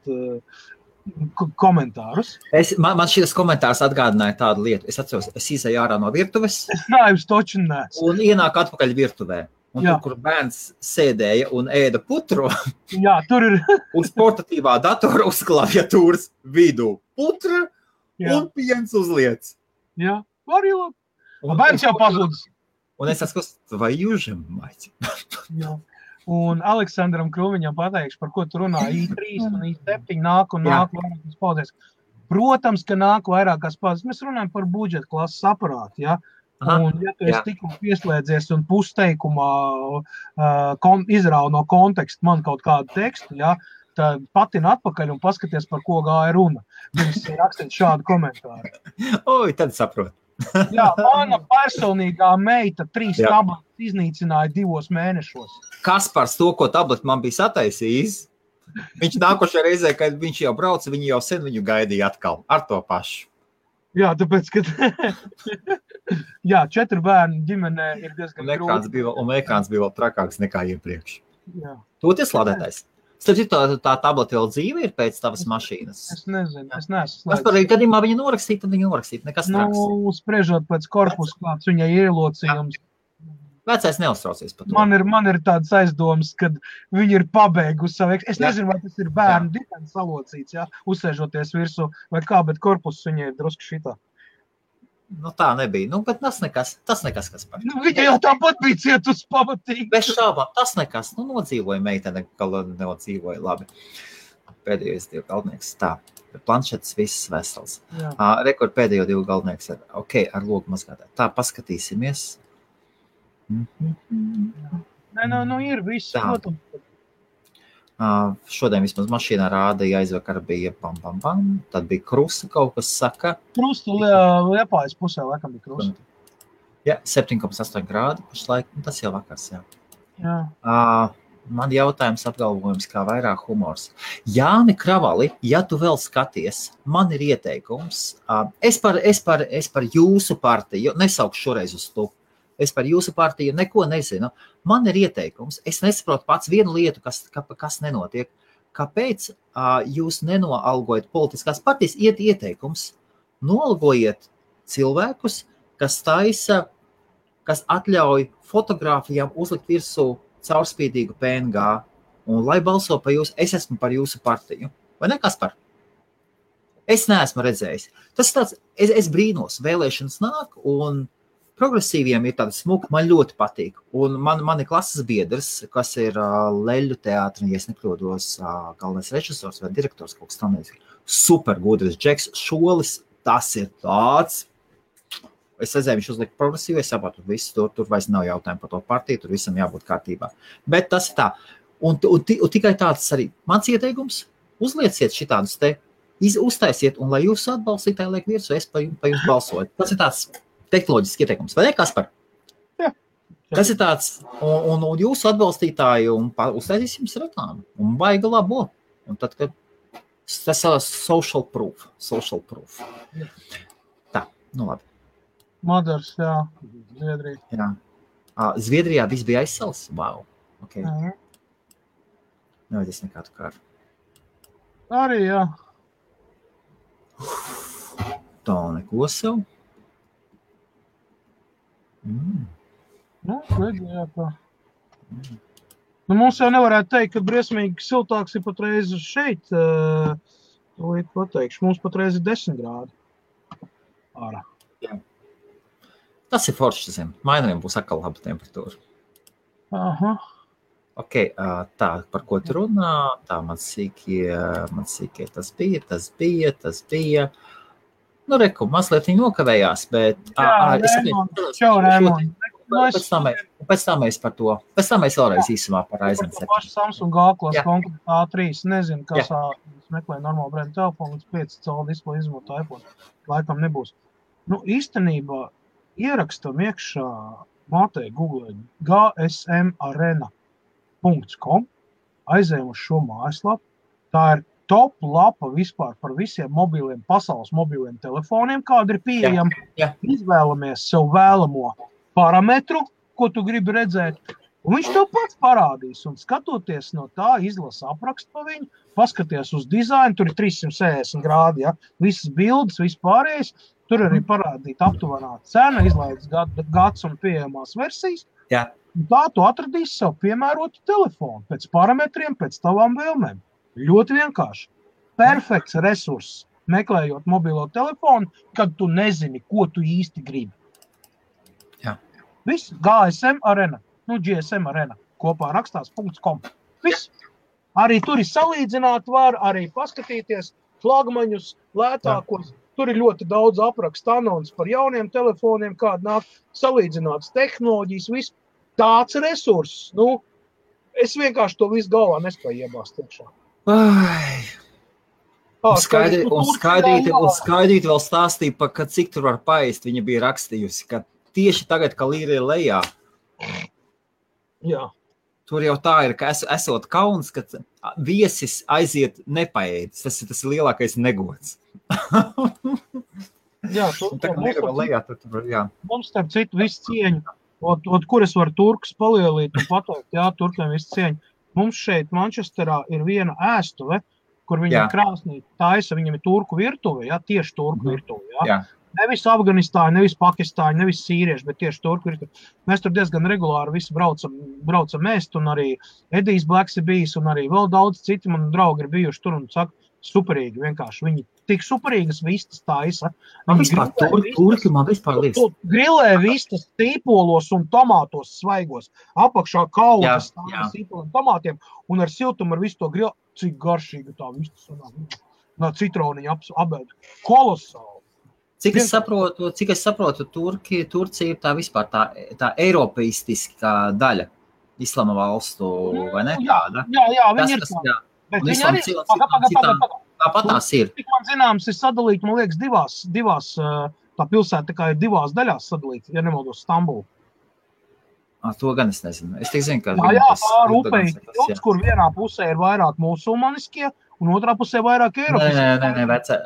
komentārus. Man šis komentārs atgādināja tādu lietu. Es atceros, es izēju ārā no virtuves. Es naivs toču neesmu. Un ienāk atpakaļ virtuvē. Un tur, kur bērns sēdēja un ēda putru, tur ir uz portatīvā datora uz klaviatūras vidū putra un piens uzliec. Jā, var ielot. Bērns jau pazudis. Un es atskos, vai jūžam maķi? Jā. Un Aleksandram Krūmiņam pateikšu, par ko tu runā. I3 un I7 nāk vairākas paudzēs. Protams, ka nāk vairākas paudzes. Mēs runājam par budžeta klases aparātu, ja? Un ja tu esi tikko pieslēdzies un pusteikumā izrauj no konteksta man kaut kādu tekstu, ja? Tad patina atpakaļ un paskaties, par ko gāja runa. Viņš rakstīt šādu komentāru. Oi, tad saprot. Jā, mana personīgā meita 3 tabletes iznīcināja 2 mēnešos. Kaspars to, ko tabletu man bija sataisījis, viņš nākošajā reizē, kad viņš jau brauca, viņi jau sen viņu gaidīja atkal ar to pašu. Jā, tāpēc, ka 4 bērnu ģimenē ir diezgan grūti. Un ekrāns bija vēl trakāks nekā iepriekš. Jā. Toties lādētais. Starp citu, tā tableta vēl dzīve ir pēc tavas mašīnas? Es nezinu, es neesmu slēdis. Par gadījumā viņa norakstīt, tad viņa norakstīt, nekas traks. Spriežot pēc korpusa, kāds viņai ielocījums. Vecais neuztraucies par to. Man ir tāds aizdoms, kad viņi ir pabeigusi savu Es nezinu, vai tas ir bērnu dibens salocīts, uzsēžoties virsū vai kā, bet korpus viņai ir drusku šitā. Nu, tā nebija. Nu, bet tas nekas, kas par. Nu, viņa jau tāpat bija cietus pamatīgi. Bez šābām, tas nekas. Nu, nodzīvoja meitene, ka nodzīvoja labi. Pēdējais 2 galvenieks. Tā, planšetes viss vesels. Rekord pēdējo 2 galvenieks ar, ar logu mazgātāju. Tā, paskatīsimies. Nē, nu ir viss. Šodien vismaz mašīnā rādīja, aizvakar bija bam. Tad bija krusta, kaut kas saka. Krusta Liepājas pusē, laikam bija krusta. Jā, 7,8 grādi pašlaik, tas jau vakars, jā. Jā. Man jautājums apgalvojums, kā vairāk humors. Jāni Kravali, ja tu vēl skaties, man ir ieteikums. Es par jūsu partiju, nesaukšu šoreiz uz tu. Es par jūsu partiju neko nezinu. Man ir ieteikums. Es nesaprotu pats vienu lietu, kas nenotiek. Kāpēc jūs nenoalgojat politiskās partijas? Iet ieteikums. Noalgojiet cilvēkus, kas taisa, kas atļauj fotogrāfijām uzlikt virsū caurspīdīgu PNG. Un lai balso par jūs, es esmu par jūsu partiju. Vai ne, Kaspar? Es neesmu redzējis. Tas tāds, es brīnos, vēlēšanas nāk un progresīviem ir tāda smuka, man ļoti patīk. Un man ir klases biedrs, kas ir Leļu teātri, ja es nekļūdos, galvenais režisors vai direktors, kaut kas tam nezinu. Super gudrs Džeks Šolis, tas ir tāds. Es redzēju, viņš uzlika progresīvu, es saprotu, viss tur vairs nav jautājumu par to partiju, tur visam jābūt kārtībā. Bet tas ir tā. Un tikai tāds arī mans ieteikums, uzlieciet šitādus te, uztaisiet, un lai jūs atbalstītāji liek virsū, es pa jums balsoju. Tas ir tāds tehnoloģisks ieteikums. Vai ne, Kaspar? Jā. Tas ir tāds, un jūsu atbalstītāji, un uztaisīs jums reklāmu, un baigi labo. Un tad, kad tas ir social proof. Tā, nu labi. Madars, jā, Zviedrija. Jā. Zviedrijā viss bija aizsals? Wow. Okay. Nevajadzēs nekādu kāru. Arī, jā. Tā neko sev. Nu, redzējā tā. Nu, mums jau nevarētu teikt, ka briesmīgi siltāks ir patreiz šeit. Pateikšu, mums patreiz ir 10 grādi. Ārā. Jā. Tas ir forši, zin. Mainariem būs atkal laba temperatūra. Aha. Tā, par ko tu runā? Tā, man sīkie tas bija. Nu, reku, mazliet viņi nokavējās, bet... Čau, Rēmon. Pēc tam mēs par to. Pēc tam mēs vēlreiz īsumā par Ryzen 7. Paši Samsung G-klas konkrēti A3. Nezinu, kas meklē normālu brendu telefonu, līdz 5 colu displeju izmanto iPhone. Laikam nebūs. Nu, īstenībā ierakstam iekšā mātei Google gsmarena.com, aizējam uz šo mājaslapu. Tā ir top lapa vispār par visiem pasaules mobiliem telefoniem, kāda ir pieejama. Izvēlamies sev vēlamo parametru, ko tu gribi redzēt, un viņš tev pats parādīs. Un skatoties no tā, izlasa aprakstu pa viņu, paskaties uz dizainu, tur ir 360 grādi, ja? Visas bildes, viss pārējais, tur arī parādīt aptuvenā cena, izlaidas gads un pieejamās versijas. Jā. Un tā tu atradīsi sev piemērotu telefonu, pēc parametriem, pēc tavām vēlmēm. Ļoti vienkārši. Perfekts resurss, meklējot mobilo telefonu, kad tu nezini, ko tu īsti gribi. Jā. Viss, GSM Arena, GSM Arena, kopā rakstās .com. Viss. Arī tur ir salīdzināt var, arī paskatīties flagmaņus, lētākos. Tur ir ļoti daudz aprakstu anons par jauniem telefoniem, kāda nāk salīdzināts tehnoloģijas, viss. Tāds resurss, es vienkārši to visu galvā nespēju iebāzt iekšā. Skaidrīt vēl stāstīja, ka cik tur var paēst, viņa bija rakstījusi, ka tieši tagad, ka līra ir lejā. Jā. Tur jau tā ir, ka esot kauns, ka viesis aiziet nepaēdis. Tas ir lielākais negods. Jā, mums starp citu visu cieņu. Kur es varu turkus palielīt un pateikt, jā, turkiem visu cieņu. Mums šeit Mančesterā ir viena ēstuve, kur viņa krāsnī taisa, viņam ir turku virtuve, tieši turku virtuve, Nevis Afganistāņi, nevis Pakistāņi, nevis sīrieši, bet tieši turku virtuve. Mēs tur diezgan regulāri visi braucam ēst, un arī Edijs Blacks ir bijis, un arī vēl daudz citi mani draugi ir bijuši tur un saka, superīgi vienkārši. Viņi tik superīgas vistas taisa. Man vispār turki, man vispār liekas. Grillē vistas tīpolos un tomātos svaigos. Apakšā kaudzes sīpoliem tomātiem un ar siltumu ar visu to grill. Cik garšīga tā vistas sanāk. Citroniņa apēd. Kolosāli. Cik es saprotu, Turcija ir tā vispār tā eiropeistiskā daļa islama valstu, vai ne? Jā, viņi ir tā. Bet viņi arī tāpat tās ir. Tik man zināms, ir sadalīti, man liekas, divās tā pilsēta kā ir divās daļās sadalīta, ja nemaldos Stambulu. To gan es nezinu. Es tik zinu, ka... pār upei, kur vienā pusē ir vairāk musulmaniskie, un otrā pusē vairāk eiropiskie. Nē, vecē.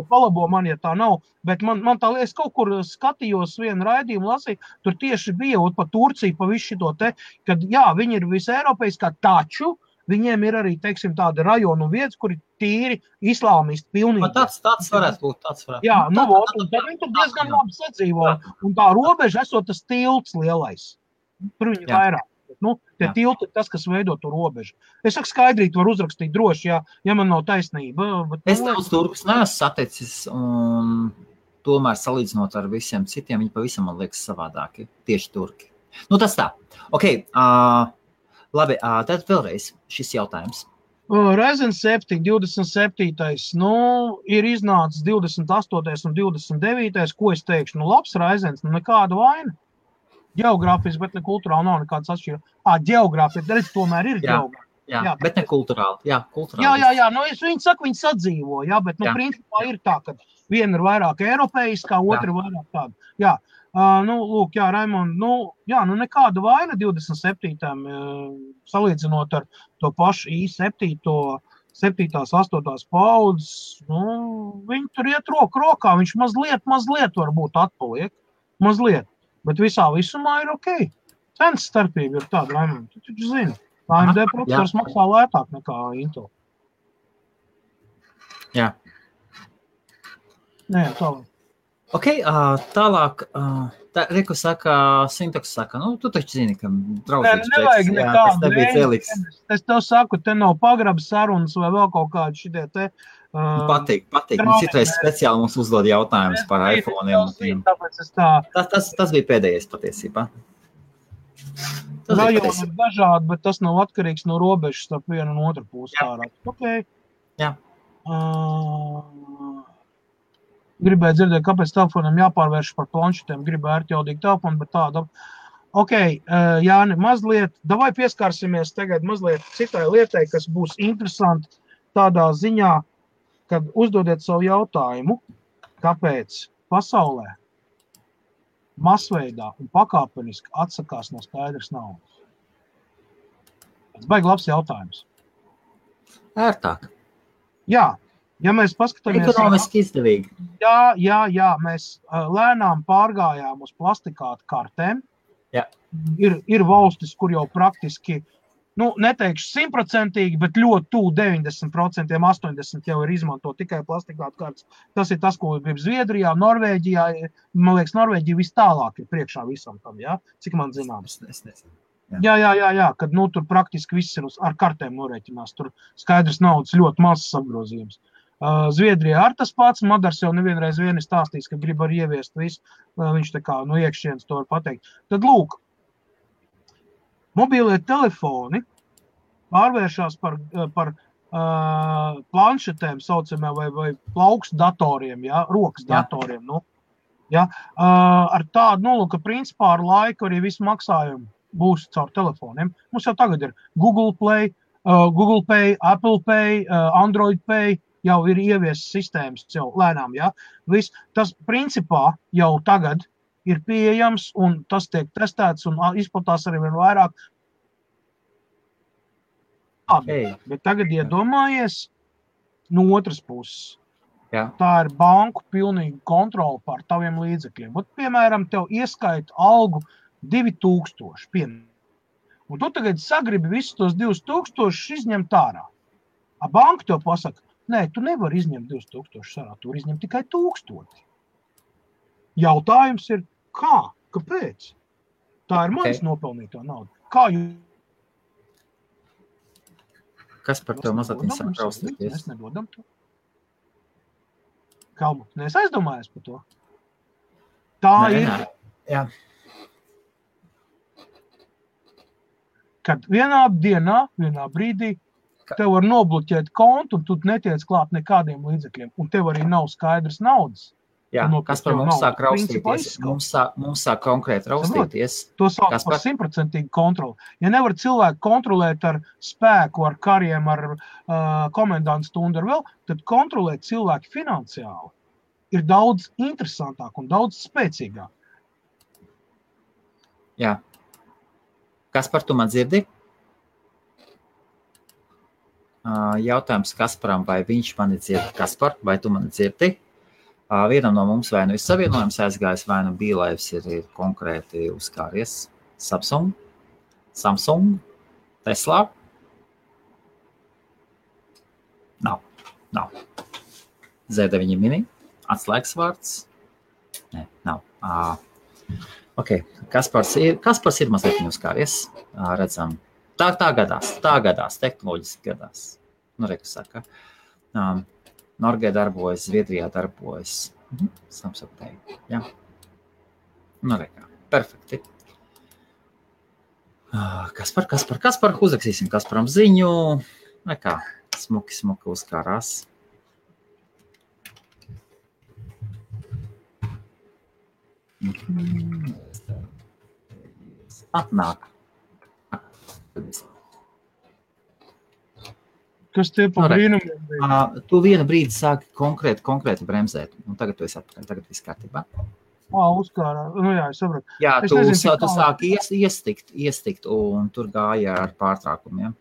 Palabo man, ja tā nav. Bet man tā liekas, kaut kur skatījos vienu raidījumu lasīju, tur tieši bija pa Turciju, pa visu šito te, kad viņi ir viseiropeiskā, taču viņiem ir arī, teiksim, tāda rajonu vietas, kur ir tīri islāmisti pilnīgi. Tāds varētu būt, Jā, un tad viņi tur diezgan labi sadzīvo. Un tā robeža esot tas tilts lielais. Tur viņi vairāk. Tie tilti ir tas, kas veido to robežu. Es saku skaidrīt, var uzrakstīt droši, ja man nav taisnība. Es daudz turkus neesmu saticis, un tomēr salīdzinot ar visiem citiem, viņi pavisam, man liekas, savādāki. Tieši turki. Tas tā. Ok, labi, tad vēlreiz šis jautājums. Ryzen 7, 27. Ir iznācis 28. un 29. Ko es teikšu? Labs Ryzens, nekāda vaina. Geogrāfiski, bet ne kulturāli nav nekāds atšķirības. Geogrāfiski, redz, tomēr ir geogrāfiski. Jā, bet ne kulturāli. Jā, Viņi saka, viņi sadzīvo, bet principā ir tā, ka viena ir vairāk eiropeiskā, otra ir vairāk tāda. Jā, Raimond, nekāda vaina 27. Salīdzinot ar to pašu i7, 7. 8. paudzes, viņi tur iet roku rokā, viņš mazliet varbūt atpaliek, mazliet. Bet visā visumā ir ok. Cenas starpība ir tāda, Raimond. Tu taču zini. AMD procesors maksā lētāk nekā Intel. Jā. Jā, tālāk. Ok, tālāk. Reku saka, Sintoks saka, tu taču zini, ka draudzīgs nevajag nekādu. Es tev saku, te nav pagraba sarunas vai vēl kaut kādi šitie te. Patīk. Citreiz speciāli mums uzdod jautājumus par iPhone'iem. Tas bija pēdējais patiesībā. Rajoni ir dažādi, bet tas nav atkarīgs no robežas starp vienu un otru pusi ārā. Ok. Jā. Gribēju dzirdēt, kāpēc telefonam jāpārvērš par planšetēm. Gribēju ērtjaudīgi telefonu, bet tāda. Ok, Jāni, mazliet, davai pieskārsimies tagad mazliet citai lietai, kas būs interesanti tādā ziņā, kad uzdodiet savu jautājumu, kāpēc pasaulē masveidā un pakāpeniski atsakās no skaidras naudas. Tas baigi labs jautājums. Ērtāk. Jā, ja mēs paskatāmies... Ekonomiski izdevīgi. Jā, mēs lēnām pārgājām uz plastikātu kartēm. Jā. Ir valstis, kur jau praktiski, neteikšu 100%, bet ļoti tuvu 90%, 80% jau ir izmanto tikai plastikātu kartes. Tas ir tas, ko grib Zviedrijā, Norvēģijā. Man liekas, Norvēģija vis tālāk ir priekšā visam tam, cik man zināms. Es nezinu. Jā, kad tur praktiski viss ir ar kartēm norēķinās. Tur skaidrs naudas ļoti mazs apgrozījums. Zviedrijā ar tas pats, Madars jau nevienreiz ir stāstījis, ka grib arī ieviest visu. Viņš tā kā no iekšienes to var pateikt. Tad lūk, mobilie telefoni pārvēršās par planšetēm saucamā vai plaukstu datoriem, rokas datoriem. Ar tādu, ka principā ar laiku arī visu maksājumu būs caur telefoniem. Mums jau tagad ir Google Pay, Apple Pay, Android Pay, jau ir ieviesas sistēmas jau lēnām, Viss, tas principā jau tagad ir pieejams un tas tiek testēts un izplatās arī vien vairāk. Bet tagad iedomājies no otras puses. Jā. Tā ir banku pilnīga kontrola pār taviem līdzekļiem. Piemēram, tev ieskaita algu 2000, un tu tagad sagribi visus tos 2000 izņemt ārā. Banka tev pasaka, nē, tu nevari izņemt 2000 ārā, tu izņem tikai 1000. Jautājums ir, kāpēc? Tā ir manis nopelnītā nauda. Kā jūs? Kas par tev mazliet sāk raustīties? Mēs nedodam to. Kalmu, nes aizdomājies par to? Tā ir. Jā. Kad vienā dienā, vienā brīdī tev var nobloķēt kontu un tu netiec klāt nekādiem līdzekļiem. Un tev arī nav skaidrs naudas. Jā, kas par mums sāk raustīties? Mums sāk konkrēti raustīties. To sāk par 100% kontroli. Ja nevar cilvēku kontrolēt ar spēku, ar kariem, ar komendantu stundu, ar vēl, tad kontrolēt cilvēki finansiāli ir daudz interesantāk un daudz spēcīgāk. Jā. Kaspar, tu man dzirdi? Jautājums Kasparam, vai viņš mani dzirdi? Kaspar, vai tu mani dzirdi? Vienam no mums vai nu ir savienojums aizgājis, vai nu bīlaivs ir konkrēti uzkāries. Samsung, Tesla. Nav. Z9 mini, atslēgas vārds. Nē, nav. Ok, Kaspars ir mazliet uzkāries. Redzam, tā gadās, tehnoloģiski gadās. Nu, reku saka. Norgē darbojas, Zviedrijā darbojas. Samsung Pay. Jā. Nu, rekā. Perfekti. Kaspar. Uzraksīsim Kasparam ziņu. Rekā. Smuki uzkārās. Atnāk. Kas tie pa brīnumiem bija? Tu vienu brīdi sāki konkrēti bremzēt, un tagad tu esi atpakaļ, tagad viss kārtībā. Uzkārā. Nu jā, es sapratu. Jā, tu sāki iestikt, un tur gāja ar pārtraukumiem.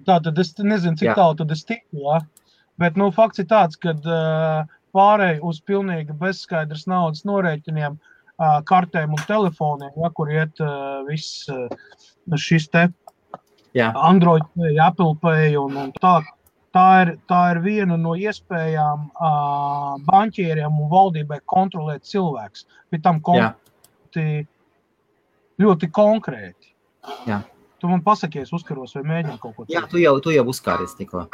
Tā, tad es nezinu, cik tālu tad es tiku, jā. Bet, fakts ir tāds, kad pārēj uz pilnīgi bezskaidras naudas norēķiniem, kartēm un telefoniem, kur iet viss šis te Android Pay, Apple Pay un tā. Tā ir viena no iespējām banķieriem un valdībai kontrolēt cilvēks. Bet tam ļoti konkrēti. Jā. Tu man pasakies, uzkaros vai mēģini kaut ko. Jā, tu jau uzkāries tikko.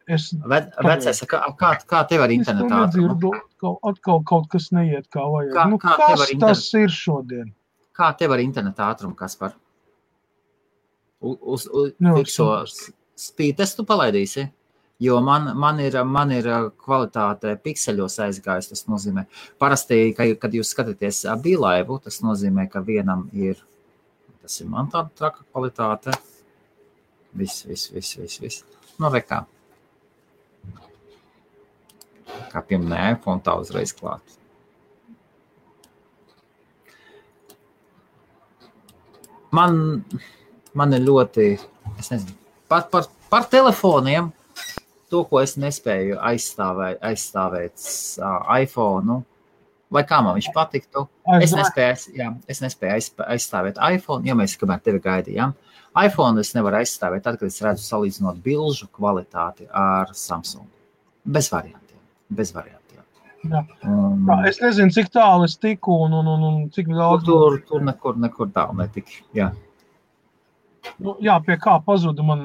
Vecais, kā tev ar internetā? Es to nedzirdu, atkal kaut kas neiet kā vajag. Kas tas ir šodien? Kā tev ar internetā ātrumu, Kaspar? Fikso spītestu palaidīsi, jo man ir kvalitāte pikseļos aizgājis, tas nozīmē. Parasti, kad jūs skatāties bīlaivu, tas nozīmē, ka vienam ir, tas ir man tāda traka kvalitāte. Viss. Nu, rekā. Kā pieminēja, iPhone tā uzreiz klāt. Man ir ļoti, es nezinu, par telefoniem, to, ko es nespēju aizstāvēt iPhone, vai kā man viņš patiktu. Es nespēju aizstāvēt iPhone, jo mēs kamēr tevi gaidījām. iPhone es nevaru aizstāvēt tad, kad es redzu salīdzinot bilžu kvalitāti ar Samsung. Bez variantiem. Jā. Es nezinu, cik tālu es tiku un cik daudz. Tur nekur tālu netiki, jā. Jā, pie kā pazuda man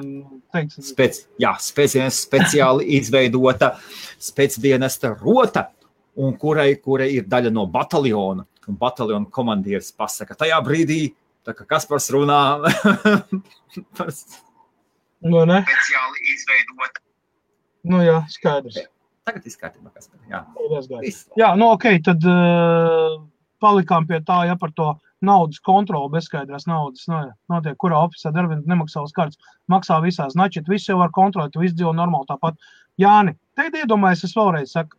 teiks. Speciāli izveidota spēcdienesta rota, un kurai ir daļa no bataljona. Un bataljona komandieris pasaka, tajā brīdī, tā kā Kaspars runā. Nu, ne? Speciāli izveidota. Nu jā, skaidrs. Tagad izkārtībā, Kaspar, jā. Jā, tad palikām pie tā, par to naudas kontroli, bezskaidrās naudas, notiek, kurā ofisā darbinieki nemaksā uz kartes, maksā visās, načit, viss jau var kontrolēt, tu viss dzīvo normāli tāpat. Jāni, tagad iedomājies, es vēlreiz saku,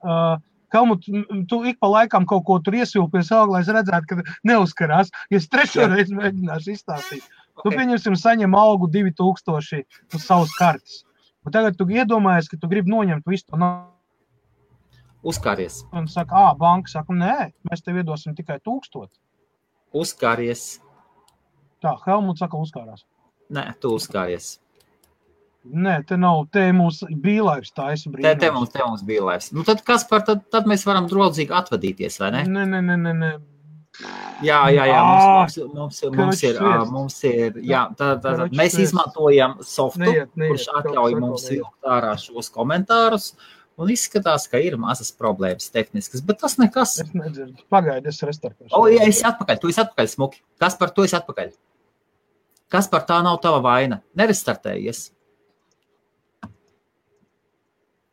Helmut, tu ik pa laikam kaut ko tur iesvilpies, lai es redzētu, ka neuzkarās, ja es trešo reizi mēģināšu izstāstīt. Tu pieņemsim saņem algu 2000 uz savas kartes. Un tagad tu iedomājies, ka tu gribi noņemt visu to naudu. Uzkāries. Un saka, banka saka, nē, mēs tev iedosim tikai 1000. Uzkāries. Tā, Helmut saka, uzkārās. Nē, tu uzkāries. Nē, te nav, te mums bīlaivs taisa brīnums. Te mums bīlaivs. Nu tad, Kaspar, tad mēs varam draudzīgi atvadīties, vai ne? Nē. Jā, mums ir, mēs izmantojam softu, kurš atļauj mums vilkt ārā šos komentārus, un izskatās, ka ir mazas problēmas tehniskas, bet tas nekas. Es nedzirdu. Pagaidi, es restartēšu. Jā, esi atpakaļ, tu esi atpakaļ, smuki. Kaspar, tu esi atpakaļ. Kaspar, tā nav tava vaina. Nerestartējies.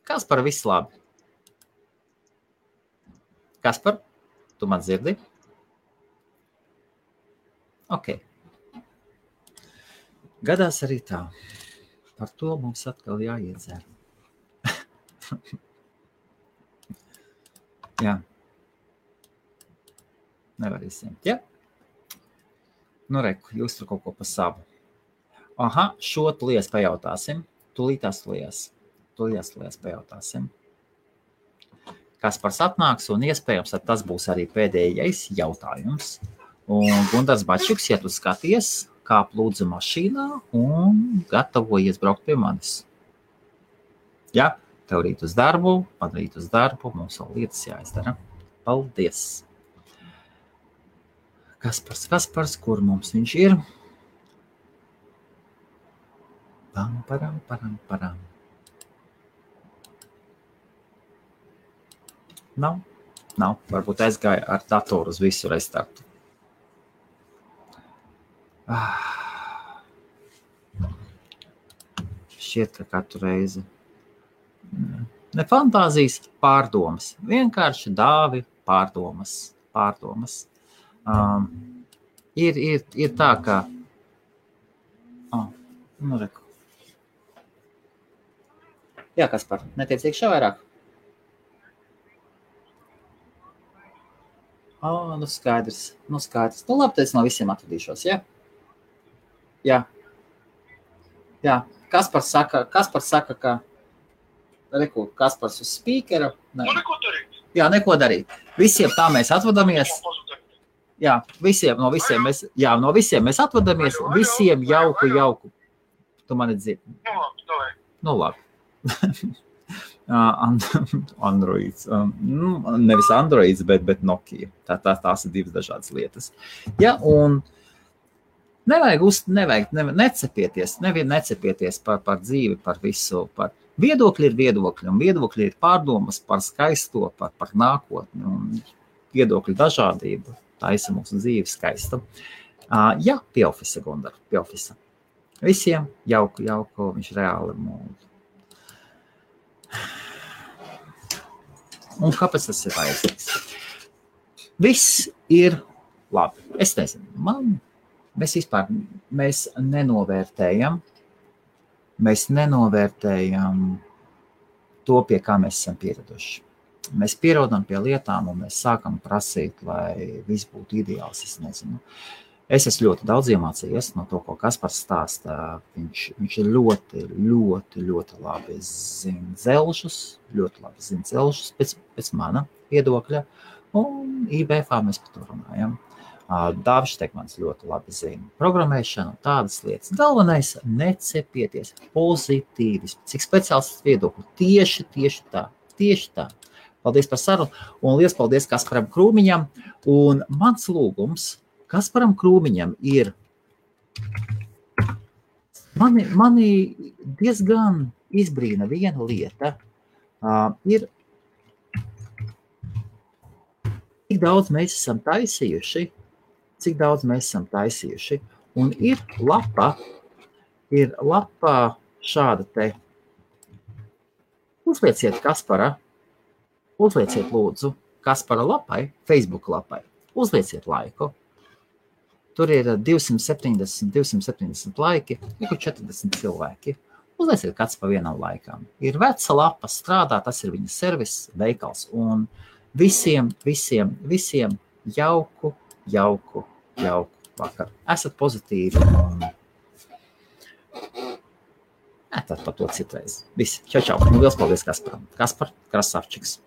Kaspar, viss labi. Kaspar, tu man dzirdi? Ok. Gadās arī tā. Par to mums atkal jāiedzer. Jā. Nevar izsiemt, ja? Nu, reku, jūs tur kaut ko pa savu. Aha, šo tulies pajautāsim. Tulītās pajautāsim. Kaspars atnāks un iespējams, tad tas būs arī pēdējais jautājums. Un Gundars Bačuks, ja tu skaties, kāp lūdzu mašīnā un gatavojies braukt pie manis. Ja? Tev rīt uz darbu, man rīt uz darbu, mums vēl lietas jāizdara. Paldies! Kaspars, kur mums viņš ir? Param. Nav. Varbūt aizgāja ar datoru uz visu restartu. Šķiet, ka katru reizi. Ne fantāzijas, pārdomas. Vienkārši dāvi pārdomas. Ir tā, ka... Nu, reku. Jā, Kaspar, netiec iekšā vairāk? Nu skaidrs. Nu labi, tad es no visiem atvadīšos, ja? Jā. Kaspars saka, ka... Reku, Kaspars uz spīkera. Neko darīt. Jā, neko darīt. Visiem tā mēs atvadamies. Jā, no visiem mēs atvadamies. Visiem jauku. Tu mani dzirdi. Nu labi. Androids. Nevis Androids, bet Nokia. Tās ir divas dažādas lietas. Ja, un necepieties par dzīvi, par visu, par viedokļi ir viedokļi, un viedokļi ir pārdomas par skaisto, par nākotni, un viedokļu dažādību taisa mūsu dzīvi skaista. Jā, pie ofisa, Gundar, pie ofisa. Visiem jauku, viņš reāli mūdu. Un kāpēc tas ir vajadzīgs? Viss ir labi. Es nezinu, mēs nenovērtējam to, pie kā mēs esam pieraduši. Mēs pierodam pie lietām un mēs sākam prasīt, lai viss būtu ideāls, es nezinu. Es esmu ļoti daudz iemācījies no to, ko Kaspars stāsta. Viņš ir ļoti labi zina dzelžus pēc mana viedokļa, un IBF mēs par to runājam. Dāvis Štekmans ļoti labi zina programmēšanu, tādas lietas. Galvenais necepieties, pozitīvis, cik speciālists viedokļu. Tieši tā. Paldies par sarunu, un liels paldies Kasparam Krūmiņam. Un mans lūgums Kasparam Krūmiņam ir, mani diezgan izbrīna viena lieta, ir, cik daudz mēs esam taisījuši, un ir lapa šāda te. Uzlieciet lūdzu Kaspara lapai, Facebook lapai, uzlieciet laiku. Tur ir 270 laiki, ir 40 cilvēki. Uzlieciet kāds pa vienam laikam. Ir veca lapa, strādā, tas ir viņa servis, veikals, un visiem jauku vakaru. Esat pozitīvi un tad par to citreiz. Visi, čau. Un liels paldies Kasparam. Kaspar Krasavčiks.